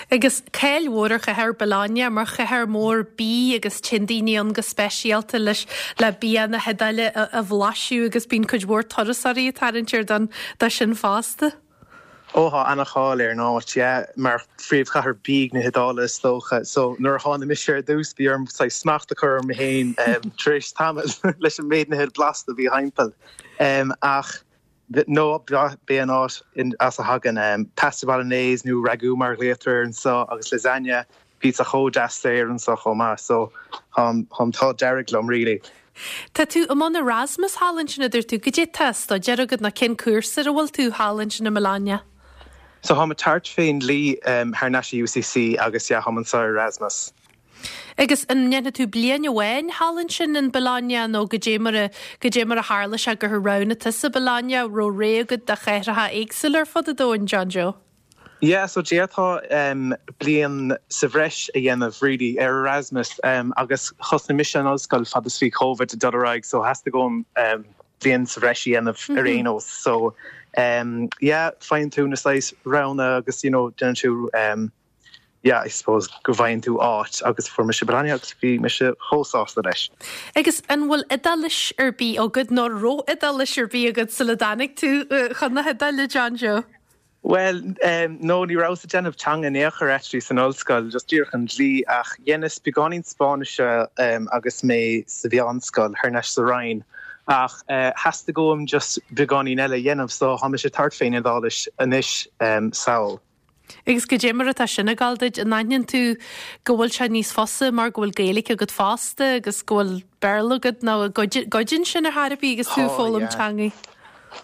Agus cáil mhór ar chathair Bologna mar chathair mhór bídh agus téann daoine ann go speisialta leis le bia na hIodáile a bhlaiseadh agus bíonn cuid mhór turasóirí ag tarraingt air don dó sin fosta. Ó tá ana-cháil ar an áit, yeah, mar phríomhchathair bídh na hIodáile is dócha. So nuair a tháinig mise ar dtús bhí orm saghas smacht a chur orm féin tar éis tamaill leis an méid nithe blasta a bhí thimpeall. Ach no, b'é an áit as a thagann pasta bolognese nó ragù mar a ghlaotar air anso agus lasagne, pizza chomh deas saor anso chomh maith. So tá an t-ádh dearg liom really. Tá tú i mbun Erasmus thall ansin a dúirt tú. Goidé tá á staidéar agat nó cén cúrsa ar a bhfuil tú thall ansin i mBologna? So táim ag tabhairt fén dlí thar n-ais i UCC agus yeah táim anso ar Erasmus. Agus an ndéanfaidh tú bliain amháin thall ansin in Bologna nó goidé mar a, goidé mar a tharla sé gur roghnaigh tusa Bologna, raibh rogha agat de chathracha éagsúla ar fud an domhain, John Joe? Yeah, so d'fhéadfá bliain sa bhreis a dhéanamh really ar Erasmus agus thosnaigh mise an ollscoil fad is bhí Covid ag dul ar aghaidh so theastaigh uaim bliain sa bhreis a dhéanamh ar aon nós. So yeah, faigheann tú na saghas roghanna agus you know déanann tú yeah, I suppose go bhfaigheann tú áit agus fuair mise Bologna agus bhí mise chomh sásta leis. Agus an bhfuil Iodáilis ar bith agat nó raibh Iodáilis ar bith agat sula dtáinig tú chun na hIodáile, John Joe? Bhuel, no, ní rabhas ag déanamh teanga in aon chor actually san ollscoil, just díreach an dlí, ach dheineas beagáinín Spáinnise agus mé sa mheánscoil thar n-ais sa Rinn, ach theastaigh uaim just beagáinín eile a dhéanamh so tá mise ag tabhairt fén Iodáilis anois sall. Agus goidé mar atá sin ag gabháil duit, an aithníonn tú go bhfuil sé níos fusa mar go bhfuil Gaeilge agat fosta agus go bhfuil Béarla agat nó an gcuidíonn sin ar chor ar bith agus tú ag foghlaim teangaí?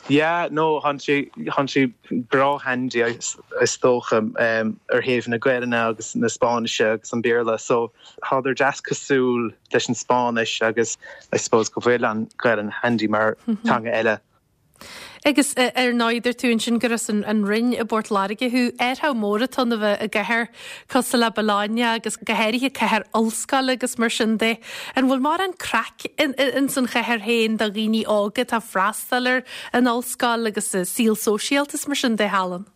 Yeah, no, thánn sé, thánn sé breá handy is dócha ar thaobh na Gaelainne agus na Spáinnise agus an Béarla so thádar deas cosúil leis an Spáinnis agus I suppose go bhfuil an Ghaelainn handy mar teanga eile. Agus ar ndóigh dúirt tú ansin gur as an Rinn i bPort Láirge thú. Athrú mór atá ann a bheith i gcathair cosúil le Bologna agus go háirithe cathair ollscoile agus mar sin de. An bhfuil mórán craic ins an chathair féin do dhaoine óga atá ag freastal ar an ollscoil agus saol sóisialta is mar sin de thall ann?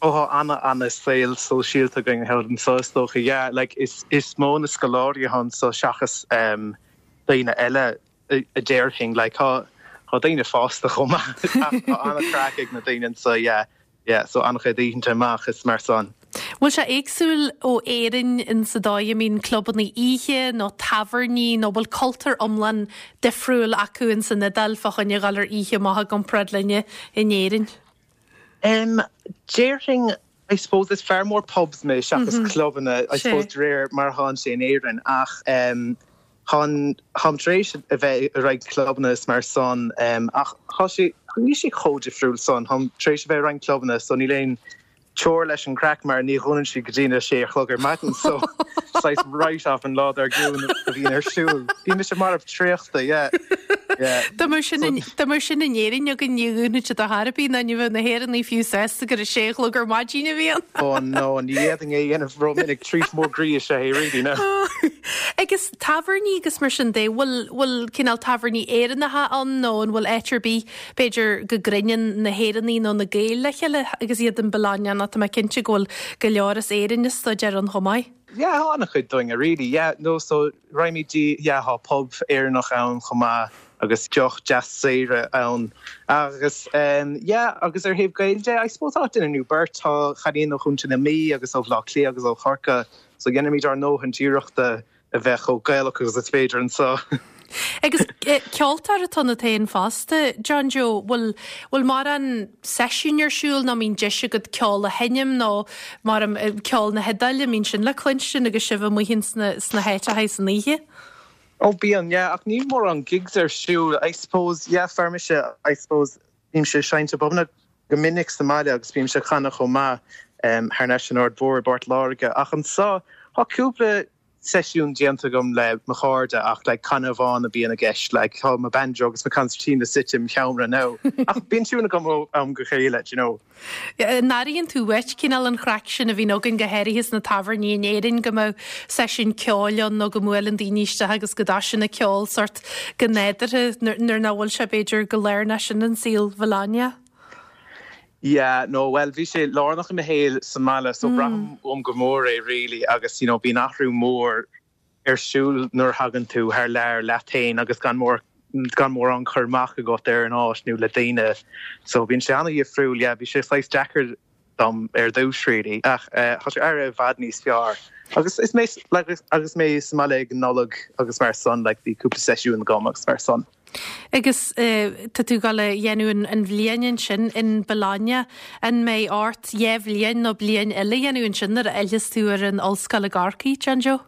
Ó tá ana ana saol sóisialta againn thall anso is dócha. Yeah, like is is mó na scoláirí atá anso seachas daoine eile. a déarfainn. Like tá tá daoine fásta chomh maith ach tá an-chraic ag na daoine anso yeah yeah so an-chuid oícheanta amach is mar san. Bhfuil sé éagsúil ó Éirinn in sa dóigh a mbíonn clubanna oíche nó tábhairní nó bhfuil cultúr iomlán difriúil acu in san Iodáil fá choinne dhul ar oíche amach i gcomparáid linne in Éirinn? Em, déarfainn, I suppose is fear mór pubs mé seachas clubanna, I suppose de réir mar atánn sé in Éirinn ach em thá'n, táim tar éis a bheith i roinnt clubanna is mar san em ach thá sé, níl sé chomh difriúil san, táim tar éis a bheith i roinnt clubanna so níl aon teora leis an craic mar ní dhúnann siad go dtí na sé a chlog ar maidin so saghas write-off an lá dár gcionn a bhíonn ar siúl. Bhí mise marbh traochta, yeah. Yeah. Dá mbeadh sin in, dá mbeadh sin in Éirinn againn ní dhúnfadh siad ar chor ar bith ná ní bheadh na hÉireannaigh fiú sásta gur a sé a chlog ar maidin a bhí ann. Oh no, ní fhéadfainn é a dhéanamh ró-mhinic, treat mór groí is ea é really, no. Agus tábhairní agus mar sin de, bhfuil, bhfuil cineál tábhairní Éireannacha ann nó an bhfuil áit ar bith B'fhéidir go gcruinníonn na hÉireannaigh nó na Gaeil le chéile agus iad in Bologna nó tá mé cinnte go bhfuil go leor as Éirinn ag staidéar ann chomh maith. Yeah, tá an-chuid dúinne really, yeah, no so raghaimid dtí, yeah, tá pub Éireannach ann chomh maith agus deoch deas saor ann agus em yeah agus ar thaobh Gaeil de, I suppose tá duine nó beirt, tá cailín ó Chontae na Mí agus ó Bhaile Átha Cliath agus ó Chorcaigh so dhéanaimid ár ndóthain iarrachta a bheith chomh Gaelach agus is féidir anseo. Agus ceoltóir atá ionat féin fosta, John Joe, bhfuil bhfuil mórán seisiún ar siúl nó mbíonn deis agat ceol a sheinm nó mar ceol na hIodáile, mbíonn sin le cluinstin agus sibh amuigh ins na sna háiteacha san oíche? Ó bíonn, yeah, ach níl mórán gigs ar siúl, I suppose, yeah, fear mise, I suppose, Bímse ag seinnt i bpubanna go minic sa mbaile agus bímse ag canadh chomh maith thar n-ais san Aird Mhór i bPort Láirge. Ach anseo, tá cúpla seisiún déanta agam le mo chairde ach like canadh amháin a bíonn i gceist. Like tá mo banjo agus mo concertina suite im sheomra now. Ach bíonn tiún agam ó am go chéile, do you know. An airíonn tú uait cineál an chraic sin a bhíonn againn go háirithe sna tábhairní in Éirinn go mbeadh seisiún ceoil ann nó go mbuaileann daoine isteach agus go dtoisíonn an ceol sórt go nádúrtha nuair nach bhfuil sé b'fhéidir go lárnach sin in saol Bhologna? Yeah, no, bhuel bhí sé lárnach i mo shaol sa mbaile so braithim uaim go mór é really agus you know bíonn athrú mór ar siúl nuair a thagann tú thar lear leat féin agus gan mór gan mórán cur amach agat ar an áit nó le daoine. So bíonn sé an-dhifriúil, yeah, bhí sé saghas deacair dom ar dtús really ach tá sé éirithe i bhfad níos fearr. Agus is mé like agus mé sa mbaile ag an Nollaig agus mar san like bhí cúpla seisiún agam agus mar san. Agus tá tú ag dul a dhéanamh an bhliain ansin in Bologna. An mbeidh ort dhá bhliain nó bliain eile a dhéanamh ansin nuair a fhillfeas tú ar an ollscoil i gCorcaigh, John Joe?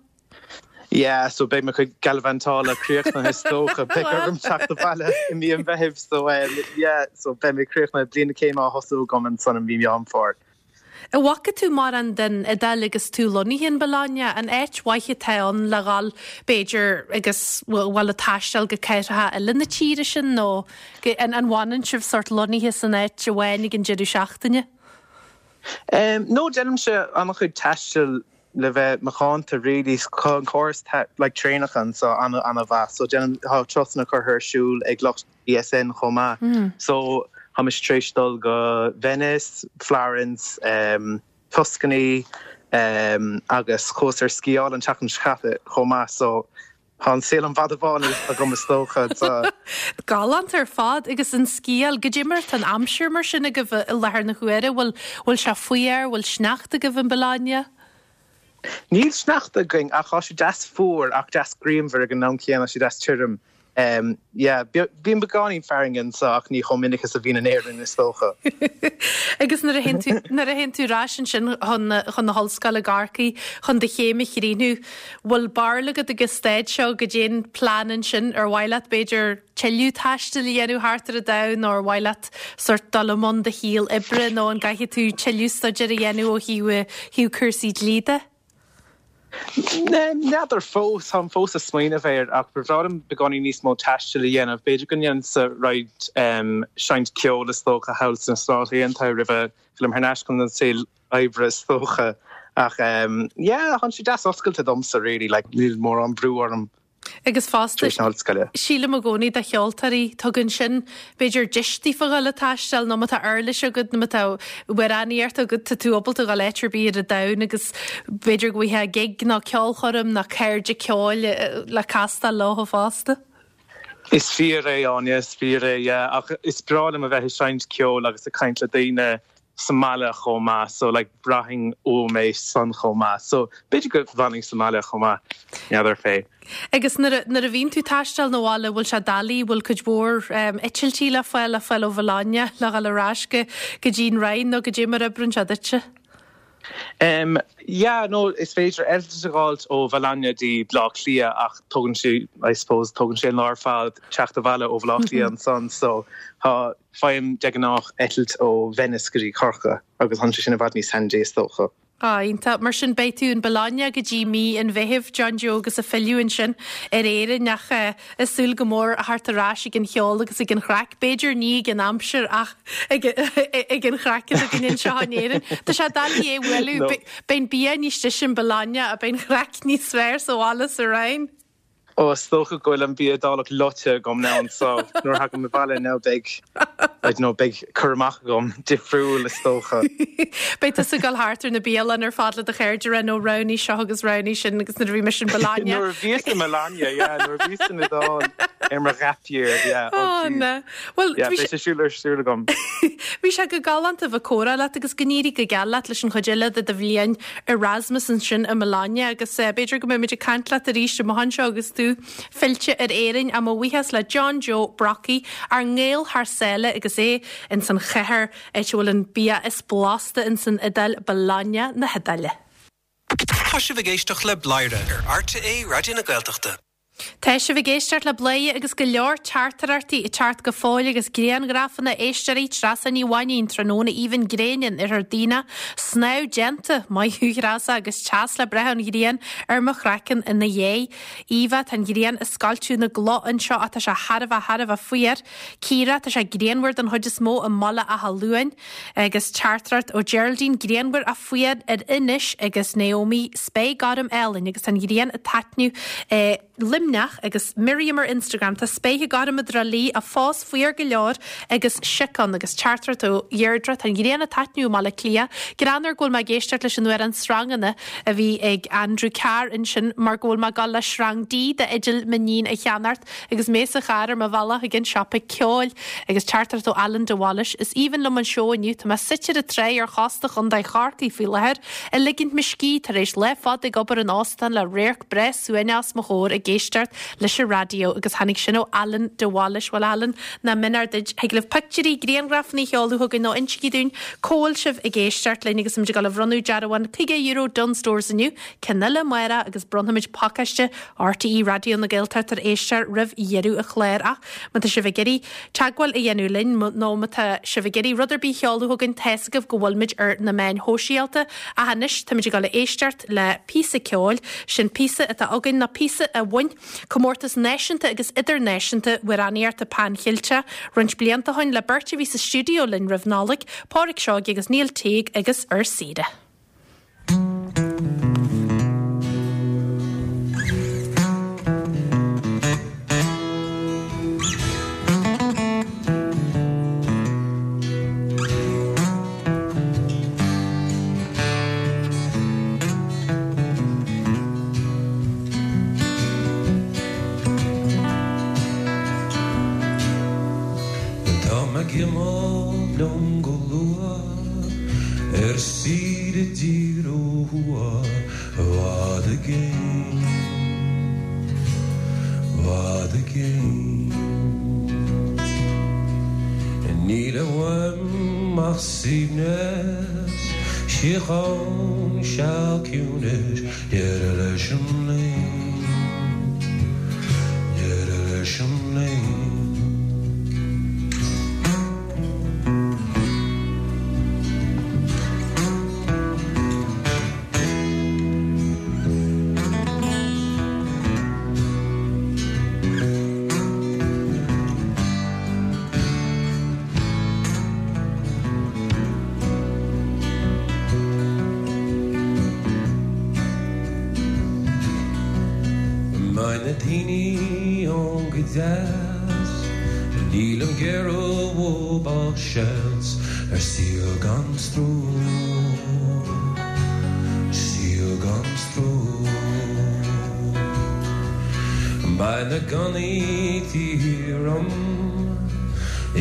Yeah, so beidh mo chuid galavantála críochnaithe is dócha. Beidh orm teacht abhaile i mí an Mheithimh so yeah, so beidh mé críochnaithe, bliain na céime á thosú agam ansan i mí Meán Fómhair. An bhfaca tú mórán den Iodáil agus tú lonnaithe in Bologna? An áit mhaith atá ann le dhul, b'fhéidir, agus bhfuil ag taisteal go cathracha eile na tíre sin nó an bhfanann sibh sórt lonnaithe san áit amháin ag an deireadh seachtaine? No, déanaimse an-chuid taistil le bheith macánta really. Tá an córas like traenacha anseo an-an-mhaith so déanaim, tá turasanna curtha ar siúl ag lucht BSN chomh maith. So tá mise tar éis dul go Venice, Florence, Tuscany agus chuas ar sciáil an tseachtain seo caite chomh maith so tá an saol an fhada bhán agam is dócha. Galánta ar fad agus an sciáil, goidé mar atá an aimsir mar sin agaibh i láthair na huaire, bhfuil bhfuil sé fuar, bhfuil sneachta agaibh in Bologna? Níl sneachta againn ach tá sé deas fuar ach deas grianmhar ag an am céanna, tá sé deas tirim. Yeah, bíonn beagáinín fearthainne anseo ach ní chomh minic is a bhíonn in Éirinn is dócha. Agus nuair a théann tú, nuair a théann tú ar ais ansin chun, chun na hollscoile i gCorcaigh chun do chéim a chríochnú, bhfuil barúil agat ag an staid seo goidé an plean ansin, ar mhaith leat b'fhéidir tuilleadh taistil a dhéanamh thart ar an domhan nó ar mhaith leat sórt dul i mbun do shaol oibre nó an gcaithfidh tú tuilleadh staidéir a dhéanamh ó thaobh thaobh cúrsaí dlí de? N'fheadar fós, táim fós ag smaoineamh air ach ba bhreá liom beagáinín níos mó taistil a dhéanamh. B'fhéidir go ndéanfadsa roinnt seinnt ceoil is dócha thall sna Stáit Aontaithe roimh a fhillim thar n-ais chun an saol oibre is dócha. Ach yeah, tá sé deas oscailte domsa really, like níl mórán brú orm. Agus fosta, sílim i gcónaí do cheoltóirí, tugann sin, b'fhéidir, deis daofa dhul ag taisteal nó má tá uirlis agat nó má tá amhránaíocht agat, tá tú ábalta dhul áit ar bith ar an domhan agus b'fhéidir go bhfaighfeá gig nó ceolchoirm nó cairde ceoil le castáil leo fosta. Is fíor é, Áine, is fíor é, yeah. Ach is breá liom a bheith ag seinnt ceoil agus ag caint le daoine. sa mbaile chomh maith so like braithim uaim é san chomh maith so b'fhéidir go bhfanfainn sa mbaile chomh maith, n'fheadar fé. Agus nuair a, nuair a bhíonn tú taisteal na bhaile bhfuil sé doiligh, bhfuil cuid mhór eitiltí le fáil, le fáil ó Bhologna le dhul ar ais go, go dtí an Rinn nó goidé mar oibreann sé duitse? Em yeah no is féidir eitilt a dh'fháilt ó Bhologna dtí Bleá Cliath ach tógann sé, I suppose, tógann sé an lá ar fad teacht abhaile ó Bhleá Cliath ansan so tá, Faighim de ghnáth eitilt ó Venice go dtí Corcaigh agus tá sé sin i bhfad níos handy is dócha. Ah, iontach. Mar sin beidh tú in Bologna go dtí mí an Mheithimh, John Joe, agus ag filleadh ansin ar Éirinn ach ag súil go mór a theacht ar ais ag an cheol agus ag an chraic. B'fhéidir ní ag an aimsir ach ag an chraic atá againn anseo in Éirinn. Tá sé doiligh é a bhualadh. Beidh an bia níos deise in Bologna ach beidh an chraic níos fearr sa bhaile sa Rinn. Ó, is dócha go bhfuil an bia Iodálach loite agam now so nuair a thagaim abhaile now beidh, I don't know, beidh cur amach agam difriúil is dócha. Beidh tusa ag dul thart ar na bialanna ar fad le do chairde a rá no roghnaigh seo agus roghnaigh sin agus nuair a bhí mise in Bologna. Nuair a bhíos i Bologna, yeah, nuair a bhíos san Iodáil ar mo ghap year, yeah, oh Oh jeez. na. Bhuel, Yeah, bhí beidh sé sé siúl ar siúl agam. Bhí sé go galánta bheith ag comhrá leat agus go n-éirí go geal leat leis an chuid eile de do bhliain Erasmus ansin i mBologna agus b'fhéidir go mbeimid ag caint leat arís amach anseo agus tú fillte ar Éirinn. Ach mo bhuíochas le John Joe Brockie, ár nGael thar sáile agus é ins an chathair, áit a bhfuil an bia is blasta ins an Iodáil, Bologna na hIodáile. Tá sibh ag éisteacht le Bladhaire ar RTÉ Raidió na Gaeltachta. Tá sibh ag éisteacht le Bladhaire agus go leor teachtaireachtaí ag teacht go fóill agus grianghrafanna éisteoirí Treasa Ní Mhainín tráthnóna aoibhinn gréine in Oirthear Duibhneach, snámh déanta, maith thú Threasa agus teas le breith ón ghrian ar mo chraiceann ina dhiaidh. Eva, tá an ghrian ag scoilteadh na gcloch anseo ach tá sé thar a bheith thar a bheith fuar. Ciara, tá sé grianmhar don chuid is mó i mBaile Átha Luain. Agus teachtaireacht ó Geraldine, grianmhar ach fuar ar Inis agus Naomi, spéir gorm álainn agus tá an ghrian ag taitneamh i Luimneach agus Miriam ar Instagram, tá spéir gorm i dTrá Lí ach fós fuar go leor agus sioc ann agus teachtaireacht ó Dheirdre, tá an ghrian ag taitneamh i mBaile Átha Cliath. Greannmhar go bhfuil mé ag éisteacht leis an amhrán Sranganna a bhí ag Andrew Carr ansin mar go bhfuil mé ag dul le srang D d'fhidil m'iníon a cheannacht Agus mé sa charr ar mo bhealach chuig an siopa ceoil agus teachtaireacht ó Alan de Bhailís, is aoibhinn liom an seó inniu, tá mé suite ar an tráigh ar chósta Chontae Chorcaí faoi láthair, ag ligint mo scíth tar éis lá fada ag obair in óstán le radharc breá suaimhneach os mo chomhair ag éisteacht leis an raidió agus tháinig sin ó Alan de Bhailís. Bhuel Alan, nach méanar duit, thig libh pictiúirí, grianghrafanna a sheoladh chugainn nó insígí dúinn cá bhfuil sibh ag éisteacht linn agus muid ag dul a bhronnadh dearbhán €50 Dunnes Stores inniu, ceann eile amárach agus bronnfaimid pacáiste RTÉ Raidió na Gaeltachta ar éisteoir roimh dheireadh an chláir ach má tá sibh ag iarraidh teagmháil a dhéanamh linn nó má tá sibh ag iarraidh rud ar bith a sheoladh chugainn tá's agaibh go bhfuilimid ar na meáin shóisialta ach anois táimid ag dul a éisteacht le píosa ceoil, sin píosa atá againn nó píosa a bhain comórtas náisiúnta agus idirnáisiúnta amhránaíochta Pan Cheilteach roinnt blianta ó shin le beirt a bhí sa stiúideo linn roimh Nollaig, Pádraic Seoige agus Neil Teague agus Ar Saoire. Tá mé ag imeacht liom go luath. Ar saoire i dtír ó thuaidh i bhfad i gcéin, i bhfad i gcéin. Níl uaim ach suaimhneas, síocháin, seal ciúnais, deireadh leis an léim, deireadh leis an léim. Beidh na daoine ann go deas. Nílim ag iarraidh uathu ach seans ar saol gan stró, saol gan stró. Beidh na gunnaí taobh thiar dhom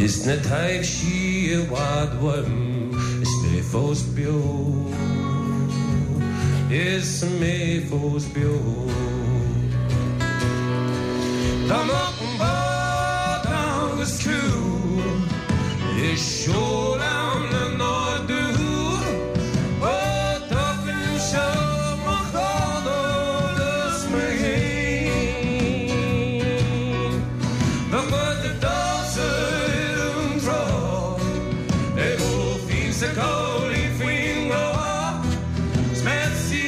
is na taibhsí i bhfad uaim is mé. mé fós beo, is mé fós beo. Dá mbeadh bád ann 'gus criú is seol ann le n-ardú, ó d'fhágfainn seo mo chlann agus mé fhéin. Bheadh muid ag damhsa ar an trá, ag ól fíon 's ag cabhlaí faoin ngrá, 's mé ar saoire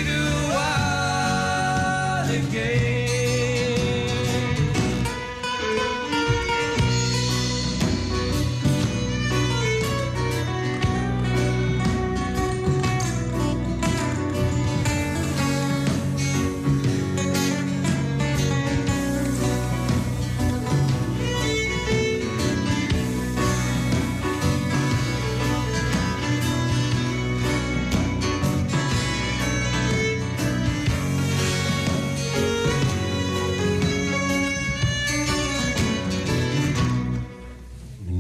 i bhfad i gcéin.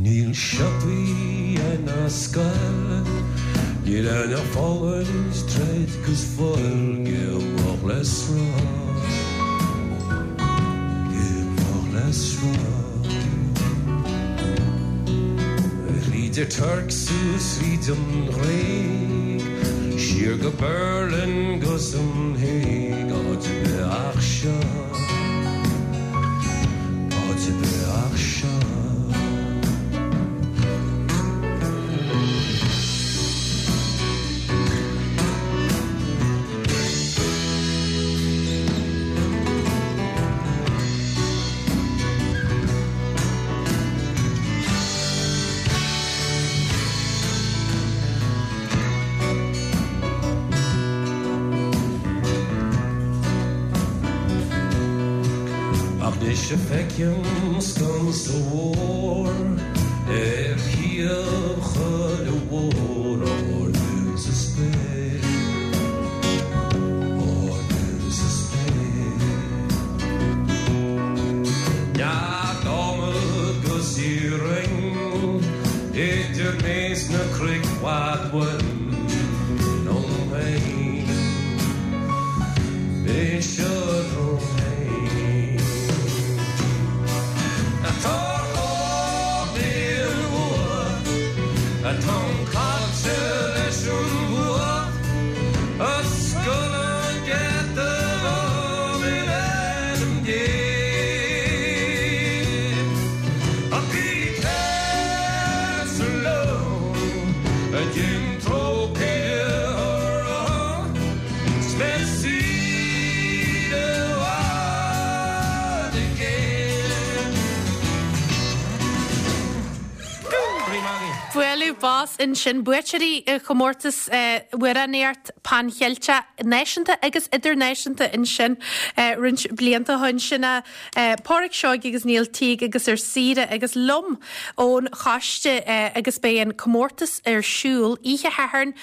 Níl siopaí ná scoil, níl aon fulaingt, troid 'gus fuil, go moch le sruth, go moch le sruth. Thríd an Tuirc suas thríd an Ghréig, siar go Berlin 'gus an Hague, áit ar bith ach seo. Áit ar bith ach seo. Ach anois a feicim sconsa mhór ar thaobh chuile bhóthar ardú sa spéir, ardú sa spéir. Nead adhmaid 'gus iarainn idir mé 's na cnoic i bhfad uaim liom féin. B'seo liom féin. Atá ar chóir Atáim caillte leis an bhfuacht Oscail an geata dhom in ainm Dé Ach bí cleasach liom a dhein trócaire orm 's mé ar saoire i bhfad i gcéin. Bualadh bos ansin, buaiteoirí chomórtas amhránaíocht Pan Cheilteach náisiúnta agus idirnáisiúnta ansin roinnt blianta ó shin. Sin Páraic Seoighe agus Neil Teague agus Ar Saoire agus liom ón choiste agus beidh an comórtas ar siúl oíche Shathairn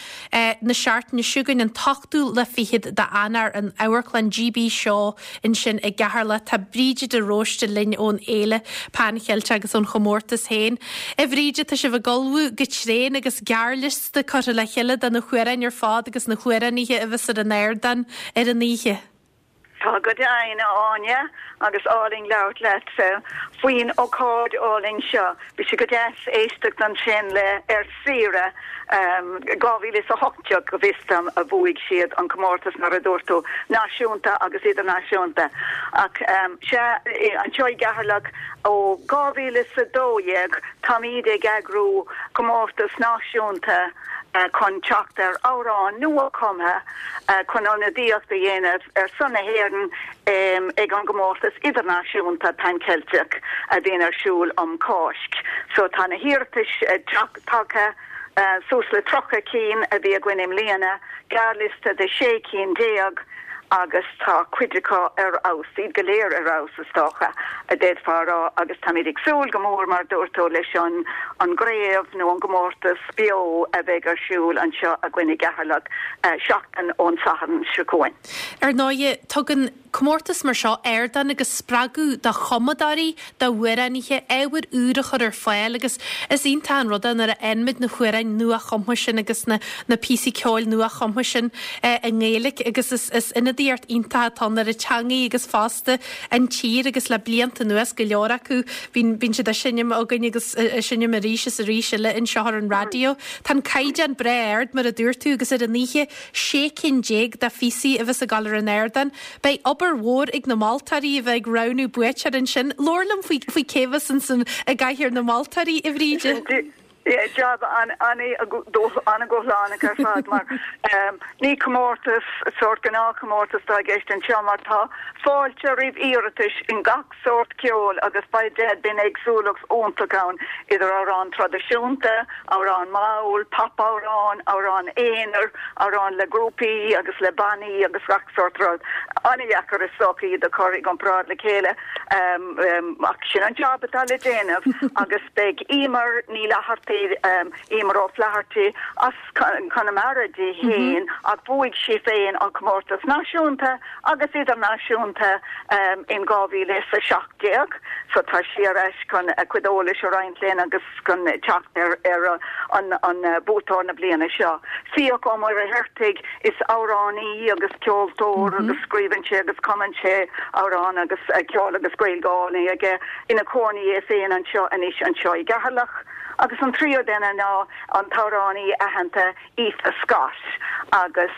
na seachtaine seo chugainn an t-ochtú lá fichead d'Eanáir in Amharclann GB Shaw ansin i gCeatharlach. Tá Bríde de Róiste linn ón Fhéile Pan Cheilteach agus ón chomórtas féin. A Bhríde, tá sibh ag ullmhú go tréan agus gearrliosta curtha le chéile de na hamhráin ar fad agus na hamhránaithe a bheas ar an ardán ar an oíche. Tá go deimhin, a Áine, agus álainn labhairt leat faoin ócáid álainn seo. Bhí sé go deas éisteacht ansin le Ar Saoire 2018, go bhfios dom, a bhuaigh siad an comórtas, mar a dúirt tú, náisiúnta agus idirnáisiúnta. Ach sea, anseo i gCeatharlach ó 2012 táimid ag eagrú comórtas náisiúnta chun teacht ar amhrán nua-chumtha chun ionadaíocht a dhéanamh ar son na hÉireann ag an gcomórtas idirnáisiúnta Pan Ceilteach a bhíonn ar siúl um Cháisc. So tá na hiarratais tagtha, suas le 30 cinn a bhí againn i mbliana, gearrliosta de 16 cinn. agus tá cuid acu ar fheabhas, iad go léir ar fheabhas is dócha, a d'fhéadfá a rá agus táimid ag súil go mór mar a dúirt tú leis an an gcraobh nó an gcomórtas beo a bheidh ar siúl anseo againn i gCeatharlach seachtain ón Satharn seo chugainn. Ar ndóighe, tugann comórtas mar seo ardán agus spreagadh do chumadóirí, d'amhránaithe, ábhar úr a chur ar fáil agus is iontach an rud é nuair a fhaigheann muid na hamhráin nua-chumtha sin agus na na píosaí ceoil nua-chumtha sin i nGaeilge agus is is ionadaíocht iontach atá ann ar an teangaidh agus fosta an tír agus le blianta anuas go leor acu bíonn bíonn siad á seinm againn agus á seinm arís is arís eile anseo ar an raidió. Tá an caighdeán breá ard mar a dúirt tú agus ar an oíche 16 cinn de phíosaí a bheas ag dul ar an ardán. Beidh obair mhór ag na moltóirí a bheith ag roghnú buaiteoir ansin. Labhair liom faoi faoi cé bheas ansin i gcathaoir na moltóirí, a Bhríde. Jab an-dúshlánach ar fad mar ní comórtas, sórt gnáthchomórtas atá i gceist anseo mar tá fáilte roimh iarratais in gach sórt ceoil agus beidh bíonn éagsúlacht iontach ann idir amhráin traidisiúnta, amhráin mall, pop-amhráin, amhráin aonair, amhráin le grúpaí agus le bannaí agus gach sórt rud. An-dheacair is dócha iad a chur i gcomparáid le chéile ach sin an jab atá le déanamh agus beidh Emer Ní Fhlathartaigh, Emer O'Flaherty as Conamara di féin ach bhuaigh sí féin an comórtas náisiúnta agus idirnáisiúnta in 2017 so tá sí ar ais chun a cuid eolais a roinnt linn agus chun teacht ar ar an buaiteoir na bliana seo. Fiach Ó Muircheartaigh, is amhránaí agus ceoltóir agus scríobhann sé agus cumann sé amhráin agus ceol agus Gaeilge álainn aige, ina chónaí é féin anseo anois anseo i gCeatharlach. Agus an tríú duine ná an t-amhránaí aitheanta Aoife Scott agus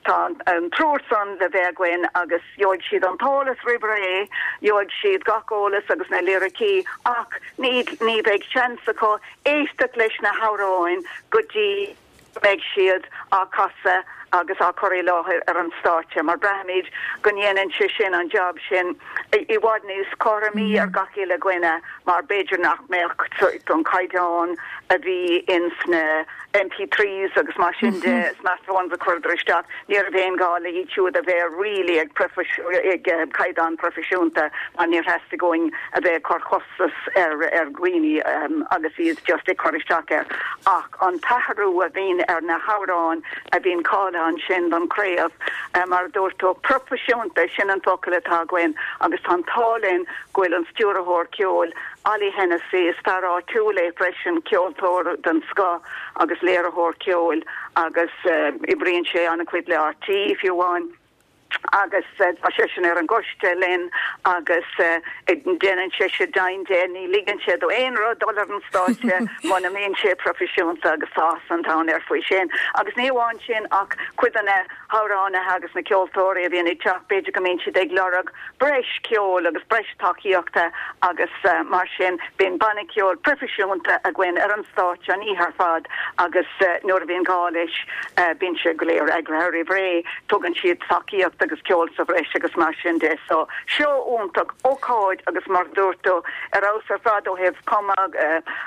tá an triúr san le bheith againn agus gheobhaidh siad an t-eolas roimh ré, gheobhaidh siad gach eolas agus na liricí ach ní ní bheidh seans acu éisteacht leis na hamhráin go dtí go mbeidh siad á casadh agus á cur i láthair ar an stáitse mar braithimid go ndéanann sé sin an jab sin i bhfad níos cothromaí ar gach uile dhuine mar b'fhéidir nach mbeadh an caighdeán a bhí ins na MP3s agus mar sin de, smartphones a chuireadar isteach, ní raibh aon ghá le iad siúd a bheith really ag ag caighdeán proifisiúnta mar níor theastaigh uainn a bheith ag cur costas ar ar dhaoine agus iad just ag cur isteach air. Ach an t-athrú a bhíonn ar na hamhráin a bhíonn cáilithe ansin don chraobh, mar a dúirt tú, proifisiúnta, sin an focal atá againn agus tá an t-ádh linn go bhfuil an stiúrthóir ceoil, Ollie Hennessy, is fear áitiúil é freisin, ceoltóir den scoth agus léiritheoir ceoil agus oibríonn sé an-chuid le RTÉ fiú amháin agus tá seisean ar an gcoiste linn agus déanann seisean deimhin de, ní ligeann sé do aon rud dul ar an stáitse muna mbíonn sé proifisiúnta agus tá áthas an domhain air faoi sin. Agus ní amháin sin ach cuid de na hamhránaithe agus na ceoltóirí a bhíonn ag teacht, b'fhéidir go mbíonn siad ag lorg breis ceoil agus breis tacaíochta agus mar sin bíonn banna ceoil proifisiúnta againn ar an stáitse an oíche ar fad agus nuair a bhíonn gá leis bíonn sé go léir eagraithe roimh ré, tugann siad tacaíocht agus ceol sa bhreis agus mar sin de. So, seó iontach, ócáid agus mar a dúirt tú, ar fheabhas ar fad ó thaobh cumadh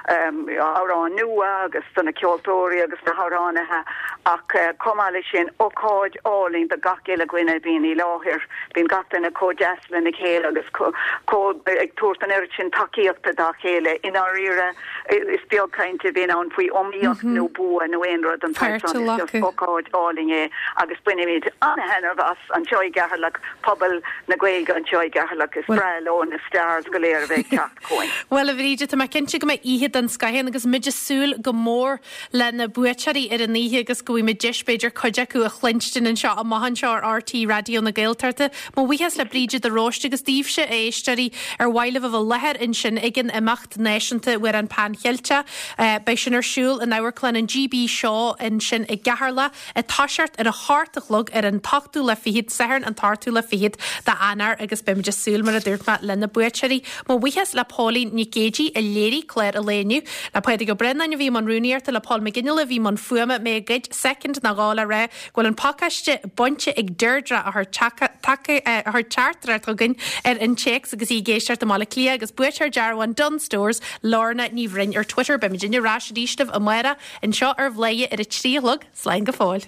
amhráin nua agus do na ceoltóirí agus na hamhránaithe ach chomh maith leis sin, ócáid álainn do gach uile dhuine a bhíonn i láthair. Bíonn gach duine chomh deas lena chéile agus chomh ag tabhairt an oiread sin tacaíochta dá chéile. I ndáiríre, is beag caint a bhíonn ann faoi iomaíocht nó bua nó aon rud den tsaghas san. Is just ócáid álainn é agus bainimid an-thaitneamh as anseo i gCeatharlach, pobal na Gaeilge anseo i gCeatharlach. Is breá leo na stars go léir a bheith ag teacht chugainn. Bhuel, a Bhríde, tá mé cinnte go mbeidh oíche den scoth ann agus muid ag súil go mór le na buaiteoirí ar an oíche agus go bhfaighidh muid deis b'fhéidir cuid acu a chluinstin anseo amach anseo ar RTÉ Raidió na Gaeltachta. Mo bhuíochas le Bríde de Róiste agus daoibhse, a éisteoirí, ar mhaith libh a bheith i láthair ansin ag an imeacht náisiúnta Amhrán Pan Cheilteach. Beidh sin ar siúl in Amharclann an GB Shaw ansin i gCeatharlach ag toiseacht ar a hocht a chlog ar an t-ochtú lá fichead, Satharn an t-ochtú lá fichead d'Eanáir agus beimid ag súil, mar a dúirt mé, le na buaiteoirí. Mo bhuíochas le Póilín Nic Géidigh a léirigh clár an lae inniu, le Pádraig Ó Braonáin a bhí i mbun rúnaíochta, le Paul McGinley a bhí i mbun fuaime, mé ag goid soicind nó dhó le rá go bhfuil an pacáiste bainte ag Deirdre a chuir teachtaireacht chugainn ar an téacs agus í ag éisteacht i mBaile Átha Cliath agus buaiteoir dearbhán Dunnes Stores, Lorna Ní Bhroin ar Twitter. Beimid ar ais arís libh amárach anseo ar Bhladhaire ar a 3 a chlog. Slán go fóill.